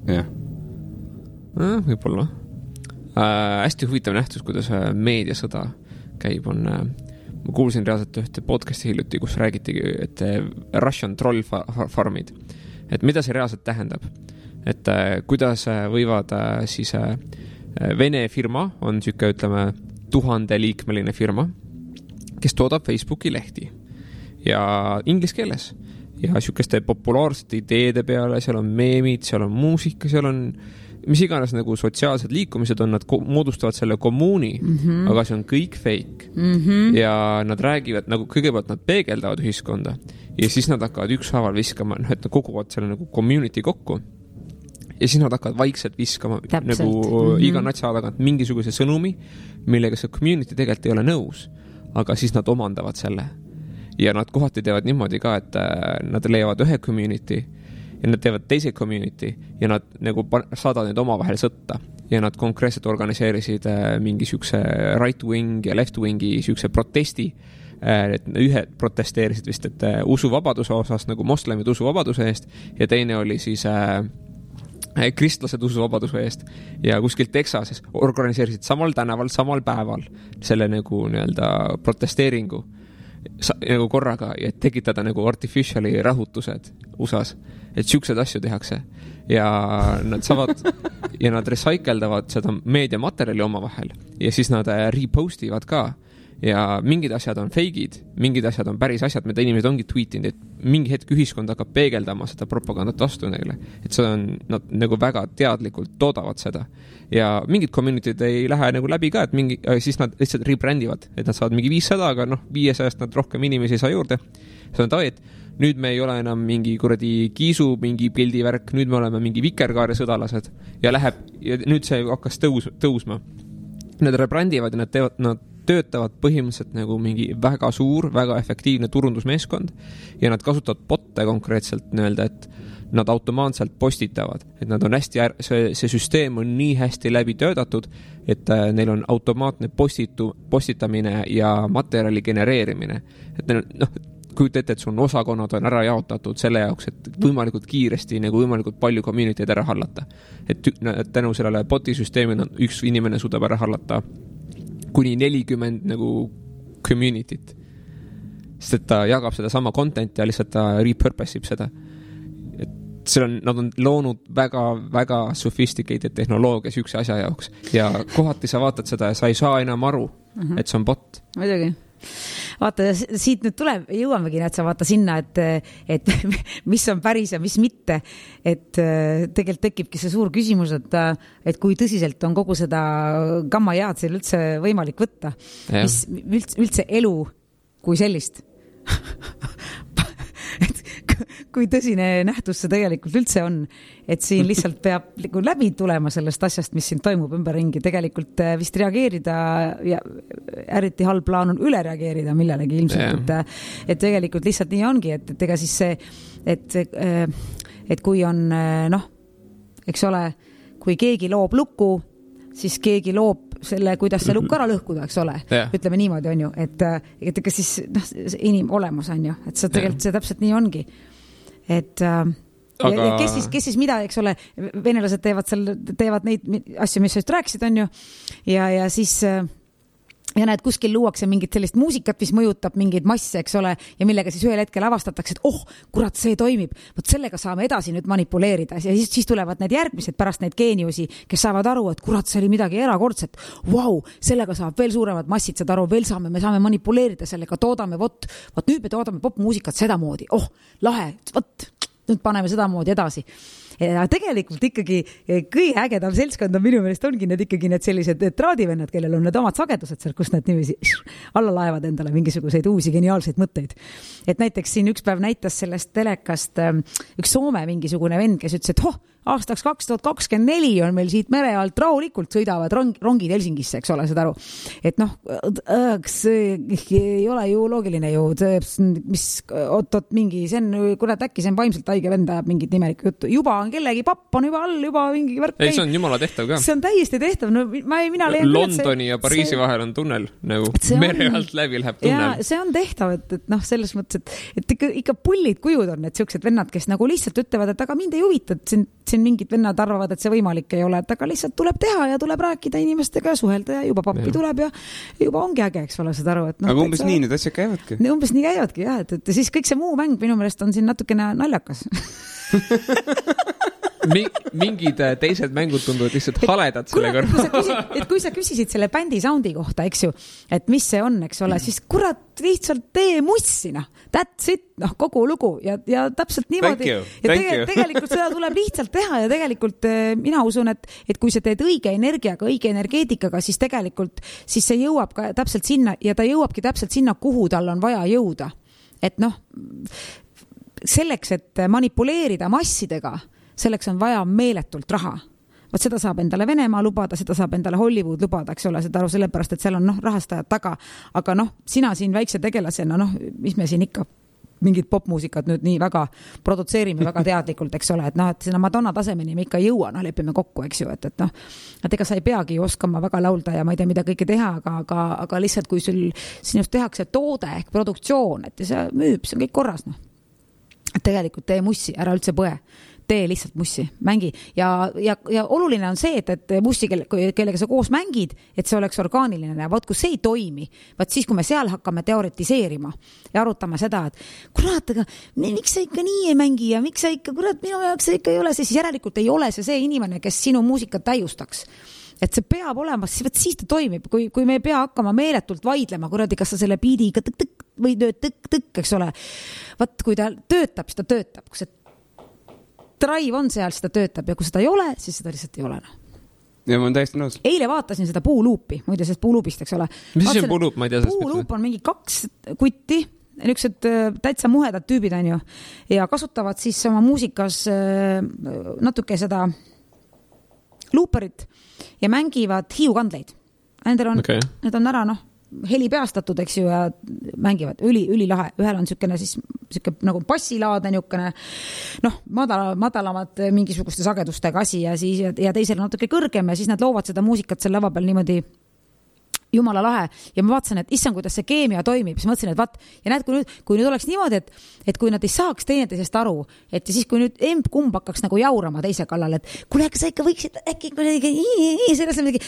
Jah. Võib-olla. Hästi huvitav nähtus, kuidas meediasõda käib, on... Ma kuulsin reaalselt ühte podcasti hiljuti, kus räägitigi, et Russian troll farmid. Et mida see reaalselt tähendab? Et kuidas võivad siis Vene firma, on siuke, ütleme, 1000-liikmeline firma, kes toodab Facebooki lehti ja inglise keeles ja siukeste populaarsete ideede peale, seal on meemid, seal on muusika, seal on mis iganes nagu sotsiaalsed liikumised on, nad moodustavad selle kommuuni, aga see on kõik fake. Ja nad räägivad, nagu kõigepealt nad peegeldavad ühiskonda ja siis nad hakkavad ükshaaval viskama, noh, et nad koguvad selle nagu community kokku ja siis nad hakkavad vaikselt viskama nagu iga natsa tagant mingisuguse sõnumi, millega see community tegelikult ei ole nõus, aga siis nad omandavad selle. Ja nad kohati teevad niimoodi ka, et nad leiavad ühe community ja nad teevad teise community ja nad nagu saadavad neid omavahel sõtta ja nad konkreetselt organiseerisid mingi siukse right-wing ja left-wingi siukse protesti, et ühed protesteerisid vist, et usuvabaduse osas nagu moslemid usuvabaduse eest ja teine oli siis kristlased usuvabaduse eest ja kuskil Texases organiseerisid samal tänaval, samal päeval selle nagu nii-öelda protesteeringu nagu korraga ja tekitada nagu artificiali rahutused USAs, et siuksed asju tehakse ja nad saavad ja nad recycleldavad seda meediamaterjali omavahel ja siis nad repostivad ka ja mingid asjad on fake'id, mingid asjad on päris asjad, mida inimesed ongi tweetinud, et mingi hetk ühiskond hakkab peegeldama seda propagandat vastu neile, et see on, nad nagu väga teadlikult toodavad seda ja mingid community'd ei lähe nagu läbi ka, et siis nad lihtsalt rebrandivad, et nad saavad mingi 500, aga noh, 500-st nad rohkem inimesi ei saa juurde, see on et nüüd me ei ole enam mingi kuradi kiisu, mingi pildivärk, nüüd me oleme mingi vikerkaare sõdalased ja nüüd see hakkas tõusma. Nad rebrandivad ja nad töötavad põhimõtteliselt nagu mingi väga suur, väga efektiivne turundusmeeskond ja nad kasutavad botte konkreetselt nii-öelda, et nad automaatselt postitavad, et nad on hästi, see süsteem on nii hästi läbi töötatud, et neil on automaatne postitamine ja materjali genereerimine. Et neil on, noh, kujuta ette, et sul on osakonnad on ära jaotatud selle jaoks, et võimalikult kiiresti, nagu võimalikult palju community'd ära hallata. Et tänu sellele boti süsteemil üks inimene suudab ära hallata kuni 40 nagu community't. Sest et ta jagab seda sama content ja lihtsalt ta repurposib seda. Et nad on loonud väga sophisticated tehnoloogia sükse asja jaoks ja kohati sa vaatad seda ja sa ei saa enam aru, et see on bot. Muidugi. Vaata, siit nüüd jõuamegi, et sa vaata sinna, et mis on päris ja mis mitte, et tegelikult tekibki see suur küsimus, et kui tõsiselt on kogu seda gammajaad seal üldse võimalik võtta, mis üldse elu kui sellist. Kui tõsine nähtus see tegelikult üldse on, et siin lihtsalt peab läbi tulema sellest asjast, mis siin toimub ümberringi, tegelikult vist reageerida ja eriti halb plaan on üle reageerida millelegi ilmselt, et tegelikult lihtsalt nii ongi, et ega siis see, et kui on noh, eks ole, kui keegi loob luku, siis keegi loob selle, kuidas see lukk ära lõhkuda, eks ole. Ütleme niimoodi on ju, et ega siis inim olemas on ju, et see tegelikult see täpselt nii ongi. Et aga... ja kes siis mida, eks ole, venelased teevad neid asju, mis sa just rääkisid, on ju, ja siis ja näed, kuskil luuakse mingit sellist muusikat, mis mõjutab mingeid masse, eks ole, ja millega siis ühel hetkel avastatakse, et kurat, see toimib. Võt sellega saame edasi nüüd manipuleerida ja siis tulevad need järgmised pärast neid geeniusi, kes saavad aru, et kurat, see oli midagi erakordset. Sellega saab veel suuremad massid, saad aru, veel me saame manipuleerida sellega, toodame, vot nüüd me toodame popmuusikat sedamoodi. Lahe, nüüd paneme sedamoodi edasi. Ja tegelikult ikkagi kõige ägedam seltskond on minu meelest ongi need ikkagi need sellised traadivennad, kellel on need omad sagedused seal, kus nad niiviisi alla laevad endale mingisuguseid uusi geniaalseid mõtteid. Et näiteks siin üks päev näitas sellest telekast üks Soome mingisugune vend, kes ütles, et aastaks 2024 on meil siit mere alt rahulikult sõidavad rongid Helsingisse, eks ole, seda aru. Et see ei ole ju loogiline ju, mis mingi, see on, kurat, äkki see on vaimselt haige vend ajab mingit nimelikku juttu. Juba on kellegi papp on juba all, juba mingi värk. Ei, see on jumala tehtav ka. See on täiesti tehtav. No, mina leian Londoni ja Pariisi vahel on tunnel, nagu mere alt läbi läheb tunnel. Ja see on tehtav, et selles mõttes, et ikka pullid kujud on need siuksed vennad, kes nagu lihtsalt ütlevad, et aga mind ei huvita, et siin mingid vennad arvavad, et see võimalik ei ole, et aga lihtsalt tuleb teha ja tuleb rääkida inimestega ja suhelda ja juba pappi tuleb ja juba ongi äge, eks ole, seda aru. Et aga umbes nii need asjad käivadki. Umbes nii käivadki, jah, et siis kõik see muu mäng minu meelest on siin natukene naljakas. Mingid teised mängud tunduvad lihtsalt haledad selle kõrval. Et kui sa küsisid selle bändi soundi kohta, eks ju, et mis see on, eks ole, siis kurat lihtsalt tee mussina. That's it, kogu lugu ja täpselt niimoodi. Tegelikult seda tuleb lihtsalt teha ja tegelikult mina usun, et kui sa teed õige energiaga, õige energeetikaga, siis tegelikult siis see jõuab ka täpselt sinna ja ta jõuabki täpselt sinna, kuhu tal on vaja jõuda. Et selleks, et manipuleerida massidega, selleks on vaja meeletult raha. Võt seda saab endale Venemaa lubada, seda saab endale Hollywood lubada, eks ole, seda aru sellepärast, et seal on rahastajad taga. Aga sina siin väikse tegelasena, mis me siin ikka mingid popmuusikat nüüd nii väga produtseerime väga teadlikult, eks ole, et sinna Madonna tasemeni me ikka ei jõua, lepime kokku, eks ju, et ega sa ei peagi oskama väga laulda ja ma ei tea, mida kõike teha, aga lihtsalt kui sinust tehakse toode ehk produktsioon, et see müüb, see on kõik korras, Et tegelikult tee mussi, ära üldse põe. Tee lihtsalt mussi, mängi. Ja oluline on see, et mussi, kellega sa koos mängid, et see oleks orgaaniline. Ja kui see ei toimi, siis kui me seal hakkame teoretiseerima ja arutama seda, et kurat, aga miks sa ikka nii ei mängi ja miks sa ikka, kurat, minu jaoks see ikka ei ole, siis järelikult ei ole see inimene, kes sinu muusikat täiustaks. Et see peab olema, siis ta toimib, kui me ei pea hakkama meeletult vaidlema, kuradi, kas sa selle biidiga tõk-tõk või tõk-tõk, eks ole. Kui ta töötab, siis ta töötab. Kui see drive on seal, siis ta töötab ja kui seda ei ole, siis seda lihtsalt ei ole. Ja ma olen täiesti nõus. Eile vaatasin seda puuluupi, muide sellest puuluupist, eks ole. Mis see puuluup, ma ei tea? Puuluup on mingi 2 kutti, niisugused täitsa muhedad tüübid on ju ja kasutavad siis oma muusikas natuke seda luuperit ja mängivad hiiukandleid. Need on ära, heli peastatud, eks ju, ja mängivad ülilahe. Ühel on niisugune siis nagu bassilaadne niisugune, madalamad mingisuguste sagedustega asi ja teisel natuke kõrgem ja siis nad loovad seda muusikat selle lava peal niimoodi jumala lahe. Ja ma vaatasin, et issand, kuidas see keemia toimib. Siis mõtlesin, et ja näed, kui nüüd oleks niimoodi, et kui nad ei saaks teineteisest aru, et siis kui nüüd kumb hakkaks nagu jaurama teise kallal, et kuule, sa ikka võiksid äkki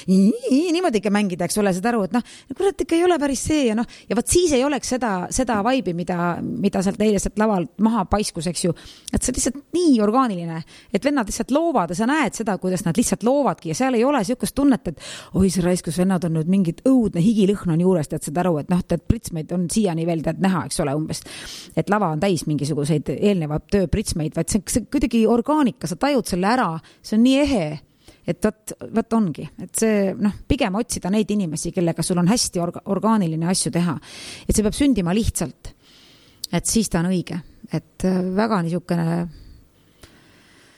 niimoodi ikka mängida, eks ole, seda aru, et kurat ikka ei ole päris see ja siis ei oleks seda vaibi, mida sealt eile sealt lavalt maha paiskus, eks ju, et see lihtsalt nii orgaaniline, et vennad lihtsalt loovad ja sa näed seda, kuidas nad lihtsalt loovadki ja seal ei ole siukest tunnet, et oi, see raiskus vennad on nüüd mingid õudne higilõhn on juures, tead seda aru, et pritsmeid on siiani veel tead näha, eks ole, umbes, et lava on täis mingisuguseid eelnevad töö pritsmeid, vaid see kuidagi orgaanika, sa tajud selle ära, see on nii ehe, et võt ongi, et see, pigem otsida neid inimesi, kellega sul on hästi orgaaniline asju teha, et see peab sündima lihtsalt, et siis ta on õige, et väga niisugune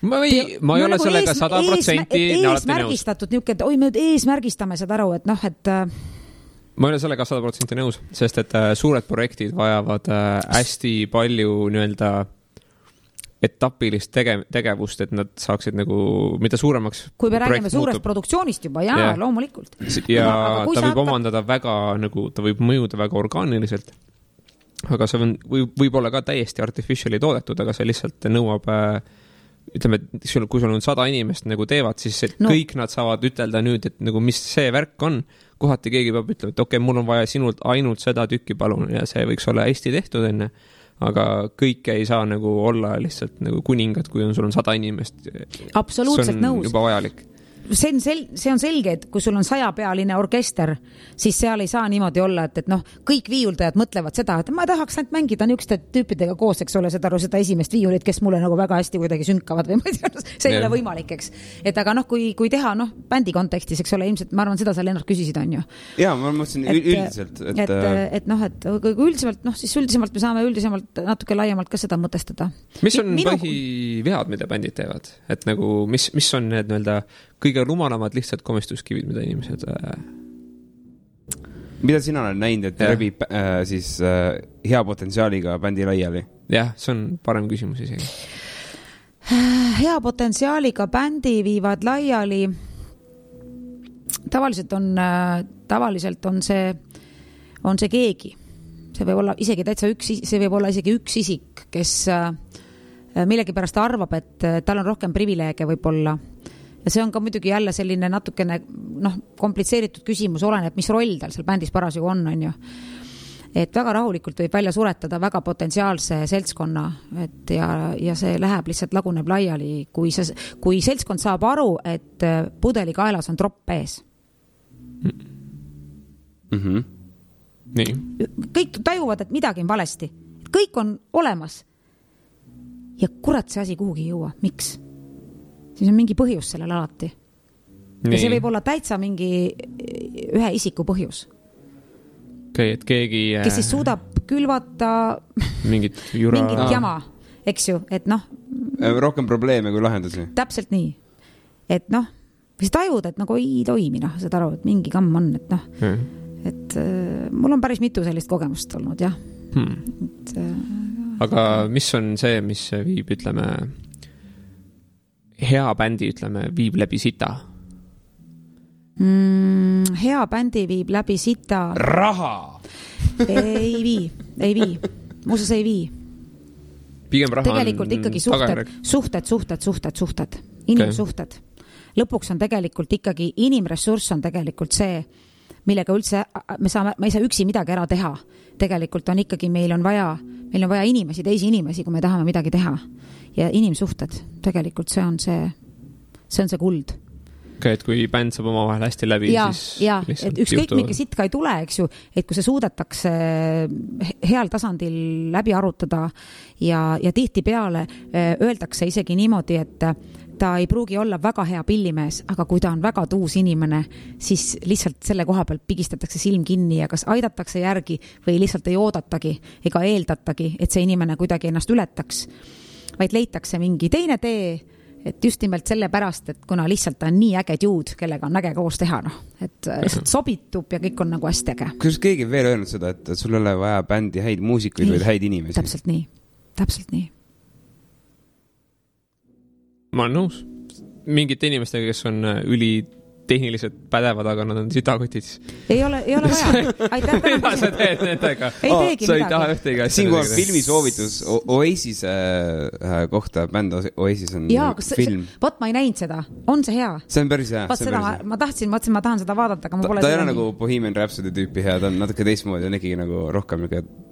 ma ei ole sellega 100% eesmärgistatud niuke, et oi, me eesmärgistame seda aru, et ma ei ole sellega 100% nõus, sest et suured projektid vajavad hästi palju nii-öelda etapilist tegevust, et nad saaksid nagu, mida suuremaks kui me räägime suurest produktsioonist juba, loomulikult. Ja ta võib omandada väga, nagu ta võib mõjuda väga orgaaniliselt, aga see võib olla ka täiesti artificially toodetud, aga see lihtsalt nõuab ütleme, kui sul on 100 inimest nagu teevad, siis kõik nad saavad ütelda nüüd, et nagu mis see värk on. Kohati keegi peab ütlema, et okei, mul on vaja sinult ainult seda tükki palun ja see võiks olla hästi tehtud enne. Aga kõike ei saa nagu olla lihtsalt nagu kuningad, kui sul on 100 inimest. Absoluutselt nõus. See on juba vajalik. See on selge, et kui sul on 100-pealine orkester, siis seal ei saa niimoodi olla, et noh, kõik viiuldajad mõtlevad seda, et ma tahaks ainult mängida niisuguste tüüpidega koos, eks ole, seda esimest viiulit, kes mulle nagu väga hästi kuidagi sünkavad või ma ei tea, see ei ole võimalik, eks. Et aga noh, kui teha bändi kontekstis, eks ole, ilmselt ma arvan, seda sa Lennart küsisid, on ju. Jaa, ma mõtlesin üldiselt. Et kui üldisemalt, siis üldisemalt me saame üldisemalt natuke laiemalt ka seda mõtestada. Mis on põhivead, mida bändid teevad? Et nagu, mis on need nii-öelda kõige rumalamad lihtsalt komistuskivid, mida inimesed... Mida sina olen näinud, et rebib siis hea potentsiaaliga bändi laiali? Jah, see on parem küsimus isegi. Hea potentsiaaliga bändi viivad laiali. Tavaliselt on see keegi. See võib olla isegi täitsa see võib olla isegi üks isik, kes millegipärast arvab, et tal on rohkem privileege võib-olla. Ja see on ka muidugi jälle selline natukene komplitseeritud küsimus, oleneb, mis roll tal seal bändis parasjagu on ju. Et väga rahulikult võib välja suretada väga potentsiaalse seltskonna, et ja see läheb lihtsalt laguneb laiali, kui seltskond saab aru, et pudeli kaelas on tropp ees. Nii. Kõik tajuvad, et midagi on valesti. Kõik on olemas. Ja kurat see asi kuhugi ei jõua. Miks? Siis on mingi põhjus sellel alati. Ja see võib olla täitsa mingi ühe isiku põhjus. Okay, et keegi... Kes siis suudab külvata mingit jama, eks ju, et noh... Rohkem probleeme kui lahendusi. Täpselt nii. Et noh, siis tajud, et nagu ei toimi, seda aru, et mingi kamm on, et noh... Et mul on päris mitu sellist kogemust olnud, jah. Aga mis on see, mis viib, ütleme... hea bändi, ütleme, viib läbi sita? Hea bändi viib läbi sita... Raha! Ei vii. Muuseas ei vii. Pigem raha tegelikult on ikkagi suhted. Inimsuhted. Lõpuks on tegelikult ikkagi inimressurss on tegelikult see, millega üldse me ei saa üksi midagi ära teha. Tegelikult on ikkagi, meil on vaja inimesi, teisi inimesi, kui me tahame midagi teha. Ja inimsuhted, tegelikult see on see kuld. Okay, et kui bänd saab oma vahel hästi läbi, siis et ükskõik mingi sitka ei tule, eks ju, et kui see suudetakse heal tasandil läbi arutada ja tihti peale öeldakse isegi niimoodi, et ta ei pruugi olla väga hea pillimees, aga kui ta on väga tuus inimene, siis lihtsalt selle koha pealt pigistatakse silm kinni ja kas aidatakse järgi või lihtsalt ei oodatagi ega eeldatagi, et see inimene kuidagi ennast ületaks, vaid leitakse mingi teine tee, et just nimelt selle pärast, et kuna lihtsalt ta on nii äge dude, kellega on äge koos teha, et sobitub ja kõik on nagu hästi äge. Kuidas keegi veel öelnud seda, et sul ei ole vaja bändi häid muusikuid või häid inimesi? Täpselt nii. Ma olen nõus. Mingite inimestega, kes on tehniliselt pädevad, aga nad on sitakotid. Ei ole vaja. Aitäh, mida sa teed nendega? Ei teegi sa ei taha ühtegi asja. Siin on filmisoovitus Oasis kohta, bänd Oasis on film. Võt, ma ei näinud seda. On see hea? See on päris hea. Ma tahan seda vaadata, aga ma pole ta ei ole nagu Bohemian Rhapsody tüüpi hea, ta on natuke teistmoodi, on ikkagi nagu rohkem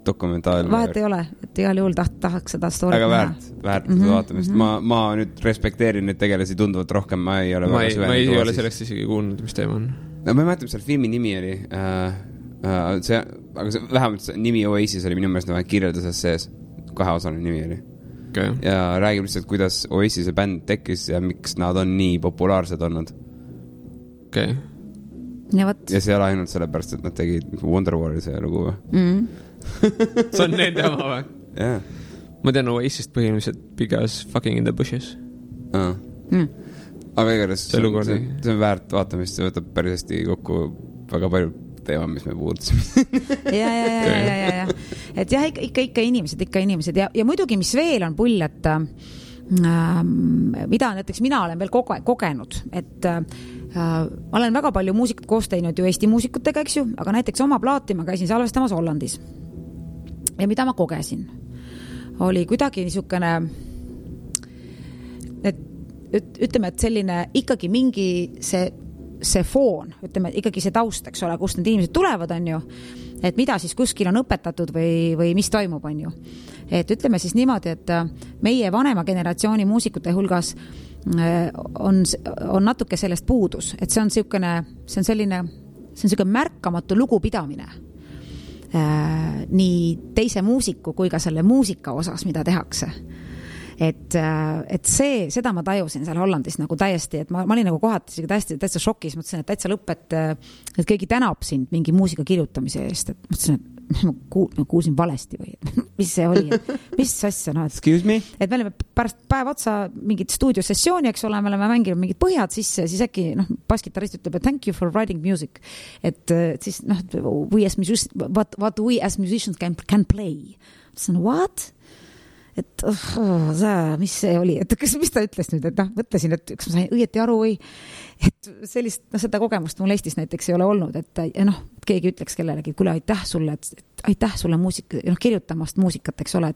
dokumentaalne. Vahet ei ole, et igal juhul tahaks seda story. Aga väärt vaatamist. Ma nüüd respekteerin neid tegelasi tunduvalt rohkem, ma ei ole väga süvenenud. Ma ei ole sellest isegi kuulnud, mis teema on. No ma ei mäleta, mis seal filmi nimi oli. Aga vähemalt nimi Oasis oli minu meelest kirjelduses sees. 2-osaline nimi oli. Okay. Ja räägib lihtsalt, kuidas Oasise bänd tekkis ja miks nad on nii populaarsed olnud. Okay. Ja see ei ole ainult sellepärast, et nad tegid Wonderwalli see lugu. See on nende oma või? Yeah. Ma tean Oasist põhimõtteliselt because fucking in the bushes. Aga igatahes see on väärt vaatamist, see võtab päris hästi kokku väga palju teema, mis me puudutasime. Ja. Et jah, ikka inimesed ja muidugi, mis veel on pull, et mida näiteks mina olen veel kogenud, et ma olen väga palju muusikat koos teinud ju Eesti muusikutega, eks ju, aga näiteks oma plaati ma käisin salvestamas Hollandis. Ja mida ma kogesin, oli kuidagi niisugune ütleme, et selline ikkagi mingi see foon, ütleme, ikkagi see taust, eks ole, kust need inimesed tulevad, on ju, et mida siis kuskil on õpetatud või mis toimub, on ju. Et ütleme siis niimoodi, et meie vanema generatsiooni muusikute hulgas on natuke sellest puudus, et see on selline märkamatu lugupidamine nii teise muusiku kui ka selle muusika osas, mida tehakse. Et seda ma tajusin seal Hollandis nagu täiesti, et ma olin nagu kohati täitsa šokis, mõtlesin, et täitsa lõpp, et keegi tänab sind mingi muusika kirjutamise eest, et mõtlesin, et ma kuulsin valesti või mis see oli, mis asja, no, Excuse me? Et me olime pärast päev otsa mingit stuudiosessiooni, eks ole, me oleme mänginud mingid põhjad sisse, siis äkki baskitarist ütleb, et thank you for writing music, et siis what we as musicians can play. Mõtlesin, what? Et mis see oli, et mis ta ütles nüüd, et mõtlesin, et kas ma sain õieti aru või, et sellist, seda kogemust mul Eestis näiteks ei ole olnud, et keegi ütleks kellelegi, kuule, aitäh sulle kirjutamast muusikat, eks ole,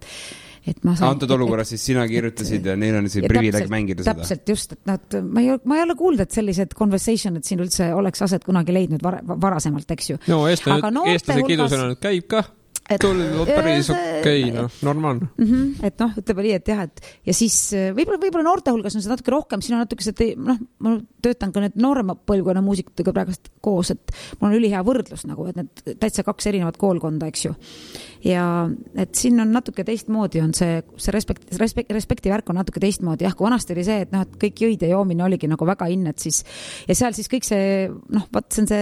et ma saan... Antud olukorras siis sina kirjutasid ja neil on see privileeg mängida seda. Täpselt just, et ma ei ole kuulnud, et sellised conversation, et siin üldse oleks aset kunagi leidnud varasemalt, eks ju. No, eestlase kidusena nüüd käib ka. Päris okei, normaalne. Et ütleme nii, et jah, ja siis võib-olla noorte hulgas on see natuke rohkem, siin on natuke ma töötan ka need noorema põlvkonna muusikutega praegust koos, et mul on ülihea võrdlus nagu, et need täitsa 2 erinevat koolkonda, eks ju. Ja et siin on natuke teistmoodi, on see respekti värk on natuke teistmoodi, jah, kui vanasti oli see, et kõik jõid ja joomine oligi nagu väga innet, siis ja seal siis kõik see, see on see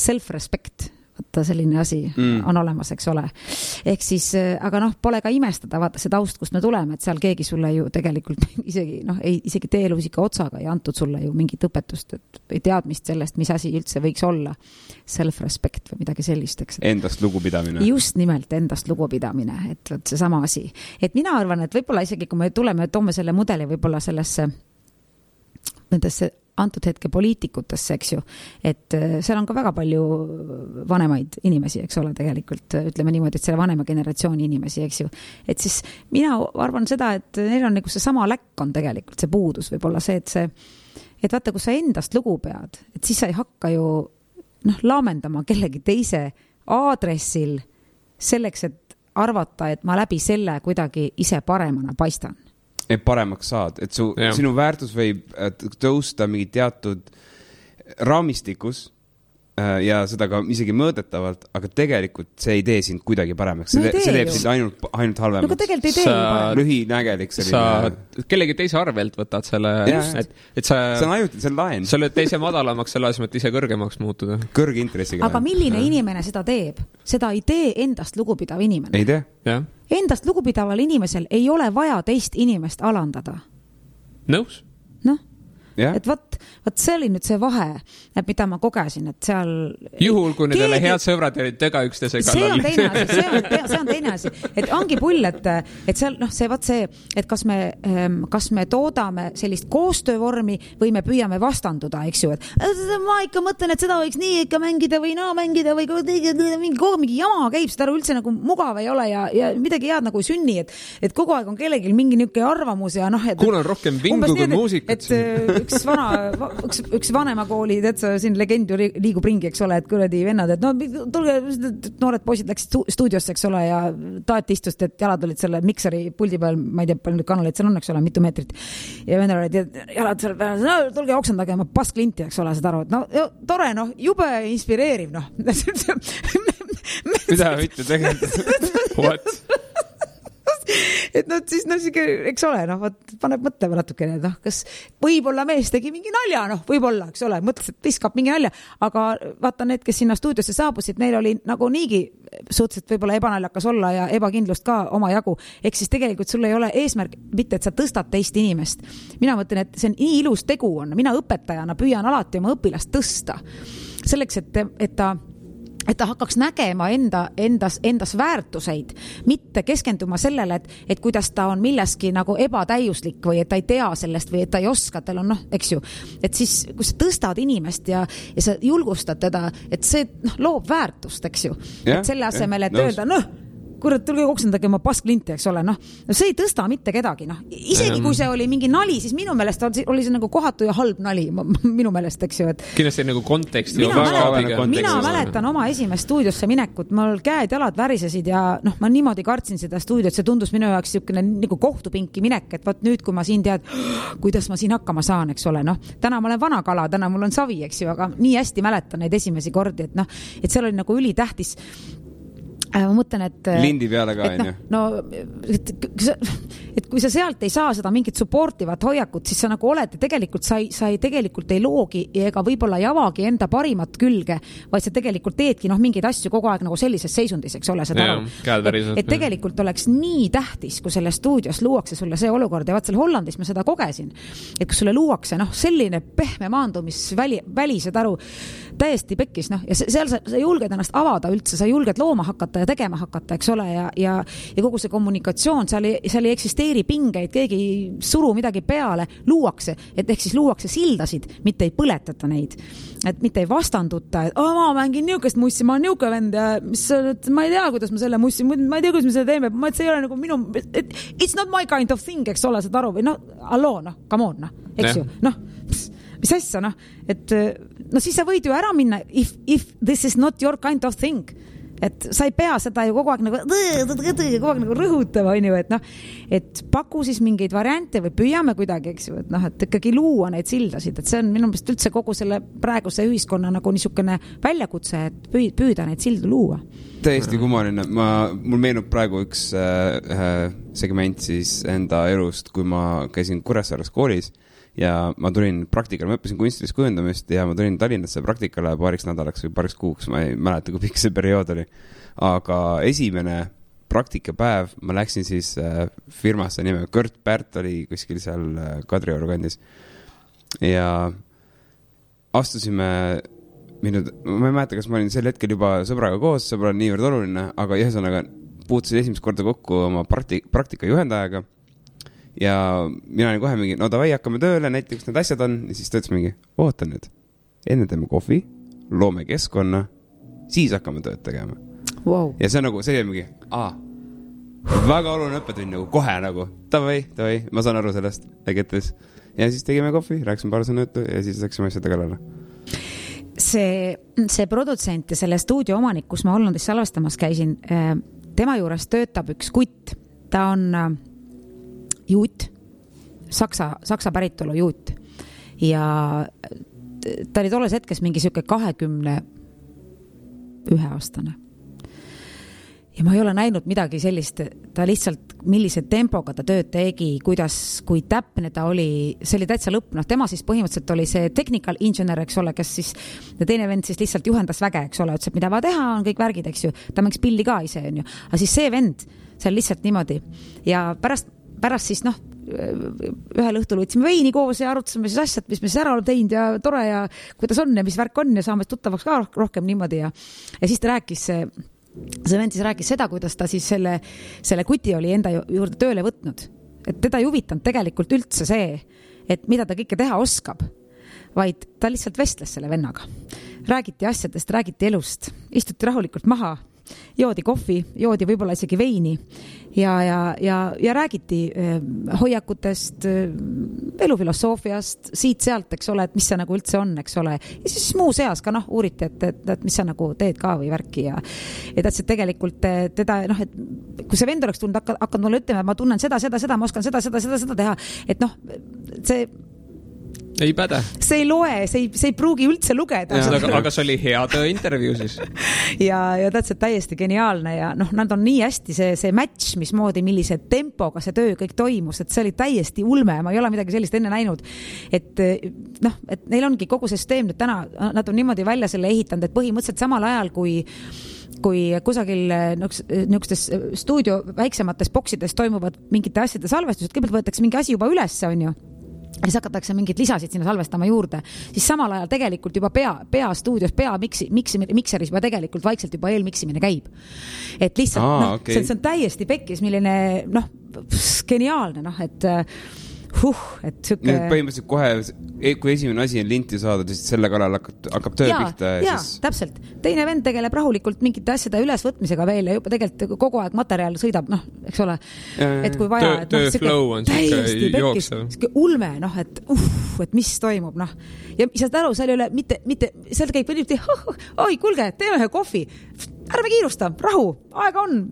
self-respect, vaata selline asi on olemas, eks ole. Ehk siis, aga pole ka imestada, vaata see taust, kust me tuleme, et seal keegi sulle ju tegelikult isegi teelusika otsaga ei antud sulle ju mingit õpetust või teadmist sellest, mis asi üldse võiks olla self-respect või midagi sellist, eks. Endast lugupidamine. Just nimelt endast lugupidamine, et see sama asi. Et mina arvan, et võib-olla isegi, kui me toome selle mudeli võib-olla nendesse antud hetke poliitikutesse, eks ju, et seal on ka väga palju vanemaid inimesi, eks ole, tegelikult ütleme niimoodi, et selle vanema generatsiooni inimesi, eks ju, et siis mina arvan seda, et neil on nagu see sama läkk on tegelikult see puudus, võib-olla see, et vaata, kui sa endast lugu pead, et siis sa ei hakka ju laamendama kellegi teise aadressil selleks, et arvata, et ma läbi selle kuidagi ise paremana paistan. Et paremaks saad, et sinu väärtus võib tõusta mingi teatud raamistikus ja seda ka isegi mõõdetavalt, aga tegelikult see ei tee sind kuidagi paremaks. See teeb sind ainult halvemaks. No tegelikult ei tee lühinägelik selline. Sa kellegi teise arvelt võtad selle, et see on ajuti, see on laen. Sa oled teise madalamaks selle asemel, et ise kõrgemaks muutuda. Kõrge intressiga. Aga milline inimene seda teeb? Seda ei tee endast lugupidav inimene. Ei tee? Jah. Endast lugupidaval inimesel ei ole vaja teist inimest alandada. Nõus? Et võt see oli nüüd see vahe, et mida ma kogesin, et seal... Juhul, kui need ole head sõbrad ja tega üksteise kallal. See on teine asi. Et ongi pull, et seal, et kas me toodame sellist koostöövormi või me püüame vastanduda, eks ju, et ma ikka mõtlen, et seda võiks nii ikka mängida või mängida või mingi jama käib, seda üldse nagu mugav ei ole ja midagi head nagu sünni, et kogu aeg on kellelgi mingi niuke arvamus ja kuulen rohkem vingu kui muusikat. Üks vanema kooli, siin legend ju liigub ringi, eks ole, et kuradi vennad, et tulge, noored poisid läksid stuudiosse, eks ole, ja taati istust, et jalad olid selle mikseri puldi peal, ma ei tea, palju nüüd kanaleid seal on, eks ole, mitu meetrit. Ja vennad olid jalad seal peal, tulge oksendage, ma pasklinti, eks ole, seda aru, et tore, jube inspireeriv, Mida võite tegelikult? What? Et siis, eks ole, paneb mõtlema natukene, kas võib-olla mees tegi mingi nalja, võib-olla, eks ole, mõtles, et viskab mingi nalja, aga vaata need, kes sinna stuudiosse saabusid, neil oli nagu niigi suhteliselt võib-olla ebanaljakas olla ja ebakindlust ka oma jagu, ehk siis tegelikult sul ei ole eesmärk mitte, et sa tõstad teist inimest. Mina mõtlen, et see on nii ilus tegu on, mina õpetajana püüan alati oma õpilast tõsta selleks, et ta hakkaks nägema endas väärtuseid, mitte keskenduma sellele, et kuidas ta on milleski nagu ebatäiuslik või et ta ei tea sellest või et ta ei oska, tal on eks ju, et siis kui sa tõstad inimest ja sa julgustad teda, et see loob väärtust, eks ju, et selle asemel, et öelda, kurat, tulge koksendage oma pasklinti, eks ole, noh, see ei tõsta mitte kedagi, noh, isegi kui see oli mingi nali, siis minu meelest oli see nagu kohatu ja halb nali, minu meelest, eks ju, et kindlasti nagu konteksti mina mäletan oma esimest stuudiosse minekut, mul käed-jalad värisesid ja noh, ma niimoodi kartsin seda stuudiot, see tundus minu jaoks niisugune nagu kohtupinki minek, et võt nüüd, kui ma siin tead, kuidas ma siin hakkama saan, eks ole, noh, täna ma olen vana kala, täna mul on savi, eks ju, aga nii hästi mäletan neid esimesi kordi, et noh, et seal oli nagu ülitähtis. Ma mõtlen, et lindi peale ka, on ju? No, et kui sa sealt ei saa seda mingit supportivat hoiakut, siis sa nagu oled ja tegelikult sa tegelikult ei loogi ega võib-olla ei avagi enda parimat külge, vaid sa tegelikult teedki mingeid asju kogu aeg nagu sellises seisundis, eks ole, seda aru. Et tegelikult oleks nii tähtis, kui selle stuudios luuakse sulle see olukord ja vaat seal Hollandis ma seda kogesin, et kui sulle luuakse selline pehme maandumisvälised aru täiesti pekkis, ja seal sa julged ennast avada üldse, sa julged looma hakata ja tegema hakata, eks ole, ja kogu see kommunikatsioon, seal ei eksisteeri pingeid, keegi ei suru midagi peale, luuakse, et ehk siis luuakse sildasid, mitte ei põletata neid, et mitte ei vastanduta, et ma mängin niukest mussi, ma olen niuke vend ja ma ei tea, kuidas ma selle mussi, ma ei tea, kuidas me selle teeme, see ei ole nagu minu, it's not my kind of thing, eks ole, saad aru, või come on, eks ju, mis asja, et siis sa võid ju ära minna, if this is not your kind of thing, et sa ei pea seda ju kogu aeg nagu rõhutama, on ju, et paku siis mingeid variante või püüame kuidagi, eks ju, et ikkagi luua neid sildasid, et see on minu meelest üldse kogu selle praeguse ühiskonna nagu niisugune väljakutse, et püüda neid sildu luua. Täiesti kummaline. Mul meenub praegu üks segment siis enda elust, kui ma käisin Kuressaares koolis ja ma tulin praktikale, ma õppisin kunstilist kujundamist ja ma tulin Tallinnasse praktikale paariks nädalaks või paariks kuuks, ma ei mäleta, kui pikk see periood oli. Aga esimene praktikapäev ma läksin siis firmasse nimega Kurt Pärt oli kuskil seal Kadrioru kandis ja astusime ma ei mäleta, kas ma olin sel hetkel juba sõbraga koos, sõbra on niivõrd oluline, aga ühesõnaga puutusin esimest korda kokku oma praktika juhendajaga ja mina olin kohe mingi, davai, hakkame tööle, näiteks need asjad on, ja siis ta ütles mingi, oota nüüd, enne teeme kohvi, loome keskkonna, siis hakkame tööd tegema. Wow. Ja see on nagu, see on mingi, väga oluline õppetund nagu kohe nagu, davai, ma saan aru sellest, ägetes. Ja siis tegime kohvi, rääksime paar sõna juttu ja siis läksime asjade kallale. See produtsent ja selle stuudio omanik, kus ma Hollandis salvestamas käisin, tema juures töötab üks kutt, ta on juut, saksa päritolu juut ja ta oli tolles hetkes mingi siuke 21 aastane ja ma ei ole näinud midagi sellist, ta lihtsalt millise tempoga ta tööd tegi, kui täpne ta oli, see oli täitsa lõpp, tema siis põhimõtteliselt oli see technical engineer, eks ole, kes siis ja teine vend siis lihtsalt juhendas väge, eks ole, ütles, et mida vaja teha, on kõik värgid, eks ju, ta mängs pilli ka ise, on ju, aga siis see vend seal lihtsalt niimoodi ja pärast siis ühel õhtul võtsime veini koos ja arutasime siis asjad, mis me siis ära oleme teinud ja tore ja kuidas on ja mis värk on ja saame tuttavaks ka rohkem niimoodi ja siis ta rääkis, see vend siis rääkis seda, kuidas ta siis selle kuti oli enda juurde tööle võtnud, et teda ei huvitanud tegelikult üldse see, et mida ta kõike teha oskab, vaid ta lihtsalt vestles selle vennaga. Räägiti asjadest, räägiti elust, istuti rahulikult maha, joodi kohvi, joodi võib-olla isegi veini ja räägiti hoiakutest, elufilosoofiast, siit-sealt, eks ole, et mis see nagu üldse on, eks ole. Ja siis muu seas ka uuriti, et mis sa nagu teed ka või värki ja et tegelikult teda, et kui see vend oleks tulnud, hakkad mulle ütlema, et ma tunnen seda, ma oskan seda teha, et see ei päde. See ei loe, see ei pruugi üldse lugeda. Aga see oli hea töö intervjuu siis. ja täiesti geniaalne ja nad on nii hästi see match, mismoodi, millise tempoga see töö kõik toimus, et see oli täiesti ulme, ma ei ole midagi sellist enne näinud, et neil ongi kogu see süsteem nüüd täna, nad on niimoodi välja selle ehitanud, et põhimõtteliselt samal ajal kui kusagil niisugustes stuudio väiksemates boksides toimuvad mingite asjade salvestused, kõigepealt võetakse mingi asi juba üles, on ju, ja siis hakatakse mingid lisasid sinna salvestama juurde, siis samal ajal tegelikult juba stuudios mikseris juba tegelikult vaikselt juba eelmiksimine käib. Et lihtsalt, okay. See on täiesti pekkis, milline, geniaalne, et et süke... Põhimõtteliselt kohe, kui esimene asi on linti saada, siis selle kallal hakkab töö pihta. Jaa, siis... täpselt. Teine vend tegeleb rahulikult mingite asjade ülesvõtmisega veel ja juba tegelikult kogu aeg materjal sõidab, eks ole, et kui vaja. Töö flow on siuke jooksev. Ulme, et mis toimub, Ja saad aru, seal ei ole mitte seal käib võliti, oi, kulge, teeme ühe kohvi. Ärme kiirusta, rahu, aega on,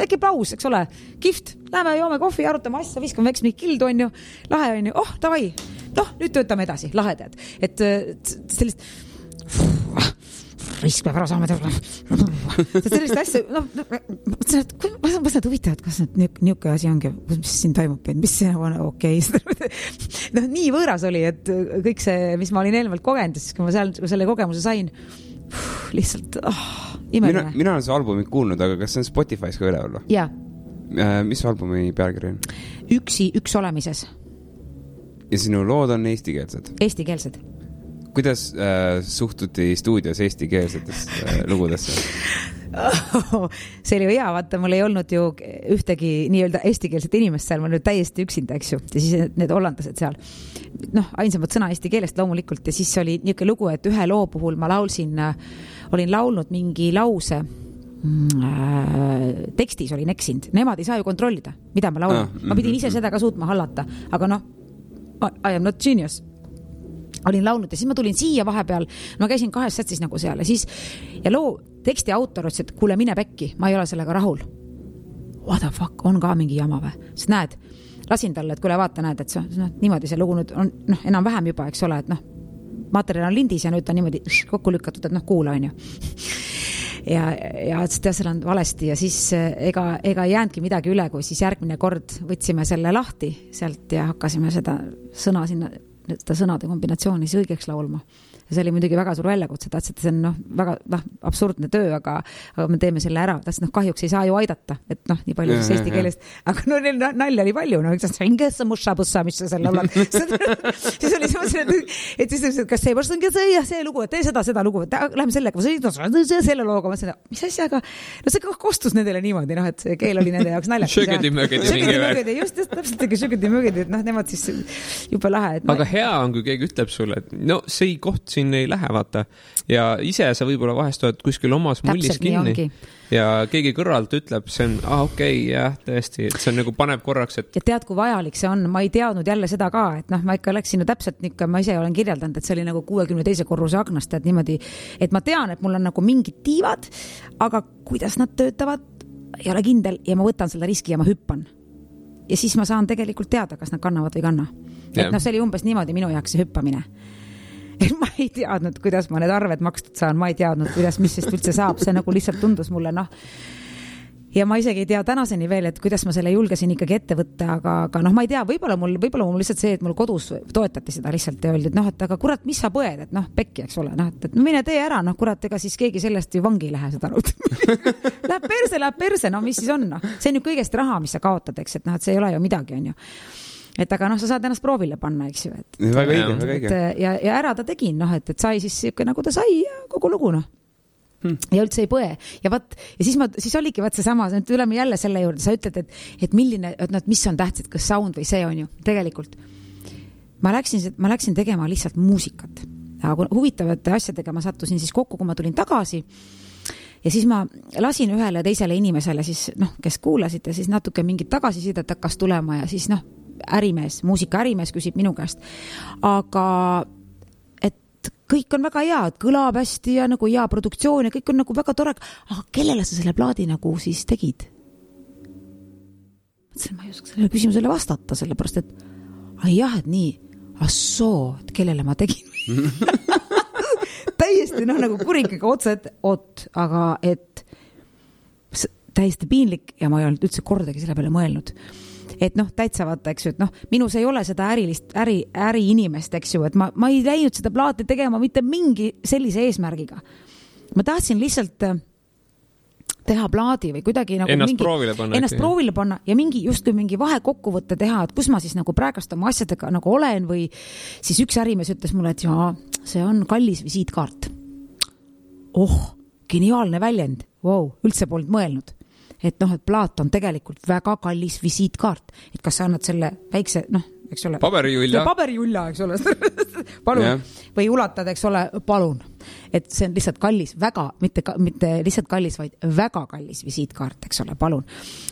äkki paus, eks ole, kihvt, läheme joome kohvi, arutame asja, viskame väiks mingi kildu, on ju, lahe on ju, davai, nüüd töötame edasi, lahedad. Et sellist, risk peab ära saama teha. Sellist asja, ma saad huvitavad, kas niuke asi ongi, mis siin toimub, mis see on okei. Nii võõras oli, et kõik see, mis ma olin eelmalt kogenud, siis kui ma selle kogemuse sain, lihtsalt imeline. Mina olen see albumit kuulnud, aga kas see on Spotify's ka üle olla? Jaa. Mis albumi pealkiri on? Üks olemises. Ja sinu lood on eestikeelsed? Eestikeelsed. Kuidas suhtuti stuudios eestikeelsetesse lugudesse? See oli ju hea, vaata, mul ei olnud ju ühtegi nii-öelda eestikeelset inimest seal, ma nüüd täiesti üksinda, eks ju, ja siis need hollandlased seal, ainsamad sõna eesti keelest loomulikult, ja siis oli niisugune lugu, et ühe loo puhul ma olin laulnud mingi lause, tekstis olin eksinud, nemad ei saa ju kontrollida, mida ma laulan, ma pidin ise seda ka suutma hallata, aga I am not genius. Olin laulnud ja siis ma tulin siia vahepeal, ma käisin 2 sätsis nagu seal ja loo teksti autor ütles, et kuule, mine pekki, ma ei ole sellega rahul. What the fuck, on ka mingi jama või? Sest näed, lasin talle, et kuule vaata, näed, et niimoodi see lugu nüüd on enam-vähem juba, eks ole, et materjal on lindis ja nüüd ta niimoodi kokku lükatud, et kuula on ju. Ja seal on valesti ja siis ega ei jäänudki midagi üle, kui siis järgmine kord võtsime selle lahti sealt ja hakkasime seda sõnade kombinatsiooni siis õigeks laulma. Ja see oli muidugi väga suur väljakutse, tahtsid, see on väga absurdne töö, aga me teeme selle ära, tahtsid, kahjuks ei saa ju aidata, et nii palju siis eesti keelest, aga nalja oli palju, mis sa selle laulad. Siis oli et siis, kas see lugu, et tee seda lugu, et läheme sellega, selle looga, mis asjaga, see kostus nendele niimoodi, et see keel oli nende jaoks naljakas. Šögedi-mögedi. Just täpselt šögedi-mögedi, et nemad siis juba lahe. Aga hea on, kui keegi ütleb sulle, et see koht siin ei lähe, vaata. Ja ise sa võib-olla vahest oled kuskil omas mullis kinni. Ja keegi kõrvalt ütleb, see on, okei, jah, tõesti, et see on nagu paneb korraks, et... Ja tead, kui vajalik see on, ma ei teadnud jälle seda ka, et ma ikka läksin täpselt niisugune, ma ise olen kirjeldanud, et see oli nagu 62. korruse aknast, et niimoodi, et ma tean, et mul on nagu mingid tiivad, aga kuidas nad töötavad, ei ole kindel ja ma võtan selle riski ja ma hüppan. Ja siis ma saan tegelikult teada, kas nad kannavad või kanna. Et see oli umbes niimoodi minu jaoks see hüppamine. Et ma ei teadnud, kuidas ma need arved makstud saan, ma ei teadnud, mis sest üldse saab, see nagu lihtsalt tundus mulle, ja ma isegi ei tea tänaseni veel, et kuidas ma selle julgesin ikkagi ette võtta, aga ma ei tea, võib-olla mul lihtsalt see, et mul kodus toetati seda lihtsalt ja öeldi, et aga kurat, mis sa põed, et pekki, eks ole, et mine tee ära, kurat, ega siis keegi sellest ju vangi ei lähe seda arvut. Läheb perse, mis siis on, see on ju kõigest raha, mis sa kaotad, eks, et see ei ole ju midagi, on ju. Et aga sa saad ennast proovile panna, eks ju. Väga õige. Ja ära ta tegin, et sai siis nagu ta sai ja kogu lugu, Ja üldse ei põe. Ja siis oligi seesama, tuleme jälle selle juurde, sa ütled, et milline, mis on tähtsad, kas sound või see on ju. Tegelikult ma läksin tegema lihtsalt muusikat. Aga huvitavate asjadega ma sattusin siis kokku, kui ma tulin tagasi. Ja siis ma lasin ühele teisele inimesele, siis, kes kuulasid ja siis natuke mingit tagasisidet hakkas tulema ja siis muusikaärimees küsib minu käest. Aga et kõik on väga hea, et kõlab hästi ja nagu hea produktsioon ja kõik on nagu väga tore. Aga kellele sa selle plaadi nagu siis tegid? Mõtlesin, ma ei oska selle küsimusele vastata, sellepärast, et jah, et nii, et kellele ma tegin? Täiesti nagu kuringiga otsa, aga et täiesti piinlik ja ma ei olnud üldse kordagi selle peale mõelnud. Et täitsa vaata, eks ju, et minus ei ole seda äri inimest, eks ju, et ma ei läinud seda plaati tegema mitte mingi sellise eesmärgiga. Ma tahtsin lihtsalt teha plaadi või kuidagi nagu ennast proovile panna ja justkui mingi vahekokkuvõtte teha, et kus ma siis nagu praegust oma asjadega nagu olen või siis üks ärimees ütles mulle, et see on kallis visiitkaart. Geniaalne väljend, üldse polnud mõelnud. Et et plaat on tegelikult väga kallis visiitkaart, et kas sa annad selle väikse, eks ole. Paberiulja, eks ole. Palun. Või ulatad, eks ole, palun. Et see on lihtsalt kallis, väga, mitte lihtsalt kallis, vaid väga kallis visiitkaart, eks ole, palun.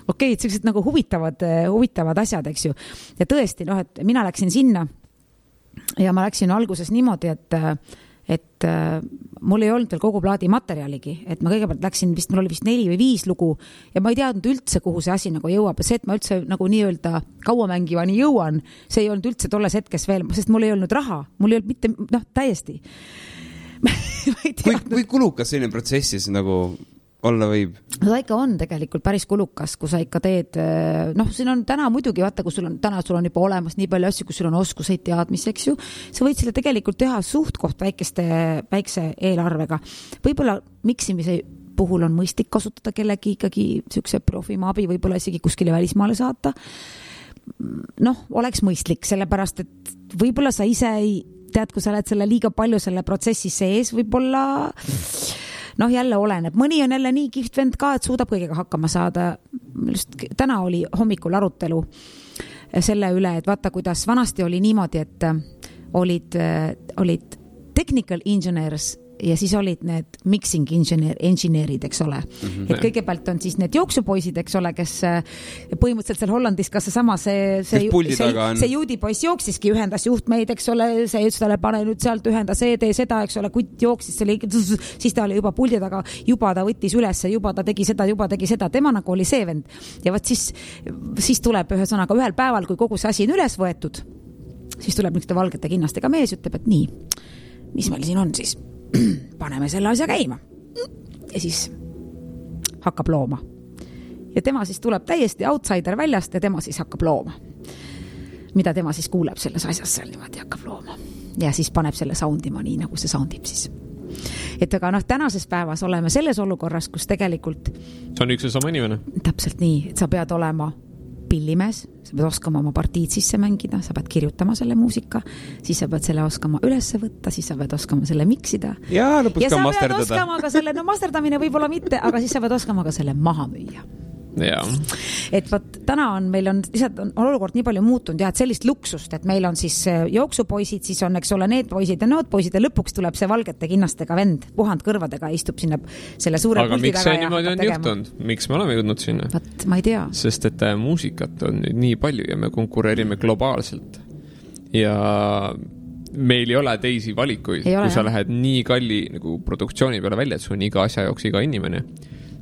Okei, et sellised nagu huvitavad asjad, eks ju. Ja tõesti, et mina läksin sinna ja ma läksin alguses niimoodi, et mul ei olnud veel kogu plaadi materjaligi, et ma kõigepealt läksin mul oli vist 4 või 5 lugu ja ma ei teadnud üldse, kuhu see asi nagu jõuab. See, et ma üldse nagu nii-öelda kauamängivani jõuan, see ei olnud üldse tolles hetkes veel, sest mul ei olnud raha, mul ei olnud mitte, täiesti. Kui kulukas selline protsessis nagu olla võib? No ta ikka on tegelikult päris kulukas, kui sa ikka teed, siin on täna muidugi, vaata, kui sul on juba olemas nii palju asju, kui sul on oskuseid teadmisi, eks ju, sa võid selle tegelikult teha suht koht väikse eelarvega. Võib-olla miksimise puhul on mõistlik kasutada kellegi ikkagi siukse profima abi, võib-olla isegi kuskile välismaale saata. Oleks mõistlik, sellepärast, et võib-olla sa ise ei tead, kui sa oled selle liiga palju selle protsessi sees, võib-olla jälle oleneb. Mõni on jälle nii kihvt vend ka, et suudab kõigega hakkama saada. Täna oli hommikul arutelu selle üle, et vaata, kuidas vanasti oli niimoodi, et olid technical engineers ja siis olid need mixing engineerid, eks ole. Et kõigepealt on siis need jooksupoisid, eks ole, kes põhimõtteliselt seal Hollandis, kas see juudipoiss jooksiski, ühendas juhtmeid, eks ole, see ütles talle, pane nüüd sealt ühenda see, tee seda, eks ole, kutt jooksis, siis ta oli juba puldi taga, juba ta võttis ülesse, juba ta tegi seda, tema nagu oli see vend. Ja võt siis tuleb ühesõnaga ühel päeval, kui kogu see asi on üles võetud, siis tuleb niisugune valgete kinnastega mees, ütleb, et nii, mis meil siin on siis? Paneme selle asja käima. Ja siis hakkab looma. Ja tema siis tuleb täiesti outsider väljast ja tema siis hakkab looma. Mida tema siis kuuleb selles asjas seal niimoodi hakkab looma. Ja siis paneb selle soundima nii, nagu see soundib siis. Et aga tänases päevas oleme selles olukorras, kus tegelikult see on üks ja sama inimene. Täpselt nii, et sa pead olema pillimees, sa pead oskama oma partiid sisse mängida, sa pead kirjutama selle muusika, siis sa pead selle oskama ülesse võtta, siis sa pead oskama selle miksida. Ja lõpus ka masterdada. Ja sa pead oskama ka selle, masterdamine võib-olla mitte, aga siis sa pead oskama ka selle maha müüa. Ja. Et täna meil on lihtsalt on olukord nii palju muutunud ja et sellist luksust, et meil on siis jooksupoisid, siis on, eks ole, need poisid ja nood poisid ja lõpuks tuleb see valgete kinnastega vend, puhand kõrvadega, istub sinna selle suure puldi taga. Aga miks see niimoodi on juhtunud? Miks me oleme jõudnud sinna? Ma ei tea. Sest et muusikat on nüüd nii palju ja me konkureerime globaalselt. Ja meil ei ole teisi valikuid, kui sa lähed nii kalli nagu produktsiooni peale välja, et sul on iga asja jooks iga inimene.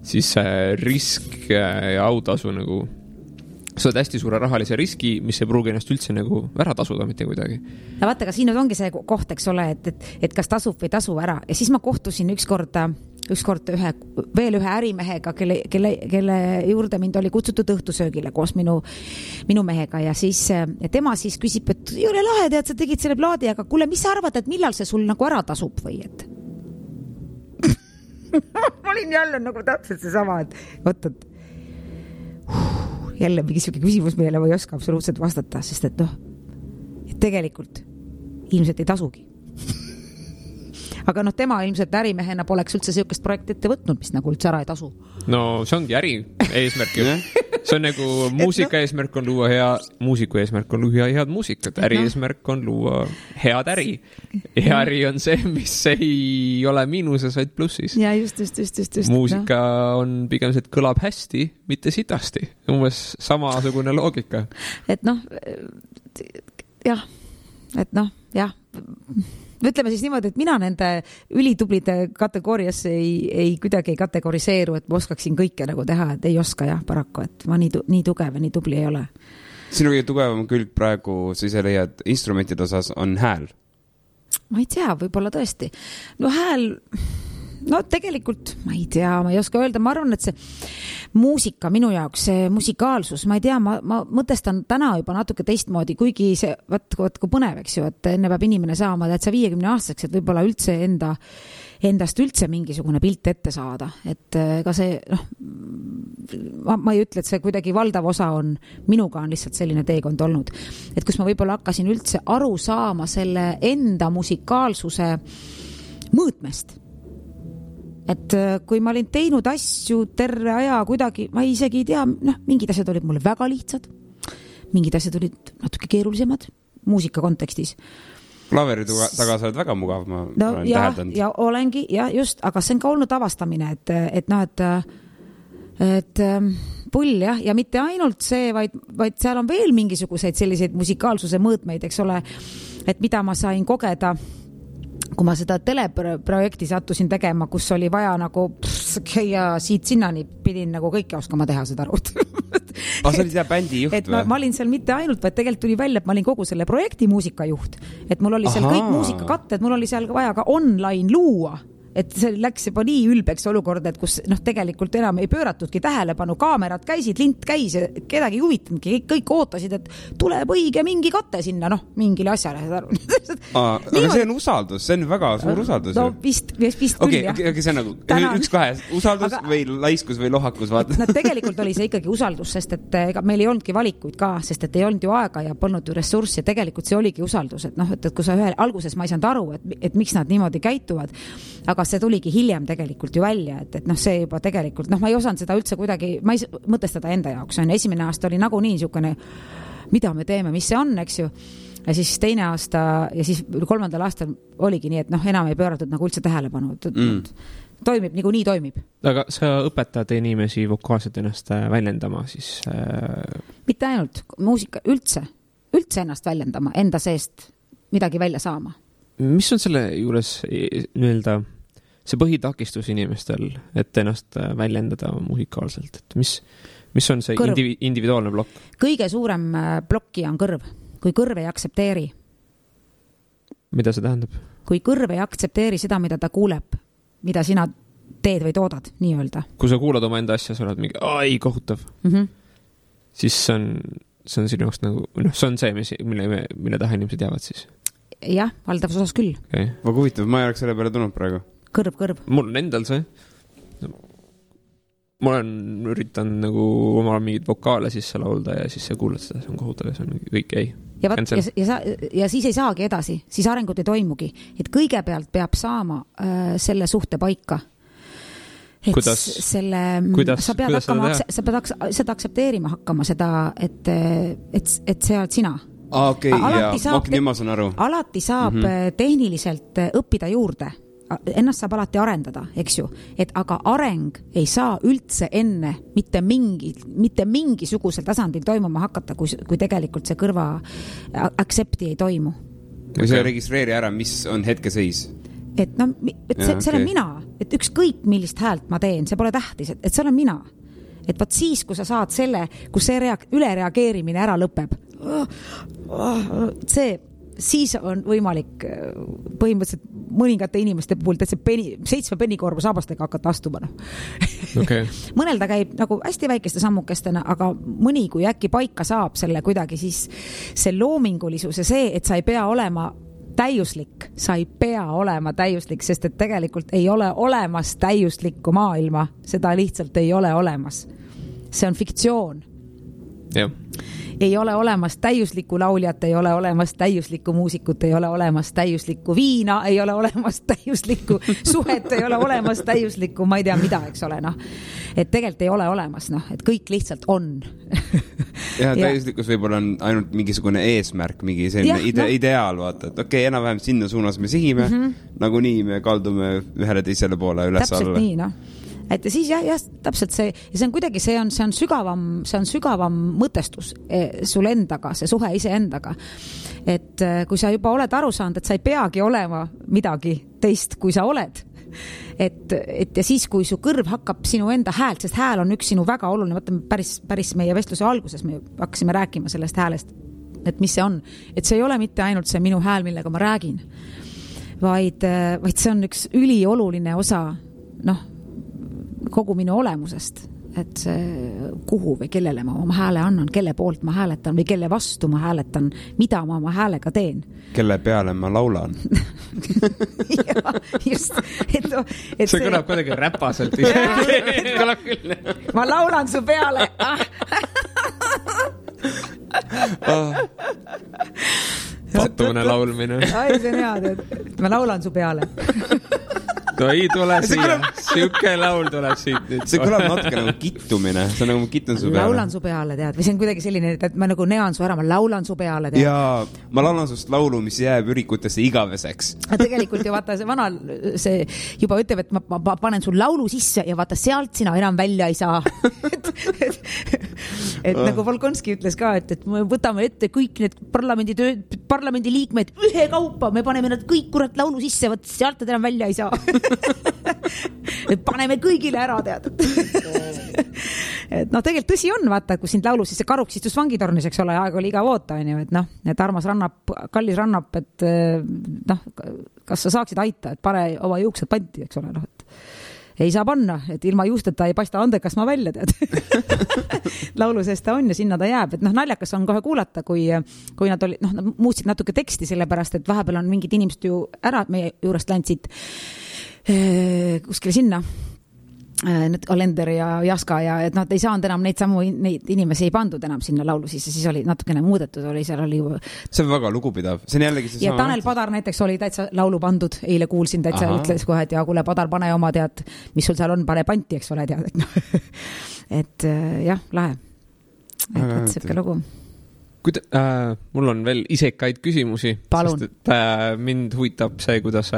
Siis see risk ja autasu nagu, sa oled hästi suure rahalise riski, mis ei pruugi ennast üldse nagu ära tasuda mitte kuidagi. Ja vaata, ka siin ongi see koht, eks ole, et kas tasub või tasu ära. Ja siis ma kohtusin ükskord veel ühe ärimehega, kelle juurde mind oli kutsutud õhtusöögile koos minu mehega ja siis tema siis küsib, et jõle lahe, tead, sa tegid selle plaadi, aga kuule, mis sa arvad, et millal see sul nagu ära tasub või et? Ma olin jälle nagu täpselt see sama, et võtad jälle mingi küsimus meile või ei oska absoluutselt vastata, sest et et tegelikult ilmselt ei tasugi. Aga tema ilmselt ärimehena poleks üldse sellist projekti ette võtnud, mis nagu üldse ära ei tasu. No see ongi äri eesmärk ju. See on nagu muusika eesmärk on luua muusiku eesmärk on luua head muusikat. Äri eesmärk on luua head äri. Ja äri on see, mis ei ole miinuses, vaid plussis. Ja just. Muusika on pigem see, et kõlab hästi, mitte sitasti. Umbes samasugune loogika. Et jah. Ütleme siis niimoodi, et mina nende ülitublide kategooriasse ei kuidagi ei kategoriseeru, et ma oskaksin kõike nagu teha, et ei oska jah, paraku, et ma nii tugev ja nii tubli ei ole. Sinu kõige tugevam külg praegu, sa ise leiad instrumentide osas, on hääl? Ma ei tea, võib-olla tõesti. Hääl, tegelikult ma ei tea, ma ei oska öelda, ma arvan, et see muusika minu jaoks, see musikaalsus, ma ei tea, ma mõtestan täna juba natuke teistmoodi, kuigi see, vaat kui põnev, eks ju, et enne peab inimene saama, et sa 50 aastaseks, et võib-olla üldse endast üldse mingisugune pilt ette saada, et ega see, ma ei ütle, et see kuidagi valdav osa on, minuga on lihtsalt selline teekond olnud, et kus ma võib-olla hakkasin üldse aru saama selle enda musikaalsuse mõõtmest. Et kui ma olin teinud asju terve aja kuidagi, ma isegi ei tea, mingid asjad olid mulle väga lihtsad, mingid asjad olid natuke keerulisemad muusika kontekstis. Klaveri taga sa oled väga mugav, ma olen täheldanud. Ja olengi, ja just, aga see on ka olnud avastamine, et pull jah, ja mitte ainult see, vaid seal on veel mingisuguseid selliseid musikaalsuse mõõtmeid, eks ole, et mida ma sain kogeda, kui ma seda teleprojekti sattusin tegema, kus oli vaja nagu ja siit sinnani pidin nagu kõike oskama teha seda arvut. Sa olid jah bändi juht või? Ma olin seal mitte ainult, vaid tegelikult tuli välja, et ma olin kogu selle projekti muusikajuht. Et mul oli seal kõik muusikakatted, mul oli seal vaja ka online luua. Et see läks juba nii ülbeks olukord, et kus tegelikult enam ei pööratudki tähelepanu, kaamerad käisid, lint käis, kedagi huvitanudki, kõik ootasid, et tuleb õige mingi katte sinna, mingile asjale. Aga see on usaldus, see on väga suur usaldus. No vist küll, jah. Okei, see on nagu üks kahe, usaldus või laiskus või lohakus, vaata. No tegelikult oli see ikkagi usaldus, sest et meil ei olnudki valikuid ka, sest et ei olnud ju aega ja polnud ju ressurssi, ja tegelikult see oligi usaldus, et kui sa alguses ma ei saanud aru, et miks nad niimoodi käituvad, aga see tuligi hiljem tegelikult ju välja, et see juba tegelikult, ma ei osanud seda üldse kuidagi, ma ei mõtestada enda jaoks, esimene aasta oli nagu nii niisugune, mida me teeme, mis see on, eks ju, ja siis teine aasta ja siis 3. aastal oligi nii, et enam ei pööratud nagu üldse tähelepanu, toimib, nagu nii toimib. Aga sa õpetad inimesi vokaalselt ennast väljendama siis? Mitte ainult, muusika üldse ennast väljendama, enda seest midagi välja saama. Mis on selle juures nii-öelda see põhitakistus inimestel, et ennast väljendada musikaalselt? Et mis on see individuaalne plokk? Kõige suurem plokki on kõrv. Kui kõrv ei aksepteeri. Mida see tähendab? Kui kõrv ei aksepteeri seda, mida ta kuuleb, mida sina teed või toodad, nii öelda. Kui sa kuulad oma enda asja, sa oled mingi, ei, kohutav. Siis see on sinu jaoks nagu, see on see, mille taha inimesed jäävad siis. Jah, valdavas osas küll. Okay. Väga huvitav, ma ei oleks selle peale tulnud praegu. Kõrv. Mul on endal see. Ma olen üritanud nagu omal mingid vokaale sisse laulda ja siis sa kuulad seda, see on kohutav ja see on kõik ei. Ja siis ei saagi edasi, siis arengut ei toimugi. Et kõigepealt peab saama selle suhte paika. Et kuidas sa pead seda aksepteerima hakkama, seda, et see oled sina. Okei, nüüd ma saan aru. Alati saab tehniliselt õppida juurde. Ennast saab alati arendada, eks ju. Aga areng ei saa üldse enne mitte mingisugusel tasandil toimuma hakata, kui tegelikult see kõrva accepti ei toimu. Või see registreeri ära, mis on hetkeseis? Et see olen mina. Et ükskõik millist häält ma teen, see pole tähtis, et see olen mina. Et vaat siis, kui sa saad selle, kus see ülereageerimine ära lõpeb, siis on võimalik põhimõtteliselt mõningate inimeste puhul 7 pennikorvu saabastega hakata astuma. Okay. Mõnel ta käib nagu hästi väikeste sammukestena, aga mõni, kui äkki paika saab selle kuidagi, siis see loomingulisus ja see, et sa ei pea olema täiuslik, sest et tegelikult ei ole olemas täiuslikku maailma, seda lihtsalt ei ole olemas. See on fiktsioon. Jah. Ei ole olemas täiuslikku lauljat, ei ole olemas täiuslikku muusikut, ei ole olemas täiuslikku viina, ei ole olemas täiuslikku suhet, ei ole olemas täiuslikku, ma ei tea mida, eks ole, Et tegelikult ei ole olemas, et kõik lihtsalt on. Ja täiuslikkus võib-olla on ainult mingisugune eesmärk, mingi selline ideaal, vaata, et okei, enam-vähem sinna suunas me sihime, nagu nii me kaldume ühele teisele poole üles alla. Täpselt nii, Et siis jah, täpselt see, ja see on kuidagi, see on sügavam mõtestus sul endaga, see suhe ise endaga. Et kui sa juba oled aru saanud, et sa ei peagi olema midagi teist, kui sa oled. Et ja siis, kui su kõrv hakkab sinu enda häält, sest hääl on üks sinu väga oluline, võtame päris meie vestluse alguses, me hakkasime rääkima sellest häälest, et mis see on. Et see ei ole mitte ainult see minu hääl, millega ma räägin, vaid see on üks ülioluline osa, kogu minu olemusest, et kuhu või kellele ma oma hääle annan, kelle poolt ma hääletan või kelle vastu ma hääletan, mida ma oma häälega teen. Kelle peale ma laulan. Ja, just. See kõlab kuidagi räpaselt. Ma laulan su peale. Patumine laulmine. Ai, see on hea, ma laulan su peale. No ei tule siia. Siuke laul tuleb siit nüüd. See kõlab natuke nagu kittumine. See on nagu kittun su peale. Laulan su peale, tead. Või see on kuidagi selline, et ma nagu nean su ära, ma laulan su peale, tead. Ja ma laulan sust laulu, mis jääb ürikutesse igaveseks. Tegelikult ju vaata, see vana see juba ütleb, et ma panen sul laulu sisse ja vaata, sealt sina enam välja ei saa. et nagu Volkonski ütles ka, et me võtame ette kõik need parlamendi liikmed ühe kaupa, me paneme nad kõik kurat laulu sisse, võt sealt nad enam välja ei saa. paneme kõigile ära, tead. et noh, tegelikult tõsi on, vaata, kui sind laulu sisse karuks istus vangitornis, eks ole, aeg oli igav oota, on ju, et noh, et armas rannab, kallis rannab, et noh, kas sa saaksid aita, et pane oma juuksed panti, eks ole, noh, et ei saa panna, et ilma juusteta ei paista andekas ma välja, tead. Laulu sees ta on ja sinna ta jääb, et noh, naljakas on kohe kuulata, kui nad oli, noh, muutsid natuke teksti, sellepärast, et vahepeal on mingid inimesed ju ära meie juurest ländsid kuskile sinna, need Alender ja Jaska ja et nad ei saanud enam neid inimesi ei pandud enam sinna laulu sisse, siis oli natukene muudetud, seal oli see on väga lugupidav, see on jällegi ja Tanel Padar näiteks oli täitsa laulu pandud, eile kuulsin täitsa, ütles kohe, et ja kuule Padar, pane oma tead, mis sul seal on, pane panti, eks ole, tead, et noh, et jah, lahe, et siuke lugu. Mul on veel isekaid küsimusi, palun. Sest et mind huvitab see, kuidas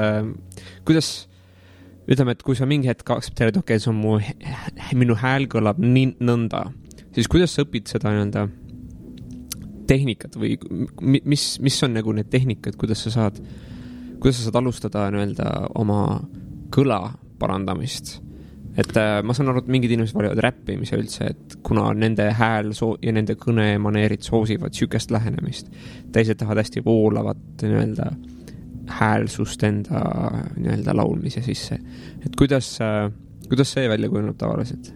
ütleme, et kui sa mingi hetk aktsepteerid, okei, see on minu hääl kõlab nii nõnda, siis kuidas sa õpid seda nii-öelda tehnikat või mis on nagu need tehnikad, kuidas sa saad alustada nii-öelda oma kõla parandamist? Et ma saan aru, et mingid inimesed valivad räppimise üldse, et kuna nende hääl ja nende kõnemaneerid soosivad sükest lähenemist, teised tahavad hästi voolavat nii-öelda häälsust enda nii-öelda laulmise sisse. Et kuidas see välja kujuneb tavaliselt?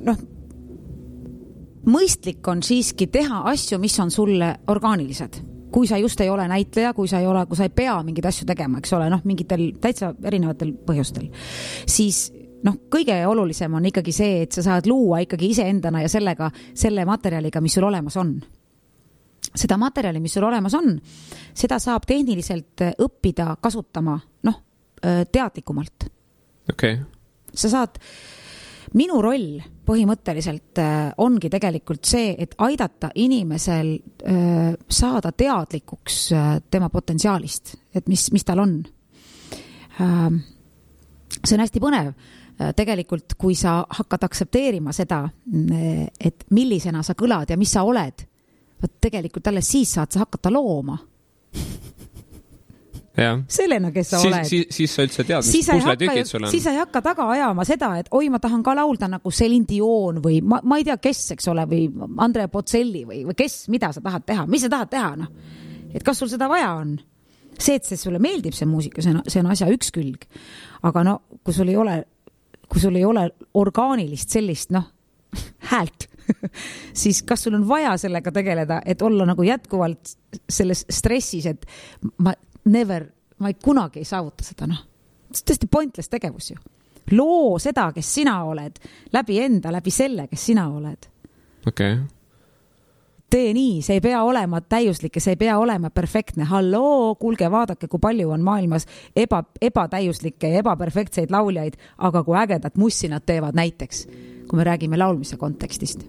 Noh, mõistlik on siiski teha asju, mis on sulle orgaanilised. Kui sa just ei ole näitleja, kui sa ei pea mingeid asju tegema, eks ole, noh, mingitel täitsa erinevatel põhjustel, siis noh, kõige olulisem on ikkagi see, et sa saad luua ikkagi iseendana ja selle materjaliga, mis sul olemas on. Seda materjali, mis sul olemas on, seda saab tehniliselt õppida kasutama, noh, teadlikumalt. Okay. Sa saad, minu roll põhimõtteliselt ongi tegelikult see, et aidata inimesel saada teadlikuks tema potentsiaalist, et mis tal on. See on hästi põnev. Tegelikult, kui sa hakkad aksepteerima seda, et millisena sa kõlad ja mis sa oled, tegelikult alles siis saad sa hakata looma. Sellena, kes sa oled. Siis sa üldse tead, mis pusletükid sul on. Siis sa ei hakka taga ajama seda, et oi, ma tahan ka laulda nagu Celine Dion või ma ei tea, kes, eks ole, või Andrea Bocelli või kes, mida sa tahad teha, mis sa tahad teha, noh. Et kas sul seda vaja on? See, et see sulle meeldib see muusika, see on asja üks külg. Aga no, kui sul ei ole orgaanilist sellist, noh, häält, siis kas sul on vaja sellega tegeleda, et olla nagu jätkuvalt selles stressis, et ma ei kunagi ei saavuta seda, noh. See on tõesti pointless tegevus ju. Loo seda, kes sina oled, läbi selle, kes sina oled. Okay. Tee nii, see ei pea olema täiuslik ja see ei pea olema perfektne. Halloo, kuulge, vaadake, kui palju on maailmas ebatäiuslikke ja ebaperfektseid lauljaid, aga kui ägedat mussi nad teevad näiteks, kui me räägime laulmise kontekstist.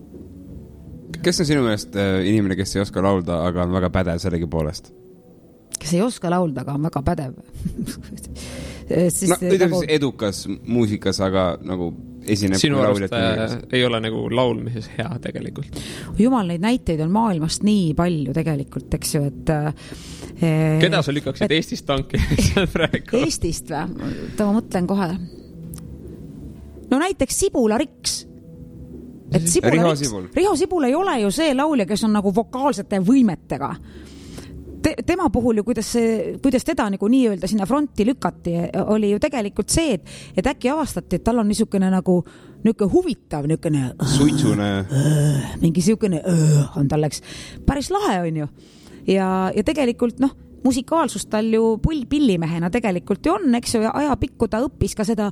Kes on sinu meelest inimene, kes ei oska laulda, aga on väga pädev sellegi poolest? Kes ei oska laulda, aga on väga pädev. Ütleme edukas muusikas, aga nagu esineb sinu arust ei ole nagu laulmises hea tegelikult. Jumal, neid näiteid on maailmast nii palju tegelikult, eks ju, et keda sa lükkaksid Eestist tanki? Eestist või? Ma mõtlen kohe. No näiteks Sibula Riks. Riho Sibul ei ole ju see laulja, kes on nagu vokaalsete võimetega. Tema puhul ju, kuidas teda nagu nii-öelda sinna fronti lükati, oli ju tegelikult see, et äkki avastati, et tal on niisugune nagu huvitav, suitsune. Mingi niisugune on tal läks päris lahe, on ju. Ja tegelikult, noh, musikaalsust tal ju pillimehena tegelikult ju on, eks ju, ja ajapikku ta õppis ka seda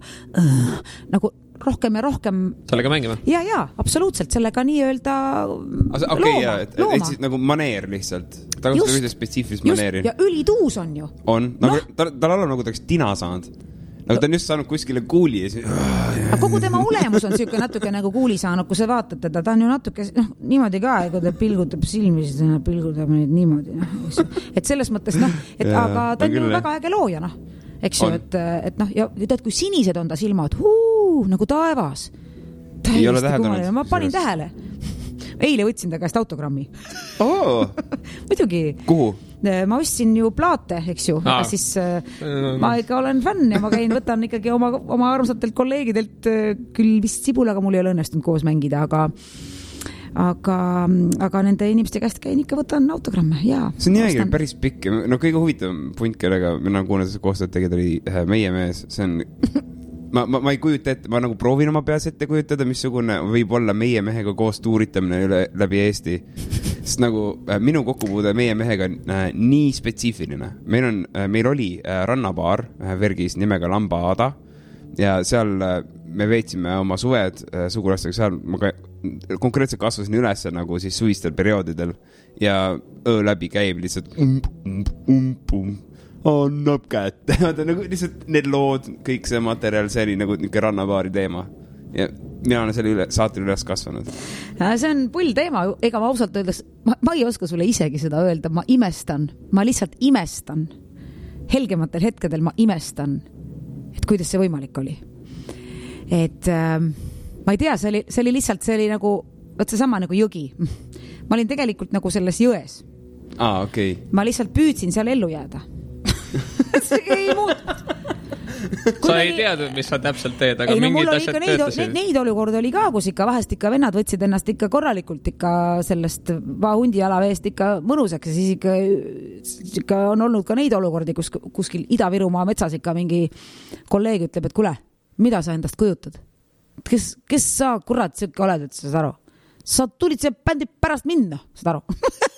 nagu rohkem ja rohkem sellega mängima? Ja, absoluutselt, sellega nii-öelda looma. Et siis nagu maneer lihtsalt. Ta kasutab ühte spetsiifilist maneeri. Ja ülituus on ju. On. Tal on nagu taks tina saanud. aga ta on just saanud kuskile kuuli ja aga kogu tema olemus on siuke natuke nagu kuuli saanud, kui sa vaatad teda, ta on ju natuke niimoodi ka, kui ta pilgutab silmi, siis ta pilgutab neid niimoodi, et selles mõttes aga ta on ju väga äge looja, eks ju, et ja tead, kui sinised on ta silmad, nagu taevas. Ei ole täheldanud. Ma panin tähele. Eile võtsin ta käest autogrammi. Muidugi. Kuhu? Ma ostsin ju plaate, eks ju, aga siis ma ikka olen fänn ja ma käin, võtan ikkagi oma armsatelt kolleegidelt küll vist Sibulaga mul ei ole õnnestunud koos mängida, aga nende inimeste käest käin ikka võtan autogramme, jaa. See on nimegi päris pikk. No kõige huvitavam punt, kellega mina kuulen koostööd tegid oli meie mees, see on ma ei kujuta ette, ma nagu proovin oma peas ette kujutada, missugune võib olla meie mehega koos tuuritamine läbi Eesti. Sest nagu minu kokkupuude meie mehega on nii spetsiifiline. Meil oli rannabaar Vergis nimega Lambaada ja seal me veetsime oma suved sugulastega, seal ma konkreetselt kasvasin üles nagu siis suvistel perioodidel ja öö läbi käib lihtsalt annab kätte. Nagu lihtsalt need lood, kõik see materjal, see oli nagu rannabaari teema. Ja mina olen selle saatel üles kasvanud. See on pull teema, ega ma ausalt öeldes, ma ei oska sulle isegi seda öelda, ma lihtsalt imestan. Helgematel hetkedel ma imestan, et kuidas see võimalik oli. Et ma ei tea, see oli lihtsalt, see oli nagu, võt see sama nagu jõgi. Ma olin tegelikult nagu selles jões. Okay. Ma lihtsalt püüdsin seal ellu jääda. See ei muutu. Sa ei teadnud, mis sa täpselt teed, aga mingid asjad töötasid. Neid olukorda oli ka, kus ikka vahest ikka vennad võtsid ennast ikka korralikult ikka sellest hundi jalaveest ikka mõnusaks ja siis ikka on olnud ka neid olukordi, kus kuskil Ida-Virumaa metsas ikka mingi kolleeg ütleb, et kuule, mida sa endast kujutad? Kes sa kurat siuke oled, et sa saad aru? Sa tulid see bändi pärast minna, saad aru?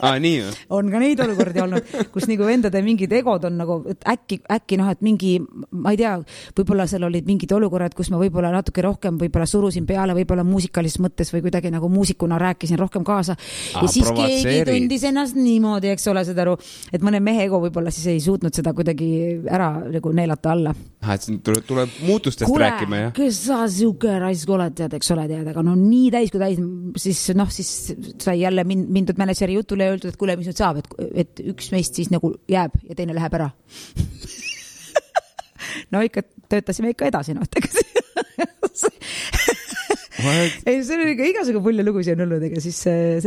Nii või? On ka neid olukordi olnud, kus nagu vendade mingid egod on nagu, et äkki et mingi, ma ei tea, võib-olla seal olid mingid olukorrad, kus ma võib-olla natuke rohkem võib-olla surusin peale, võib-olla muusikalises mõttes või kuidagi nagu muusikuna rääkisin rohkem kaasa. Ja siis keegi tundis ennast niimoodi, eks ole, saad aru, et mõne mehe ego võib-olla siis ei suutnud seda kuidagi ära nagu neelata alla. Et tuleb muutustest rääkima, jah? Kes sa siuke raisk oled, tead, eks ole, tead, aga no nii täis kui täis, siis sai jälle mindud mänedžeri jutule ja öeldud, et kuule, mis nüüd saab, et üks meist siis nagu jääb ja teine läheb ära. No ikka töötasime ikka edasi, Ei, see on ikka igasugu pulja lugusi on olnud, ega siis see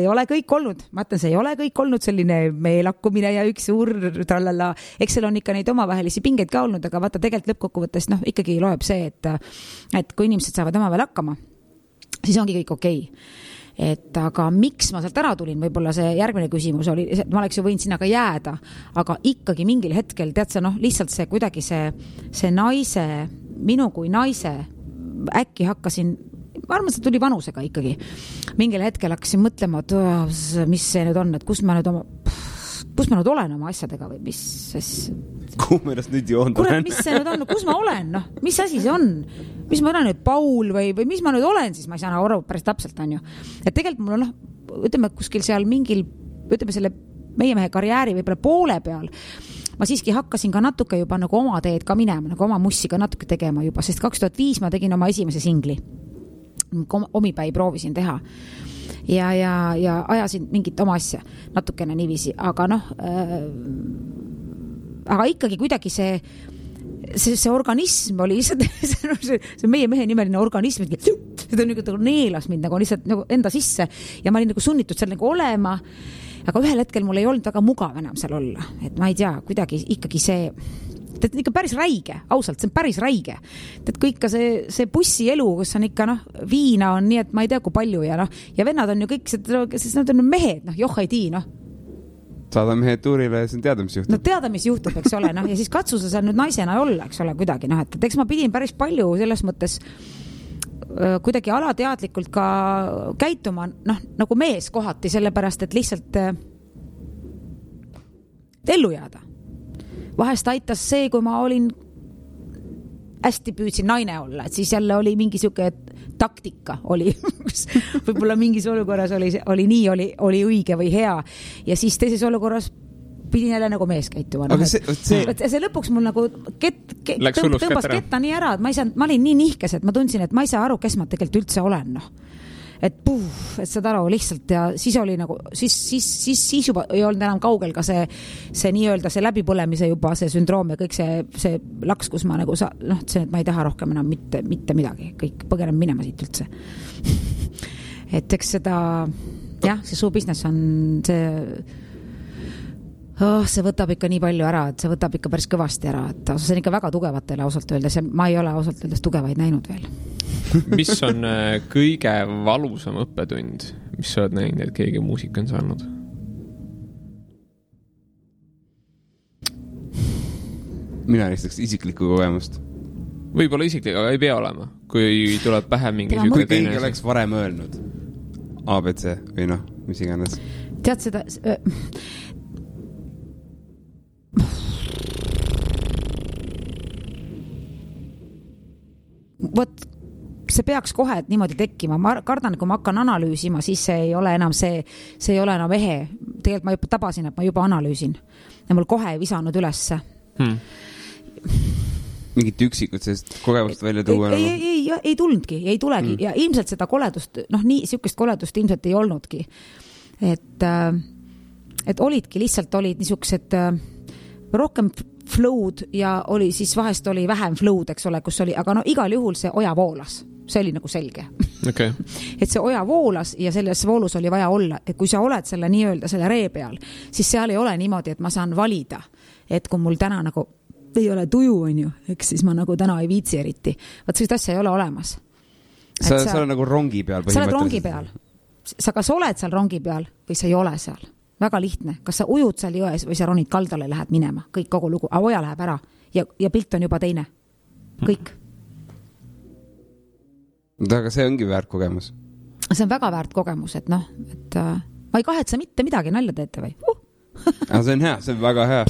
ei ole kõik olnud. Ma ütlen, see ei ole kõik olnud selline meelakkumine ja üks suur trallala. Eks seal on ikka neid omavahelisi pingeid ka olnud, aga vaata tegelikult lõppkokkuvõttes ikkagi loeb see, et kui inimesed saavad oma veel hakkama, siis ongi kõik okei. Et aga miks ma sealt ära tulin, võib-olla see järgmine küsimus oli, ma oleks ju võinud sinna ka jääda, aga ikkagi mingil hetkel, tead sa, lihtsalt see kuidagi see naise, minu kui naise, äkki hakkasin, ma arvan, see tuli vanusega ikkagi. Mingil hetkel hakkasin mõtlema, et mis see nüüd on, et kus ma nüüd olen oma asjadega või mis kuhu ma ennast nüüd joond olen? Mis see nüüd on, kus ma olen, mis asi see on? Mis ma olen nüüd Paul või mis ma nüüd olen, siis ma ei saa aru päris täpselt, on ju. Et tegelikult mul on, ütleme, kuskil seal mingil, ütleme selle meie mehe karjääri võib-olla poole peal, ma siiski hakkasin ka natuke juba nagu oma teed ka minema, nagu oma mussi ka natuke tegema juba, sest 2005 ma tegin oma esimese singli. Omipäi proovisin teha. Ja ajasin mingit oma asja natukene niiviisi, aga aga ikkagi kuidagi see organism oli lihtsalt see meie mehe nimeline organism, seda nagu neelas mind nagu lihtsalt nagu enda sisse ja ma olin nagu sunnitud seal nagu olema, aga ühel hetkel mul ei olnud väga mugav enam seal olla, et ma ei tea, kuidagi ikkagi see ikka päris räige, ausalt, see on päris räige. Et kõik ka see bussi elu, kus on ikka viina on nii, et ma ei tea kui palju ja vennad on ju kõik, sest nad on mehed, joh ei tii, Saada mehed tuurile ja see on teada, mis juhtub. Teada, mis juhtub, eks ole, ja siis katsu sa seal nüüd naisena olla, eks ole, kuidagi, et eks ma pidin päris palju selles mõttes kuidagi alateadlikult ka käituma, nagu mees kohati, sellepärast, et lihtsalt ellu jääda. Vahest aitas see, kui ma olin hästi püüdsin naine olla, et siis jälle oli mingi siuke taktika oli, võib-olla mingis olukorras oli nii, oli õige või hea ja siis teises olukorras pidin jälle nagu mees käituma. Aga see lõpuks mul nagu tõmbas ketta nii ära, et ma olin nii nihkes, et ma tundsin, et ma ei saa aru, kes ma tegelikult üldse olen, et saad aru lihtsalt ja siis oli nagu, siis juba ei olnud enam kaugel ka see nii-öelda see läbipõlemise juba see sündroom ja kõik see laks, kus ma nagu see, et ma ei taha rohkem enam mitte midagi, kõik põgenen minema siit üldse. Et eks seda, jah, see show business on see võtab ikka nii palju ära, et see võtab ikka päris kõvasti ära, et see on ikka väga tugevatele ausalt öeldes ja ma ei ole ausalt öeldes tugevaid näinud veel. Mis on kõige valusam õppetund, mis sa oled näinud, et keegi muusika on saanud? Mina ristaks isiklikku kogemust. Võib-olla isiklik, aga ei pea olema. Kui tuleb pähe mingi kui keegi oleks varem öelnud ABC või mis iganes. Tead seda... Võt, see peaks kohe niimoodi tekkima. Ma kardan, kui ma hakkan analüüsima, siis see ei ole enam see ei ole enam ehe. Tegelikult ma juba tabasin, et ma juba analüüsin. Ja mul kohe ei visanud ülesse. Mingit üksikud sellest kogemust välja tuua? Ei tulnudki, ei tulegi. Ja ilmselt seda koledust, siukest koledust ilmselt ei olnudki. Et olidki, lihtsalt olid niisugused rohkem flow'd ja oli siis vahest oli vähem flow'd, eks ole, kus oli, aga igal juhul see oja voolas. See oli nagu selge. Okay. Et see oja voolas ja selles voolus oli vaja olla, et kui sa oled selle nii-öelda selle ree peal, siis seal ei ole niimoodi, et ma saan valida, et kui mul täna nagu ei ole tuju, on ju, eks siis ma nagu täna ei viitsi eriti. Vaat sellist asja ei ole olemas. Sa oled nagu rongi peal. Sa oled rongi peal. Sa kas oled seal rongi peal või sa ei ole seal. Väga lihtne. Kas sa ujud seal jões või sa ronid kaldale lähed minema. Kõik kogu lugu. Aga oja läheb ära ja pilt on juba teine. Kõik. Aga see ongi väärt kogemus. See on väga väärt kogemus, et et ma ei kahetse mitte midagi, nalja teete või? Aga see on hea, see on väga hea.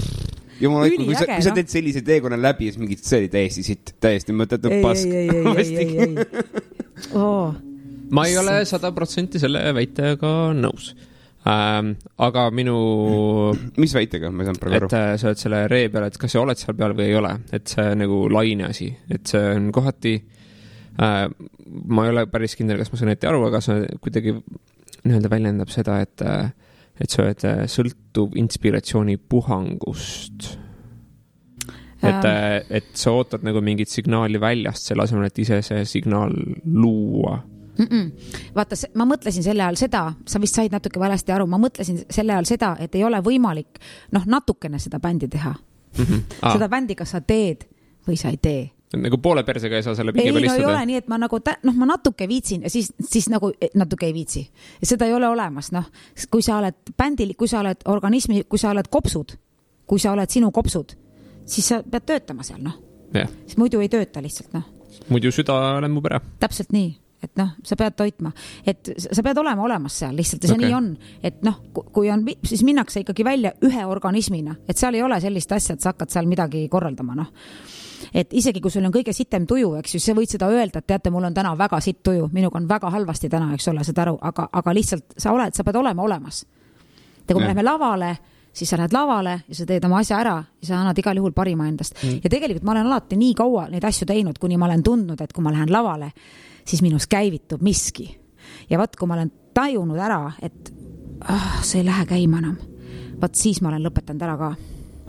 Jumal, kui sa teed sellise teekonna läbi, siis mingid see oli täiesti sitt, täiesti mõttetud pask. Ei. Ma ei ole 100% selle väitega nõus. Aga minu... Mis väitega? Ma ei saanud praegu aru. Et sa oled selle ree peal, et kas sa oled seal peal või ei ole. Et see nagu laine asi. Et see on kohati... ma ei ole päris kindel, kas ma saan ette aru, aga see kuidagi nii-öelda väljendab seda, et sa oled sõltuv inspiratsiooni puhangust. Et sa ootad nagu mingit signaali väljast selle asemel, et ise see signaal luua. Vaata, ma mõtlesin selle ajal seda, sa vist said natuke valesti aru, ma mõtlesin selle ajal seda, et ei ole võimalik natukene seda bändi teha. Seda bändi, kas sa teed või sa ei tee. Nagu poole persega ei saa selle pingi peal istuda. Ei ole nii, et ma nagu ma natuke viitsin ja siis nagu natuke ei viitsi. Ja seda ei ole olemas. Kui sa oled bändil, kui sa oled organismi, kui sa oled kopsud, kui sa oled sinu kopsud, siis sa pead töötama seal. Siis muidu ei tööta lihtsalt. Muidu süda lemmub ära. Täpselt nii. Et sa pead toitma, et sa pead olema olemas seal lihtsalt ja see nii on, et kui on, siis minnakse ikkagi välja ühe organismina, et seal ei ole sellist asja, et sa hakkad seal midagi korraldama, et isegi kui sul on kõige sitem tuju, eks ju, sa võid seda öelda, et teate, mul on täna väga sitt tuju, minuga on väga halvasti täna, eks ole, seda aru, aga lihtsalt sa pead olema olemas. Ja kui me läheme lavale, siis sa lähed lavale ja sa teed oma asja ära ja sa annad igal juhul parima endast. Ja tegelikult ma olen alati nii kaua neid asju teinud, kuni ma olen tundnud, et kui ma lähen lavale, siis minus käivitub miski. Ja vaat, kui ma olen tajunud ära, et see ei lähe käima enam, vaat siis ma olen lõpetanud ära ka.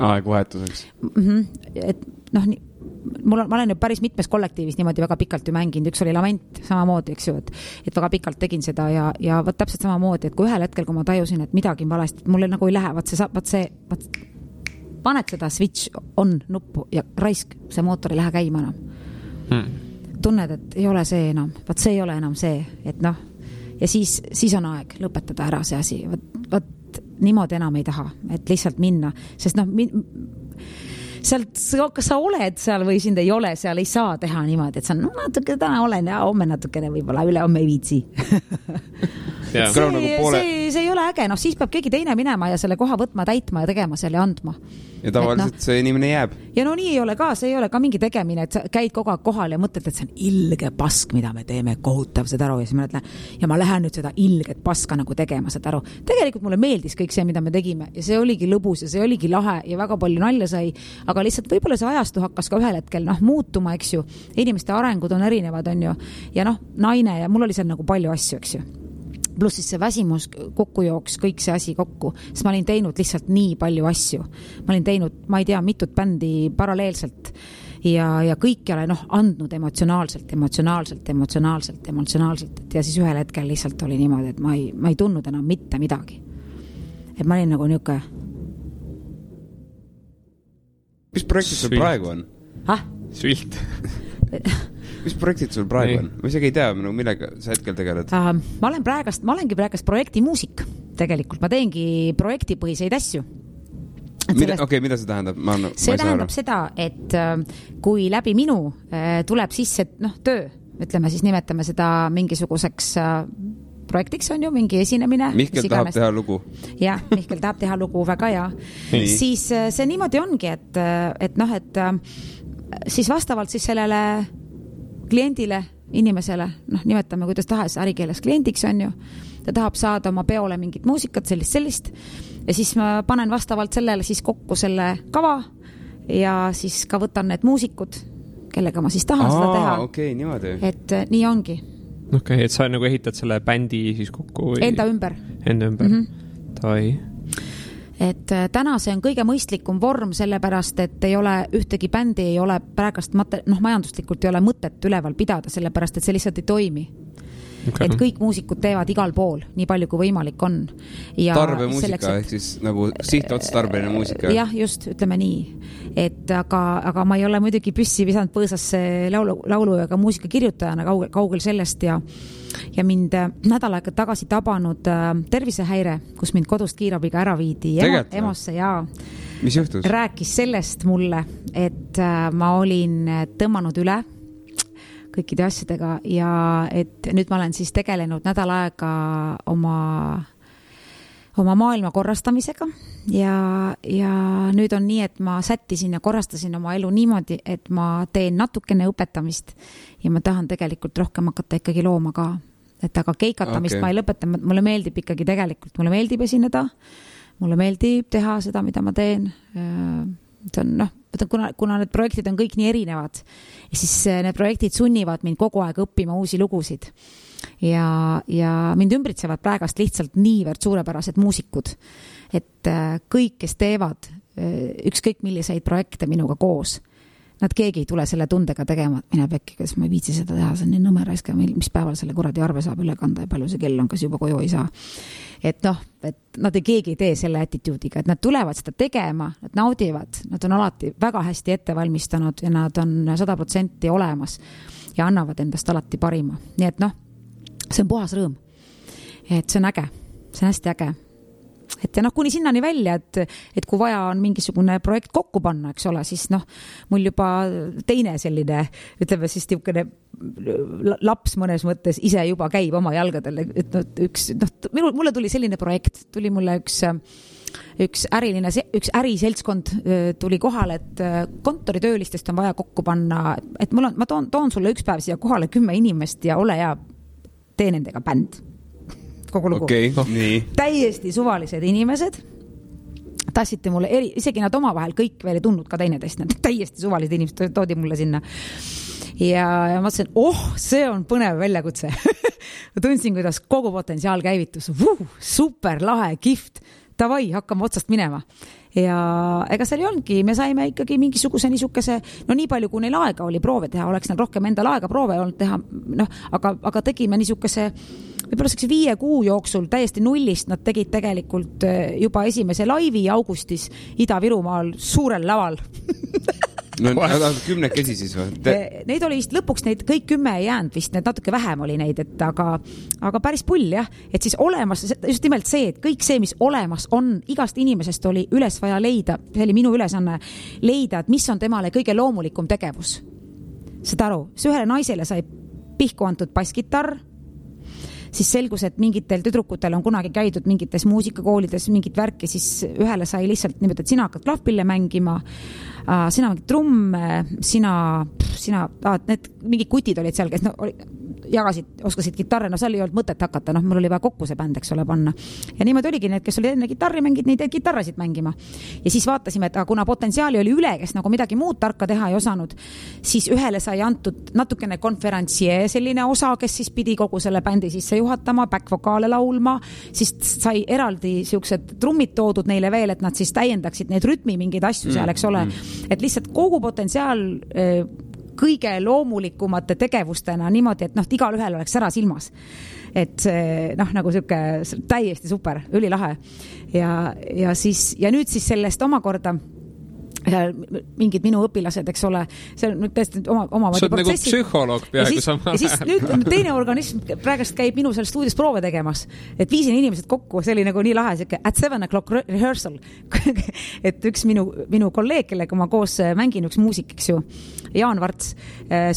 Aegvahetuseks. Et ma olen ju päris mitmes kollektiivis niimoodi väga pikalt ju mänginud, üks oli Lament samamoodi, eks ju, et väga pikalt tegin seda ja vaat täpselt samamoodi, et kui ühel hetkel, kui ma tajusin, et midagi on valesti, et mulle nagu ei lähe, paned seda switch on nuppu ja raisk, see mootor ei lähe käima enam. Tunned, et ei ole see enam, vaat see ei ole enam see, et ja siis on aeg lõpetada ära see asi, vaat niimoodi enam ei taha, et lihtsalt minna, sest kas sa oled seal või sind ei ole seal, ei saa teha niimoodi, et sa natuke täna olen ja homme natukene võib-olla üle homme ei viitsi. see ei ole äge, noh siis peab keegi teine minema ja selle koha võtma, täitma ja tegema selle ja andma. Ja tavaliselt see inimene jääb. Ja no nii ei ole ka, see ei ole ka mingi tegemine, et sa käid kogu aeg kohal ja mõtled, et see on ilge pask, mida me teeme, kohutav seda aru ja siis ma ütlen, ja ma lähen nüüd seda ilget paska nagu tegema seda aru. Tegelikult mulle meeldis kõik see, mida me tegime ja see oligi lõbus ja see oligi lahe ja väga palju nalja sai, aga lihtsalt võib-olla see ajastu hakkas ka ühel hetkel muutuma, eks ju. Inimeste arengud on erinevad, on ju. Ja naine ja mul oli seal nagu palju asju, eks ju. Plus siis see väsimus kokku jooks, kõik see asi kokku, sest ma olin teinud lihtsalt nii palju asju. Ma olin teinud, ma ei tea, mitut bändi paralleelselt ja kõik ei ole andnud emotsionaalselt ja siis ühel hetkel lihtsalt oli niimoodi, et ma ei tundnud enam mitte midagi. Et ma olin nagu niuke. Mis projektid sul praegu on? Svilt. Mis projektid sul praegu on? Ma isegi ei tea, millega sa hetkel tegeled? Ma olengi praegast projektimuusik tegelikult. Ma teengi projektipõhiseid asju. Mida see tähendab? See tähendab seda, et kui läbi minu tuleb sisse töö, ütleme siis nimetame seda mingisuguseks projektiks on ju, mingi esinemine. Mihkel tahab teha lugu. Jah, Mihkel tahab teha lugu, väga hea. Siis see niimoodi ongi, et siis vastavalt siis sellele kliendile, inimesele, nimetame kuidas tahes ärikeeles kliendiks on ju, ta tahab saada oma peole mingit muusikat, sellist ja siis ma panen vastavalt sellele siis kokku selle kava ja siis ka võtan need muusikud, kellega ma siis tahan seda teha. Okei, niimoodi. Et nii ongi. Okei, et sa nagu ehitad selle bändi siis kokku või? Enda ümber. Tai. Et täna see on kõige mõistlikum vorm, sellepärast, et ei ole ühtegi bändi, ei ole praegast majanduslikult ei ole mõtet üleval pidada, sellepärast, et see lihtsalt ei toimi. Okay. Et kõik muusikud teevad igal pool, nii palju kui võimalik on. Ja tarbemuusika, ehk siis nagu sihtotstarbeline muusika. Jah, just, ütleme nii. Et aga ma ei ole muidugi püssi visanud põõsasse laulu ega muusika kirjutajana kaugel sellest ja mind nädal aega tagasi tabanud tervisehäire, kus mind kodust kiirabiga ära viidi EMO-sse ja mis juhtus? Rääkis sellest mulle, et ma olin tõmmanud üle kõikide asjadega ja et nüüd ma olen siis tegelenud nädal aega oma maailma korrastamisega ja nüüd on nii, et ma sättisin ja korrastasin oma elu niimoodi, et ma teen natukene õpetamist ja ma tahan tegelikult rohkem hakata ikkagi looma ka. Et aga keikatamist ma ei lõpeta, mulle meeldib ikkagi tegelikult, mulle meeldib esineda, mulle meeldib teha seda, mida ma teen. See on, kuna need projektid on kõik nii erinevad, siis need projektid sunnivad mind kogu aeg õppima uusi lugusid. Ja mind ümbritsevad praegast lihtsalt niivõrd suurepärased muusikud, et kõik, kes teevad ükskõik milliseid projekte minuga koos, nad keegi ei tule selle tundega tegema, et mine pekki, kas ma ei viitsi seda teha, see on nii nõmeraiska, mis päeval selle kuradi arve saab üle kanda ja palju see kell on, kas juba koju ei saa. Et nad keegi ei tee selle attituudiga, et nad tulevad seda tegema, nad naudivad, nad on alati väga hästi ette valmistanud ja nad on 100% olemas ja annavad endast alati parima. Nii et see on puhas rõõm. Et see on äge, see on hästi äge. Et ja kuni sinnani välja, et kui vaja on mingisugune projekt kokku panna, eks ole, siis mul juba teine selline, ütleme siis tiukene laps mõnes mõttes ise juba käib oma jalgadel, et mulle tuli selline projekt, tuli mulle üks äriseltskond tuli kohale, et kontoritöölistest on vaja kokku panna, et ma toon sulle üks päev siia kohale 10 inimest ja ole hea, tee nendega bänd. Kogu lugu. Okay, nii. Täiesti suvalised inimesed tassite mulle, isegi nad oma vahel kõik veel ei tundnud ka teineteist, nad täiesti suvalised inimesed toodi mulle sinna ja ma mõtlesin, see on põnev väljakutse. Ma tundsin, kuidas kogu potentsiaal käivitus, super lahe, kift, davai, hakkame otsast minema ja ega seal ei olnudki, me saime ikkagi mingisuguse niisuguse, nii palju kui neil aega oli proove teha, oleks neil rohkem endal aega proove olnud teha, aga tegime niisuguse võib-olla 5 kuu jooksul täiesti nullist, nad tegid tegelikult juba esimese laivi augustis Ida-Virumaal suurel laval. Nad on 10 siis või? Neid oli vist lõpuks, neid kõik 10 ei jäänud vist, need natuke vähem oli neid, aga päris pull jah, et siis olemas, just nimelt see, et kõik see, mis olemas on, igast inimesest oli üles vaja leida, see oli minu ülesanne leida, et mis on temale kõige loomulikum tegevus. Seda aru, see ühele naisele sai pihku antud basskitarr, siis selgus, et mingitel tüdrukutel on kunagi käidud mingites muusikakoolides mingit värki, siis ühele sai lihtsalt niimoodi, et sina hakkad klahvpille mängima, sina mängid trumme, need mingid kutid olid seal, kes jagasid, oskasid kitarre, seal ei olnud mõtet hakata, mul oli vaja kokku see bänd, eks ole, panna. Ja niimoodi oligi need, kes olid enne kitarri mängid, neid kitarrasid mängima. Ja siis vaatasime, et kuna potentsiaali oli üle, kes nagu midagi muud tarka teha ei osanud, siis ühele sai antud natukene konferentsier selline osa, kes siis pidi kogu selle bändi sisse juhatama, back-vokaale laulma, siis sai eraldi siuksed trummid toodud neile veel, et nad siis täiendaksid neid rütmi mingeid asju seal, eks ole. Et lihtsalt kogu potentsiaal kõige loomulikumate tegevustena niimoodi, et igal ühel oleks ära silmas. Et nagu siuke täiesti super, ülilahe. Ja nüüd siis sellest omakorda mingid minu õpilased, eks ole, see on tõesti oma sa oled nagu psühholoog peaaegu samal ajal. Ja siis nüüd teine organism praegust käib minu seal stuudios proove tegemas, et viisin inimesed kokku, see oli nagu nii lahe, at 7 o'clock rehearsal. Et üks minu kolleeg, kellega ma koos mängin, üks muusik, eks ju, Jaan Varts,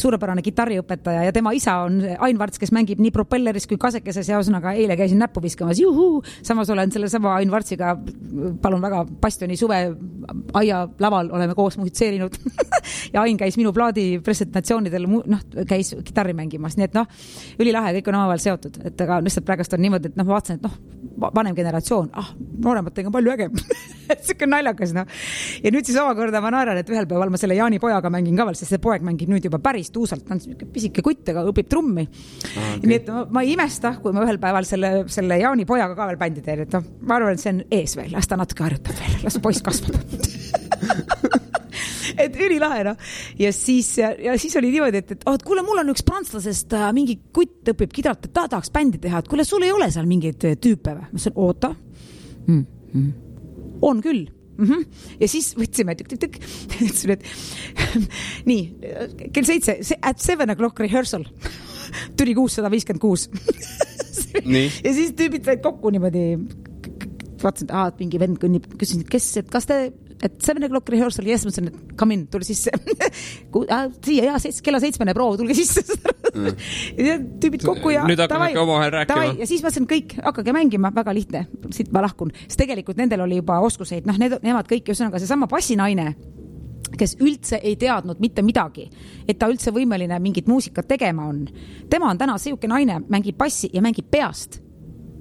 suurepärane kitarriõpetaja ja tema isa on Ain Varts, kes mängib nii propelleris kui kasekeses ja osanaga eile käisin näppu viskamas, juhuu, samas olen selle sama Ain Vartsiga, palun väga, Bastioni suve aia laval oleme koos musitseerinud ja Ain käis minu plaadi presentatsioonidel, käis kitarri mängimas, nii et ülilahe, kõik on omavahel seotud, et aga lihtsalt praegust on niimoodi, et ma vaatasin, et vanem generatsioon, noorematega on palju ägem siuke naljakas, ja nüüd siis omakorda ma naeran, et ühel päeval ma selle Jaani pojaga mängin ka veel, sest see poeg mängib nüüd juba päris tuusalt, ta on pisike kutt, aga õpib trummi. Okay. Nii et ma ei imesta, kui ma ühel päeval selle Jaani pojaga ka veel bändi teen, et ma arvan, et see on ees veel, las ta natuke harjutab veel, las poiss kasvab. Et ülilahe, ja siis oli niimoodi, et kuule, mul on üks prantslasest mingi kutt õpib kidralt, et ta tahaks bändi teha, et kuule, sul ei ole seal mingeid tüüpe või? Ma ütlesin, oota. On küll. Ja siis võtsime tükk. Ütlesin, et nii, kell 7, at 7 o'clock rehearsal. Tuli 656. Ja siis tüübid said kokku niimoodi, vaatasin, et mingi vend kõnnib, küsisin, et kas te, et 7 o'clock rehearsal, ja mõtlesin, et come in, tuli sisse. Siia, kella 7 proov, tulge sisse. Ja tüübid kokku ja nüüd hakkame omavahel rääkima. Ja siis mõtlesin, kõik, hakkage mängima, väga lihtne, siit ma lahkun. Sest tegelikult nendel oli juba oskuseid, nemad kõik, ühesõnaga seesama bassinaine, kes üldse ei teadnud mitte midagi, et ta üldse võimeline mingit muusikat tegema on. Tema on täna siuke naine, mängib bassi ja mängib peast.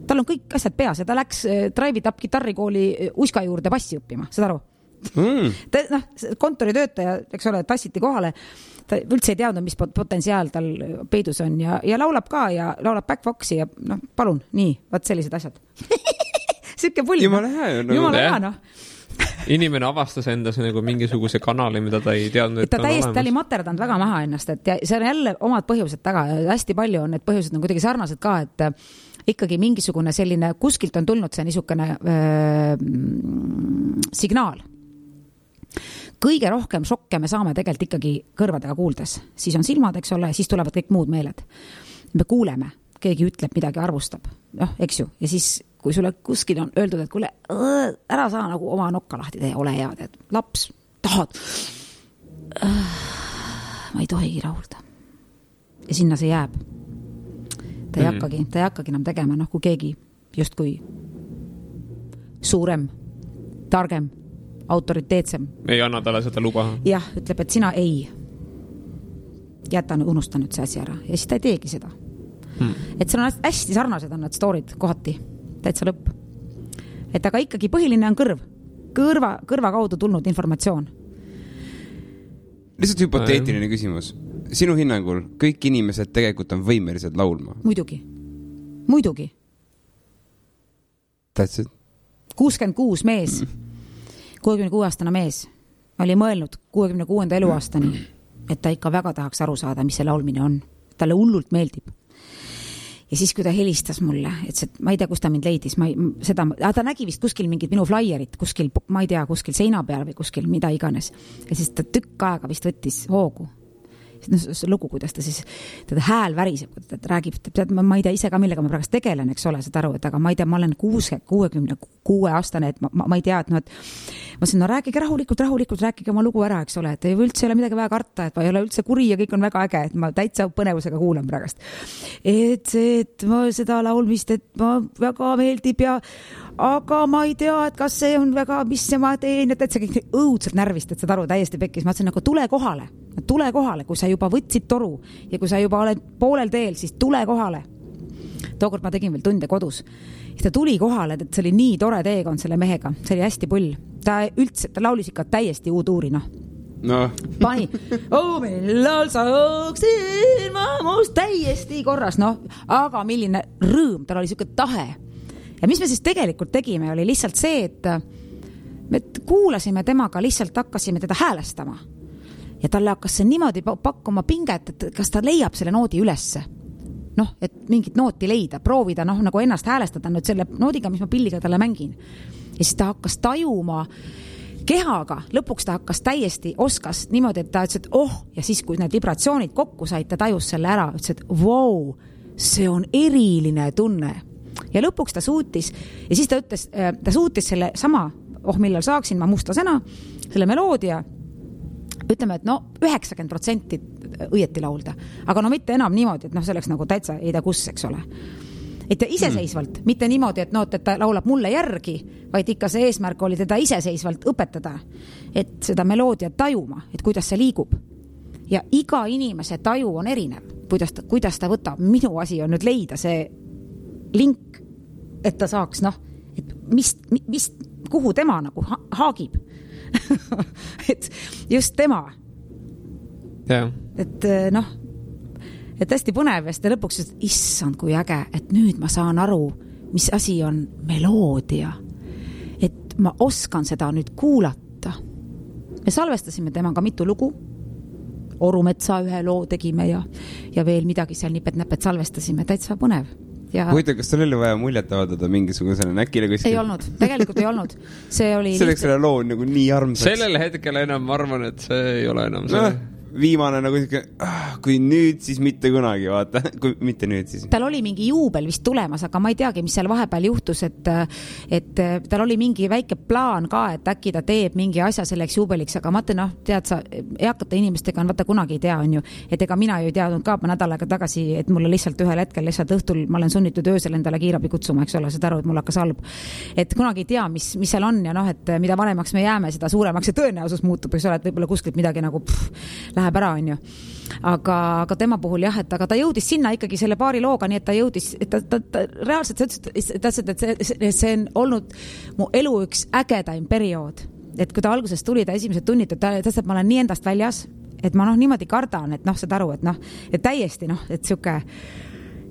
Tal on kõik asjad peas ja ta läks Drive It Up gitarrikooli Uska juurde bassi õppima, saad aru? Kontoritöötaja, eks ole, tassiti kohale, ta üldse ei teadnud, mis potentsiaal tal peidus on ja laulab ka ja laulab back-voxi ja palun, nii, vaat sellised asjad. Siuke pull. Jumala hea. Inimene avastas endas nagu mingisuguse kanali, mida ta ei teadnud, et ta oli materdanud väga maha ennast, et see on jälle omad põhjused taga ja hästi palju on need põhjused on kuidagi sarnased ka, et ikkagi mingisugune selline, kuskilt on tulnud see niisugune signaal. Kõige rohkem šokke me saame tegelikult ikkagi kõrvadega kuuldes. Siis on silmad, eks ole, siis tulevad kõik muud meeled. Me kuuleme, keegi ütleb midagi, arvustab, eks ju, ja siis kui sulle kuskil on öeldud, et kuule, ära saa nagu oma nokka lahti tee, ole hea, teed, laps, tahad. Ma ei tohigi rahulda. Ja sinna see jääb. Ta ei hakkagi enam tegema, kui keegi justkui suurem, targem, autoriteetsem. Ei anna talle seda luba. Jah, ütleb, et sina ei. Unusta nüüd see asi ära. Ja siis ta ei teegi seda. Et see on hästi sarnased on need storid kohati. Täitsa lõpp. Et aga ikkagi põhiline on kõrva kaudu tulnud informatsioon. Lihtsalt hüpoteetiline küsimus. Sinu hinnangul kõik inimesed tegelikult on võimelised laulma? Muidugi. That's it. 66 mees, 66-aastane mees oli mõelnud 66. eluaastani, et ta ikka väga tahaks aru saada, mis see laulmine on. Talle hullult meeldib. Ja siis, kui ta helistas mulle, et ma ei tea, kus ta mind leidis, ta nägi vist kuskil mingid minu flaierit, kuskil, ma ei tea, kuskil seina peal või kuskil mida iganes. Ja siis ta tükk aega vist võttis hoogu. see lugu, kuidas ta siis, teda hääl väriseb, ta räägib, tead, ma ei tea ise ka, millega ma praegust tegelen, eks ole, seda aru, et aga ma ei tea, ma olen 66 aastane, et ma ei tea, et noh, et ma ütlesin, no rääkige rahulikult, rääkige oma lugu ära, eks ole, et üldse ei ole midagi väga karta, et ma ei ole üldse kuri ja kõik on väga äge, et ma täitsa põnevusega kuulan praegust. Et ma seda laulmist, et ma väga meeldib ja aga ma ei tea, et kas see on väga, mis ma teen, et see kõik õudselt närvist, et seda aru täiesti pekkis. Ma ütlesin, nagu tule kohale, kui sa juba võtsid toru ja kui sa juba oled poolel teel, siis tule kohale. Tookord ma tegin veel tunde kodus. Ja ta tuli kohale, et see oli nii tore teekond selle mehega. See oli hästi pull. Ta laulis ikka täiesti uuduuri, noh. No. Pani, millal saaksin ma muust täiesti korras, noh. Aga milline rõõm, tal oli selline tahe. Ja mis me siis tegelikult tegime, oli lihtsalt see, et me kuulasime temaga, lihtsalt hakkasime teda häälestama. Ja talle hakkas see niimoodi pakkuma pinget, et kas ta leiab selle noodi ülesse. Noh, et mingit nooti leida, proovida, noh, nagu ennast häälestada nüüd selle noodiga, mis ma pilliga talle mängin. Ja siis ta hakkas tajuma kehaga, lõpuks ta hakkas täiesti oskas niimoodi, et ta ütles, et ja siis kui need vibratsioonid kokku said, ta tajus selle ära, ütles, et wow, see on eriline tunne. Ja lõpuks ta suutis, ja siis ta ütles, ta suutis selle sama, millal saaksin ma mustasena, selle meloodia, ütleme, et 90% õieti laulda. Aga mitte enam niimoodi, et see oleks nagu täitsa ei tea kus, eks ole. Et iseseisvalt, mitte niimoodi, et et ta laulab mulle järgi, vaid ikka see eesmärk oli teda iseseisvalt õpetada, et seda meloodia tajuma, et kuidas see liigub. Ja iga inimese taju on erinev, kuidas ta võtab. Minu asi on nüüd leida see link, et ta saaks, et kuhu tema nagu haagib. Et just tema. Ja. Et et hästi põnev ja seda lõpuks, et issand kui äge, et nüüd ma saan aru, mis asi on meloodia. Et ma oskan seda nüüd kuulata. Me salvestasime temaga mitu lugu. Orumetsa ühe loo tegime ja veel midagi seal nipet-näpet salvestasime. Täitsa põnev. Huvitav, kas tal oli vaja muljet avaldada mingisugusele näkile kuskil? Ei olnud, tegelikult ei olnud. See oli selleks selle loo nagu nii armsaks. Sellel hetkel enam ma arvan, et see ei ole enam see. Viimane nagu kui nüüd, siis mitte kunagi, vaata. Kui mitte nüüd, siis. Tal oli mingi juubel vist tulemas, aga ma ei teagi, mis seal vahepeal juhtus, et tal oli mingi väike plaan ka, et äkki ta teeb mingi asja selleks juubeliks, aga ma ütlen, tead sa, eakate inimestega on vaata kunagi ei tea, on ju, et ega mina ju ei teadnud ka nädal aega tagasi, et mulle lihtsalt ühel hetkel lihtsalt õhtul ma olen sunnitud öösel endale kiirabi kutsuma, eks ole, seda aru, et mul hakkas halb. Et kunagi ei tea, mis seal on ja et mida vanemaks me jääme, seda suuremaks see tõenäosus muutub, eks ole, et võib-olla kuskilt midagi nagu läheb ära, on ju. Aga tema puhul jah, et aga ta jõudis sinna ikkagi selle paari looga, nii et ta jõudis, et ta reaalselt et see on olnud mu elu üks ägedaim periood. Et kui ta alguses tuli, ta esimesed tunnid, et ma olen nii endast väljas, et ma niimoodi kardan, et saad aru, et täiesti, et siuke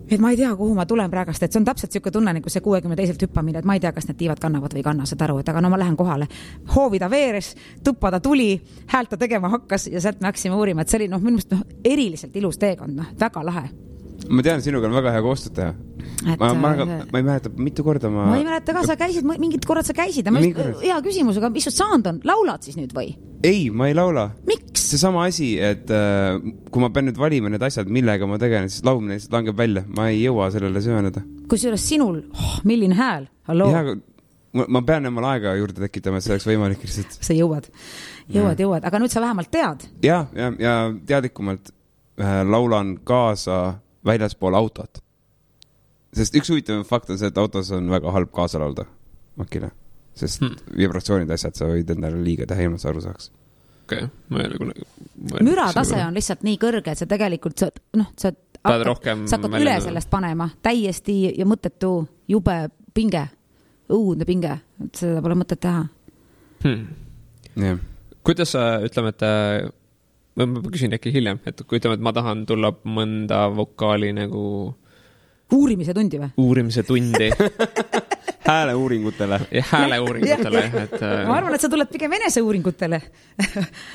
et ma ei tea, kuhu ma tulen praegast, et see on täpselt siuke tunne, nagu see 62 hüppamine, et ma ei tea, kas need tiivad kannavad või kanna, saad aru, et aga ma lähen kohale. Hoovida veeres, tuppa ta tuli, häält ta tegema hakkas ja sealt me hakkasime uurima, et see oli minu meelest eriliselt ilus teekond, väga lahe. Ma tean, sinuga on väga hea koostööd teha. Ma ei mäleta, mitu korda ma ei mäleta ka, sa käisid, mingid korrad sa käisid. Hea küsimus, aga mis sa saanud on? Laulad siis nüüd või? Ei, ma ei laula. Miks? See sama asi, et kui ma pean nüüd valima need asjad, millega ma tegelen, siis laulmine lihtsalt langeb välja. Ma ei jõua sellele süveneda. Kusjuures sinul, milline hääl? Halloo? Ja, ma pean emal aega juurde tekitama, et see oleks võimalik lihtsalt. Sa jõuad. Aga nüüd sa vähemalt tead. Ja teadlikumalt laulan kaasa väljaspool autot. Sest üks huvitav fakt on see, et autos on väga halb kaasa laulda makile. Sest vibratsioonid asjad sa võid endale liiga teha, ilma sa aru saaks. Okay. Müratase on lihtsalt nii kõrge, et sa tegelikult sa hakkad üle sellest panema täiesti ja mõttetu jube pinge, õudne pinge, et seda pole mõtet teha. Kuidas sa, ütleme, et ma küsin äkki hiljem, et kui ütleme, et ma tahan tulla mõnda vokaali nagu uurimise tundi või? Uurimise tundi hääleuuringutele. Ja hääleuuringutele, et... Ma arvan, et sa tuled pigem eneseuuringutele.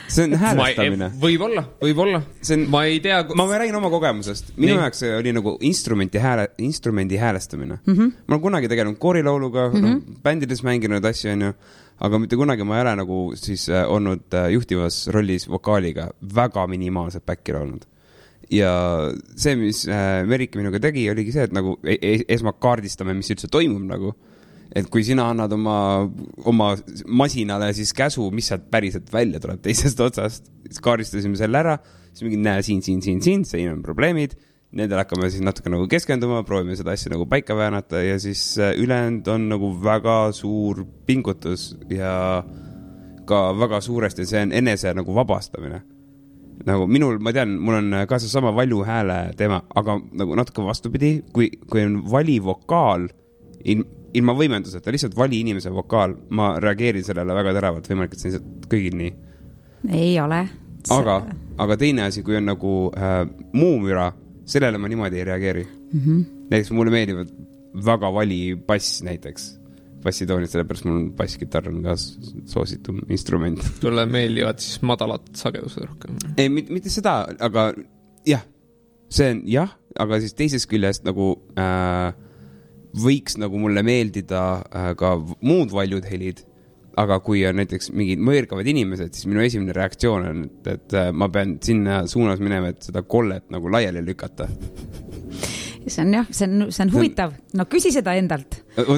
See on häälestamine. Võib-olla. Ma ei tea... Ma räägin oma kogemusest. Minu jaoks oli nagu instrumendi häälestamine. Ma olen kunagi tegelenud koorilauluga, bändides mänginud asju, on ju. Aga mitte kunagi ma ei ole nagu siis olnud juhtivas rollis vokaaliga väga minimaalselt backil olnud. Ja see, mis Merike minuga tegi, oligi see, et nagu esmalt kaardistame, mis üldse toimub nagu. Et kui sina annad oma masinale siis käsu, mis sealt päriselt välja tuleb teisest otsast, siis kaardistasime selle ära, siis mingi näe siin on probleemid, nendel hakkame siis natuke nagu keskenduma, proovime seda asja nagu paika väänata ja siis ülejäänud on nagu väga suur pingutus ja ka väga suuresti see on enese nagu vabastamine. Nagu minul, ma tean, mul on ka see sama valju hääle teema, aga nagu natuke vastupidi, kui on vali vokaal, ilma võimenduseta, lihtsalt vali inimese vokaal, ma reageerin sellele väga teravalt, võimalik, et see on kõigil nii. Ei ole. Aga teine asi, kui on nagu muumüra, sellele ma niimoodi ei reageeri. Näiteks mulle meeldivad väga vali bass näiteks. Bassitoonid, sellepärast mul basskitarr on ka soositum instrument. Tulle meeldivad siis madalad sagedused rohkem. Ei, mitte seda, aga jah, see on jah, aga siis teisest küljest nagu võiks nagu mulle meeldida ka muud valjud helid, aga kui on näiteks mingid mõõrkavad inimesed, siis minu esimene reaktsioon on, et ma pean sinna suunas minema, et seda kollet nagu laiali lükata. See on jah, see on huvitav. No küsi seda endalt.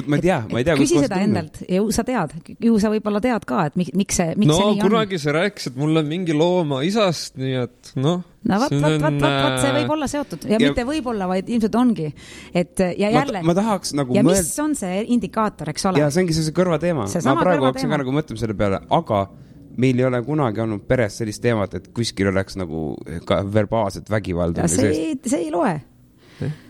Ma ei tea, küsi seda endalt. Ju sa tead. Ju sa võib-olla tead ka, et miks see nii on. Kunagi see rääkis, et mul on mingi looma isast, nii et noh. No vaat, see võib olla seotud. Ja mitte võib olla, vaid ilmselt ongi. Et, ja jälle. Ma tahaks nagu ja mis on see indikaator, eks ole? Ja see ongi see kõrva teema. Ma praegu hakkasin ka nagu mõtlema selle peale, aga meil ei ole kunagi olnud peres sellist teemat, et kuskil oleks nagu ka verbaalset vägivalda. See ei loe.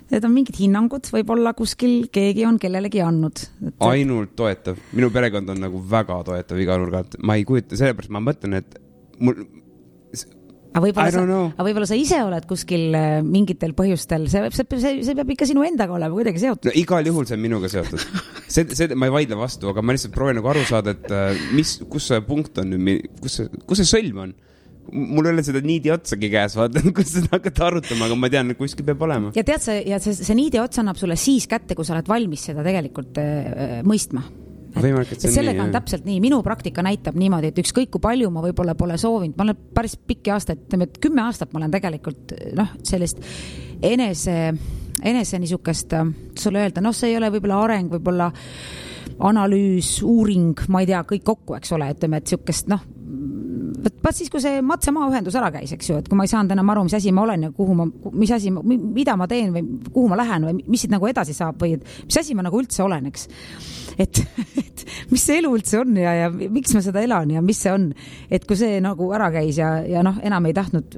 Need on mingid hinnangud, võib-olla kuskil keegi on kellelegi andnud. Ainult toetav. Minu perekond on nagu väga toetav iga nurgalt. Ma ei kujuta, sellepärast ma mõtlen, et mul... Aga võib-olla sa ise oled kuskil mingitel põhjustel. See peab ikka sinu endaga olema kuidagi seotud. No, igal juhul see on minuga seotud. See ma ei vaidle vastu, aga ma lihtsalt proovin nagu aru saada, et kus see punkt on, kus see sõlm on. Mul ei ole seda niidi otsagi käes, vaatan, kus seda hakata arutama, aga ma tean, et kuskil peab olema. Ja tead, see niidi ots annab sulle siis kätte, kui sa oled valmis seda tegelikult mõistma. Sellega on täpselt nii. Minu praktika näitab niimoodi, et ükskõik kui palju ma võib-olla pole soovinud. Ma olen päris pikki aastaid, 10 aastat ma olen tegelikult sellist enese niisugust, sulle öelda, see ei ole võib-olla areng, võib-olla analüüs, uuring, ma ei tea, kõik kokku, eks ole, et siukest, vaat siis, kui see matse-maaühendus ära käis, eks ju, et kui ma ei saanud enam aru, mis asi ma olen ja mida ma teen või kuhu ma lähen või mis siit nagu edasi saab või mis asi ma nagu üldse olen, eks. Et mis see elu üldse on ja miks ma seda elan ja mis see on. Et kui see nagu ära käis ja enam ei tahtnud,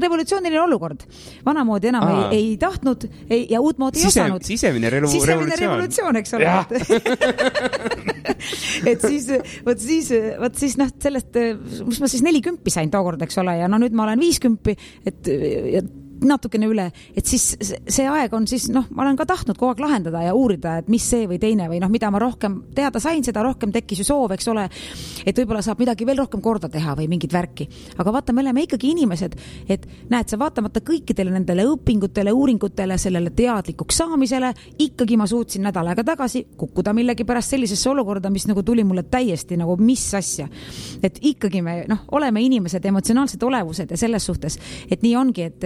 revolutsiooniline olukord. Vanamoodi enam ei tahtnud ja uutmoodi ei osanud. Sisemine revolutsioon, eks ole. Et siis sellest, mis ma siis 40 sain tookord, eks ole, ja nüüd ma olen 50, et natukene üle, et siis see aeg on siis, ma olen ka tahtnud kogu aeg lahendada ja uurida, et mis see või teine või mida ma rohkem teada sain, seda rohkem tekkis ju soov, eks ole, et võib-olla saab midagi veel rohkem korda teha või mingit värki. Aga vaata, me oleme ikkagi inimesed, et näed, sa vaatamata kõikidele nendele õpingutele, uuringutele, sellele teadlikuks saamisele, ikkagi ma suutsin nädal aega tagasi kukkuda millegi pärast sellisesse olukorda, mis nagu tuli mulle täiesti nagu mis asja. Et ikkagi me oleme inimesed, emotsionaalsed olevused ja selles suhtes, et nii ongi, et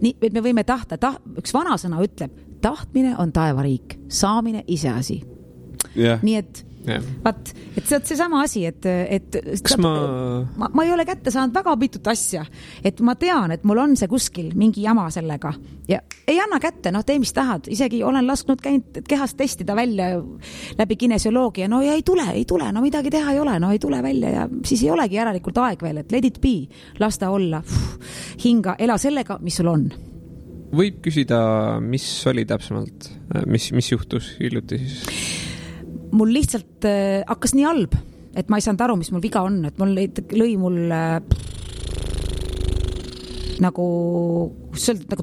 me võime tahta, üks vanasõna ütleb, tahtmine on taevariik, saamine iseasi. Yeah. Nii et vaat, et see sama asi, et ma ei ole kätte saanud väga pitut asja, et ma tean, et mul on see kuskil mingi jama sellega ja ei anna kätte, tee mis tahad, isegi olen lasknud käinud kehast testida välja läbi kinesioloogia, ja ei tule, midagi teha ei ole, ei tule välja ja siis ei olegi järelikult aeg veel, et let it be, lasta olla, hinga, ela sellega, mis sul on. Võib küsida, mis oli täpsemalt, mis juhtus hiljuti siis? Mul lihtsalt hakkas nii halb, et ma ei saanud aru, mis mul viga on, et mul lõi mul nagu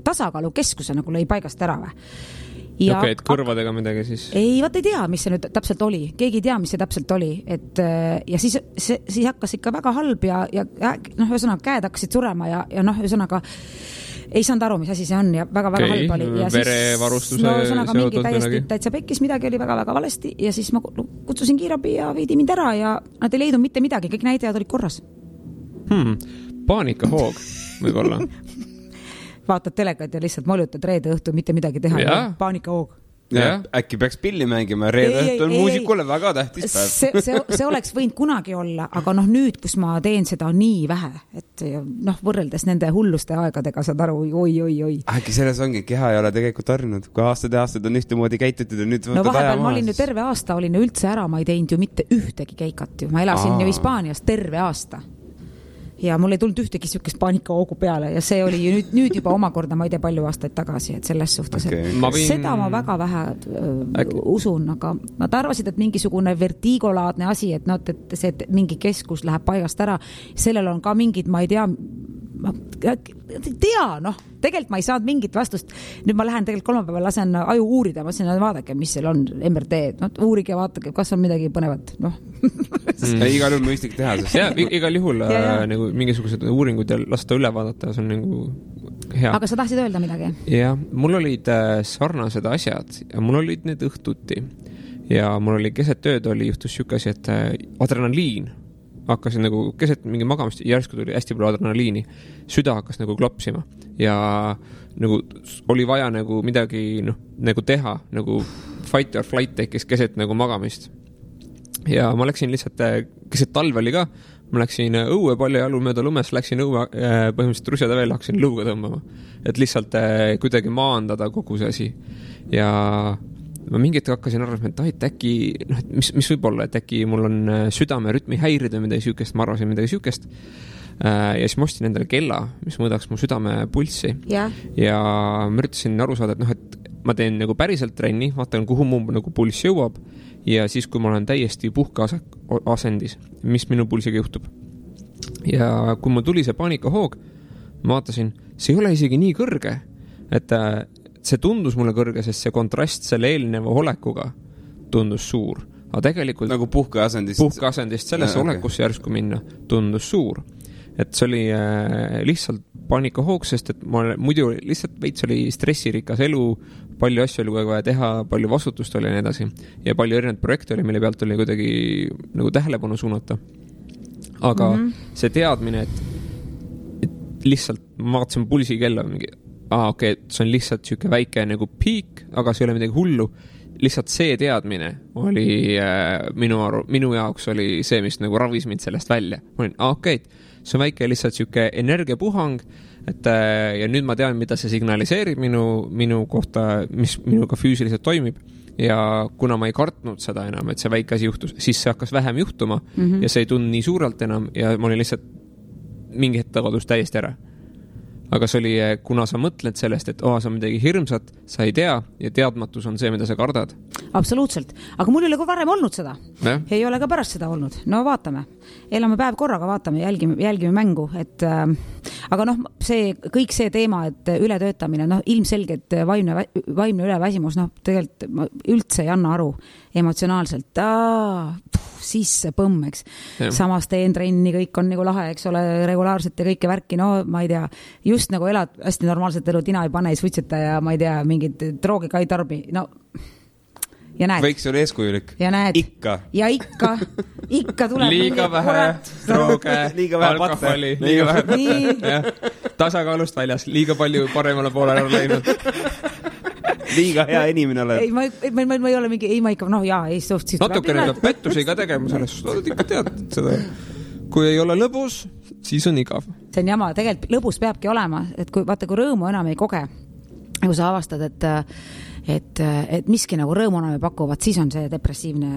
tasakaalu keskuse nagu lõi paigast ära või. Ja okei, et kõrvadega midagi siis? Ei, vaat ei tea, mis see nüüd täpselt oli. Keegi ei tea, mis see täpselt oli. Ja siis hakkas ikka väga halb ja ühesõnaga käed hakkasid surema ja ühesõnaga ei saanud aru, mis asi see on ja väga-väga halb oli. Ja verevarustuse ühesõnaga mingi täitsa pekkis, midagi oli väga-väga valesti ja siis ma kutsusin kiirabi ja viidi mind ära ja nad ei leidnud mitte midagi, kõik näitajad olid korras. Paanikahoog võib-olla. Vaatad telekat ja lihtsalt molutad reede õhtu mitte midagi teha ja paanikahoog. Ja, äkki peaks pilli mängima, reede õhtu on muusikule väga tähtis päev. See oleks võinud kunagi olla, aga nüüd, kus ma teen seda nii vähe, et võrreldes nende hulluste aegadega saad aru, oi. Äkki selles ongi, keha ei ole tegelikult harjunud, kui aastad on ühtemoodi käitutud ja nüüd võtad vahepeal ma olin ju terve aasta, olin üldse ära, ma ei teinud ju mitte ühtegi keikat ju, ma elasin ju Hispaanias terve aasta. Ja mul ei tulnud ühtegi sükest paanikahoogu peale ja see oli ju nüüd juba omakorda, ma ei tea palju aastaid tagasi, et selles suhtes, seda ma väga vähe usun, aga nad arvasid, et mingisugune vertigolaadne asi, et see mingi keskus läheb paigast ära, sellel on ka mingid, ma ei tea, tegelikult ma ei saanud mingit vastust. Nüüd ma lähen tegelikult kolmapäeval lasen aju uurida, ma ütlesin, vaadake, mis seal on MRT, uurige ja vaadake, kas on midagi põnevat. Igal juhul mõistlik teha. Ja, igal juhul nagu mingisugused uuringud ja lasta üle vaadata, see on nagu hea. Aga sa tahtsid öelda midagi? Ja, mul olid sarnased asjad ja mul olid need õhtuti ja mul oli keset tööd juhtus sükasi, et adrenaliin hakkasin nagu keset mingi magamist, järsku tuli hästi palju adrenaliini, süda hakkas nagu klopsima ja nagu oli vaja nagu midagi nagu teha, nagu fight or flight tekkis keset nagu magamist. Ja ma läksin lihtsalt, keset talve oli ka, ma läksin õue palju jalu mööda lumes, läksin õue põhimõtteliselt rusjada veel, hakkasin lõuga tõmbama, et lihtsalt kuidagi maandada kogu see asi. Ja ma mingit hakkasin arvama, et äkki, mis võib olla, et äkki mul on südame rütmi häirid või midagi sükest, ma arvasin midagi sükest. Ja siis ma ostsin endale kella, mis mõõdaks mu südame pulssi. Ja ma üritasin aru saada, et ma teen nagu päriselt trenni, vaatan, kuhu mu nagu pulss jõuab ja siis, kui ma olen täiesti puhkeasendis, mis minu pulsiga juhtub. Ja kui mul tuli see paanikahoog, ma vaatasin, see ei ole isegi nii kõrge, et see tundus mulle kõrge, sest see kontrast selle eelneva olekuga tundus suur. Aga tegelikult nagu puhkeasendist sellesse olekusse järsku minna tundus suur. Et see oli lihtsalt paanikahoog, sest et muidu lihtsalt veits oli stressirikas elu, palju asju oli vaja teha, palju vastutust oli ja nii edasi. Ja palju erinevaid projekte oli, mille pealt oli kuidagi nagu tähelepanu suunata. Aga see teadmine, et lihtsalt ma vaatasin pulsi kella mingi okei, see on lihtsalt siuke väike nagu piik, aga see ei ole midagi hullu. Lihtsalt see teadmine oli minu jaoks oli see, mis nagu ravis mind sellest välja. Ma olin, okei, see on väike lihtsalt siuke energiapuhang, et ja nüüd ma tean, mida see signaliseerib minu kohta, mis minuga füüsiliselt toimib. Ja kuna ma ei kartnud seda enam, et see väike asi juhtus, siis see hakkas vähem juhtuma ja see ei tundnud nii suurelt enam ja ma olin lihtsalt mingi hetk kadus täiesti ära. Aga see oli, kuna sa mõtled sellest, et see on midagi hirmsat, sa ei tea ja teadmatus on see, mida sa kardad. Absoluutselt. Aga mul ei ole ka varem olnud seda. Ei ole ka pärast seda olnud. No vaatame. Elame päev korraga, vaatame, jälgime mängu. Aga kõik see teema, et ületöötamine, ilmselgelt vaimne üleväsimus, tegelikult ma üldse ei anna aru emotsionaalselt. Sisse põmm, eks. Samas teen trenni, kõik on nagu lahe, eks ole, regulaarselt ja kõike värki, ma ei tea, just nagu elad hästi normaalset elu, tina ei pane, ei suitseta ja ma ei tea, mingid droogi ka ei tarbi, ja näed. Võiks olla eeskujulik. Ja näed. Ikka tuleb. Liiga vähe drooge, alkoholi, liiga vähe. Tasakaalust väljas, liiga palju paremale poole ära läinud. Liiga hea inimene oled. Ma ei ole mingi, ma ikka, natukene peab pettusi ka tegema selles, ikka tead seda. Kui ei ole lõbus, siis on igav. See on jama, tegelikult lõbus peabki olema, et kui rõõmu enam ei koge, kui sa avastad, et miski nagu rõõmu enam ei pakuvad, siis on see depressiivne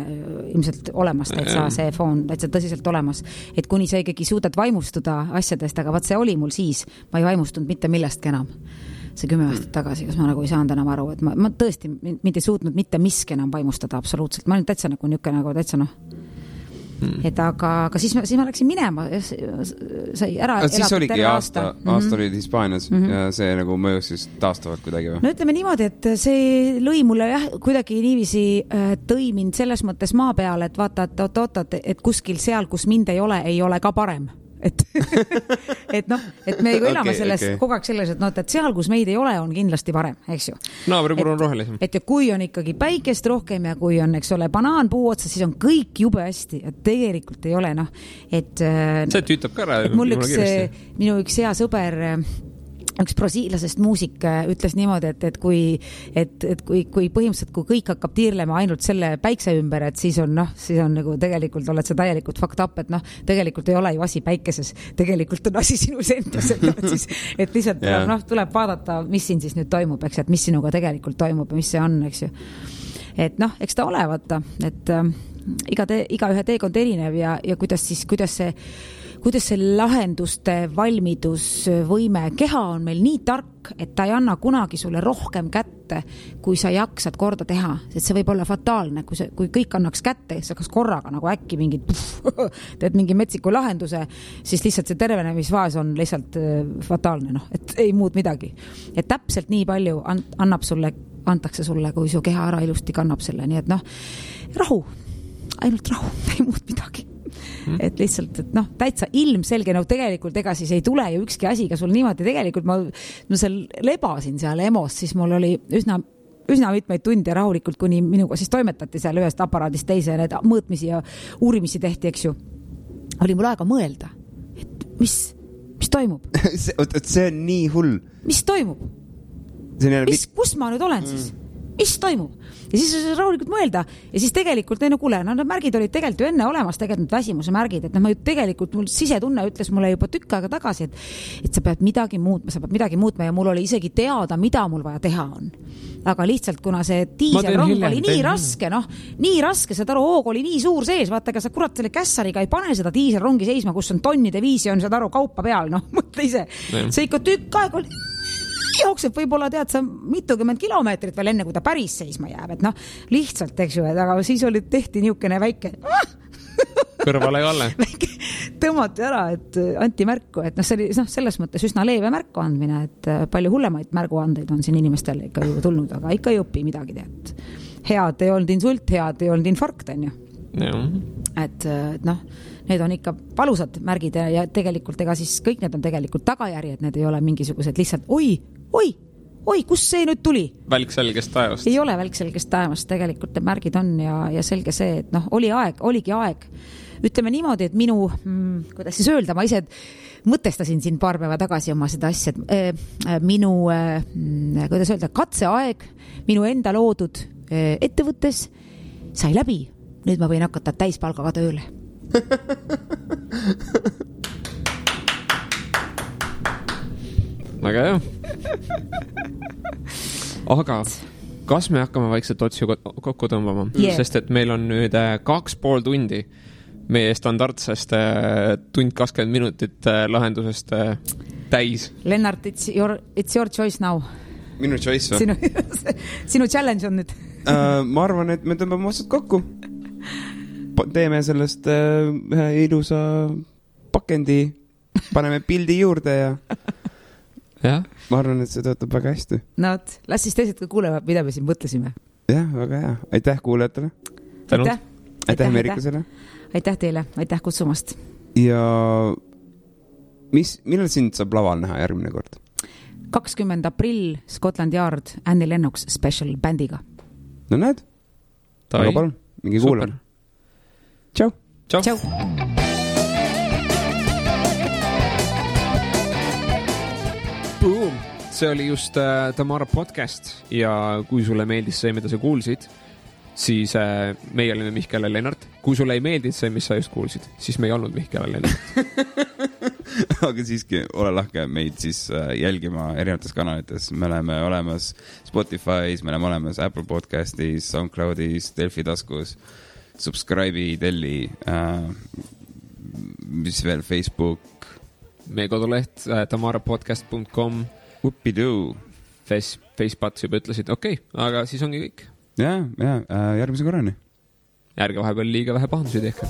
ilmselt olemas, täitsa see foon, täitsa tõsiselt olemas. Et kuni sa ikkagi suudad vaimustuda asjadest, aga vaat see oli mul siis, ma ei vaimustunud mitte millestki enam. See 10 aastat tagasi, kas ma nagu ei saanud enam aru, et ma tõesti mind ei suutnud mitte miski enam vaimustada absoluutselt. Ma olin täitsa nagu niuke nagu täitsa et aga siis ma läksin minema sai ära siis oligi aasta olid Hispaanias ja see nagu mõjus siis taastavalt kuidagi või? No ütleme niimoodi, et see lõi mulle kuidagi niiviisi tõi mind selles mõttes maa peale, et vaata, et kuskil seal, kus mind ei ole ka parem. et me elame kogu aeg selles, et seal, kus meid ei ole, on kindlasti parem, eks ju. Naabripuru on rohelisem. Et ja kui on ikkagi päikest rohkem ja kui on, eks ole, banaan puu otsa, siis on kõik jube hästi, et tegelikult ei ole, et see tüütab ka ära. Minu üks hea sõber üks brasiilasest muusik ütles niimoodi, et kui põhimõtteliselt, kui kõik hakkab tiirlema ainult selle päikse ümber, et siis on nagu tegelikult oled sa täielikult fucked up, et tegelikult ei ole ju asi päikeses, tegelikult on asi sinus endas, et lihtsalt tuleb vaadata, mis siin siis nüüd toimub, eks, et mis sinuga tegelikult toimub ja mis see on, eks ju. Et eks ta ole, vaata, et iga ühe teekond erinev ja kuidas see lahenduste valmidusvõime, keha on meil nii tark, et ta ei anna kunagi sulle rohkem kätte, kui sa jaksad korda teha, et see võib olla fataalne, kui kõik annaks kätte, sa kas korraga nagu äkki teed mingi metsiku lahenduse, siis lihtsalt see tervenemisfaas on lihtsalt fataalne, et ei muud midagi. Et täpselt nii palju antakse sulle, kui su keha ära ilusti kannab selle, nii et rahu, ainult rahu, ei muud midagi. Et lihtsalt, et täitsa ilmselge, tegelikult ega siis ei tule ju ükski asi, ka sul niimoodi tegelikult ma seal lebasin seal EMO-s, siis mul oli üsna mitmeid tunde rahulikult, kuni minuga siis toimetati seal ühest aparaadist teise ja need mõõtmisi ja uurimisi tehti, eks ju. Oli mul aega mõelda, et mis toimub? See on nii hull. Mis toimub? Kus ma nüüd olen siis? Mis toimub? Ja siis rahulikult mõelda ja siis tegelikult, kuule, need märgid olid tegelikult ju enne olemas, tegelikult väsimuse märgid, et ma ju tegelikult, mul sisetunne ütles mulle juba tükk aega tagasi, et sa pead midagi muutma ja mul oli isegi teada, mida mul vaja teha on. Aga lihtsalt, kuna see diiselrong oli nii raske, saad aru, hoog oli nii suur sees, vaata, ega sa kurat selle kässariga ei pane seda diiselrongi seisma, kus on tonnide viisi, on saad aru, kaupa peal, mõtle ise. See ikka tükk aeg oli jookseb võib-olla tead sa mitukümmend kilomeetrit veel enne, kui ta päris seisma jääb, et lihtsalt, eks ju, aga siis tehti niisugune väike kõrvale Kalle. Tõmmati ära, et anti märku, et see oli selles mõttes üsna leeve märku andmine, et palju hullemaid märguandeid on siin inimestel ikka ju tulnud, aga ikka ei õpi midagi tead. Head ei olnud insult, head ei olnud infarkt, on ju. Et need on ikka valusad märgid ja tegelikult ega siis kõik need on tegelikult tagajärjed, need ei ole mingisugused lihtsalt oi, kus see nüüd tuli? Välk selgest taevast. Ei ole välk selgest taevast, tegelikult need märgid on ja selge see, et oligi aeg. Ütleme niimoodi, et kuidas siis öelda, ma ise mõtestasin siin paar päeva tagasi oma seda asja, et minu, kuidas öelda, katseaeg minu enda loodud ettevõttes sai läbi. Nüüd ma võin hakata täispalgaga tööle. Väga hea. Aga kas me hakkame vaikselt otsi kokku tõmbama? Sest et meil on nüüd 2,5 tundi meie standardsest tund 20 minutit lahendusest täis. Lennart, it's your choice now. Minu choice või? Sinu challenge on nüüd. Ma arvan, et me tõmbame otsad kokku. Teeme sellest ühe ilusa pakendi, paneme pildi juurde ja ma arvan, et see töötab väga hästi. Las siis teised ka kuulevad, mida me siin mõtlesime. Jah, väga hea. Aitäh kuulajatele. Aitäh Meerikusele. Aitäh teile, aitäh kutsumast. Ja millal sind saab laval näha järgmine kord? 20. aprill Scotland Yard Annie Lennox special bändiga. No näed? Aga palun, mingi kuulame. Tšau. Tšau. Boom! See oli just Tamara podcast ja kui sulle meeldis see, mida sa kuulsid, siis meie olime Mihkel ja Lennart. Kui sulle ei meeldinud see, mis sa just kuulsid, siis me ei olnud Mihkel ja Lennart. Aga siiski, ole lahke meid siis jälgima erinevates kanalites. Me oleme olemas Spotify's, me oleme olemas Apple Podcastis, SoundCloudis, Delfi taskus, subscribe'i, telli, mis veel, Facebook. Meie koduleht tamarapodcast.com. Uppidoo. Facepats juba ütlesid, okei, aga siis ongi kõik. Ja, järgmise korrani. Ärge vahepeal liiga vähe pahandusi tehke.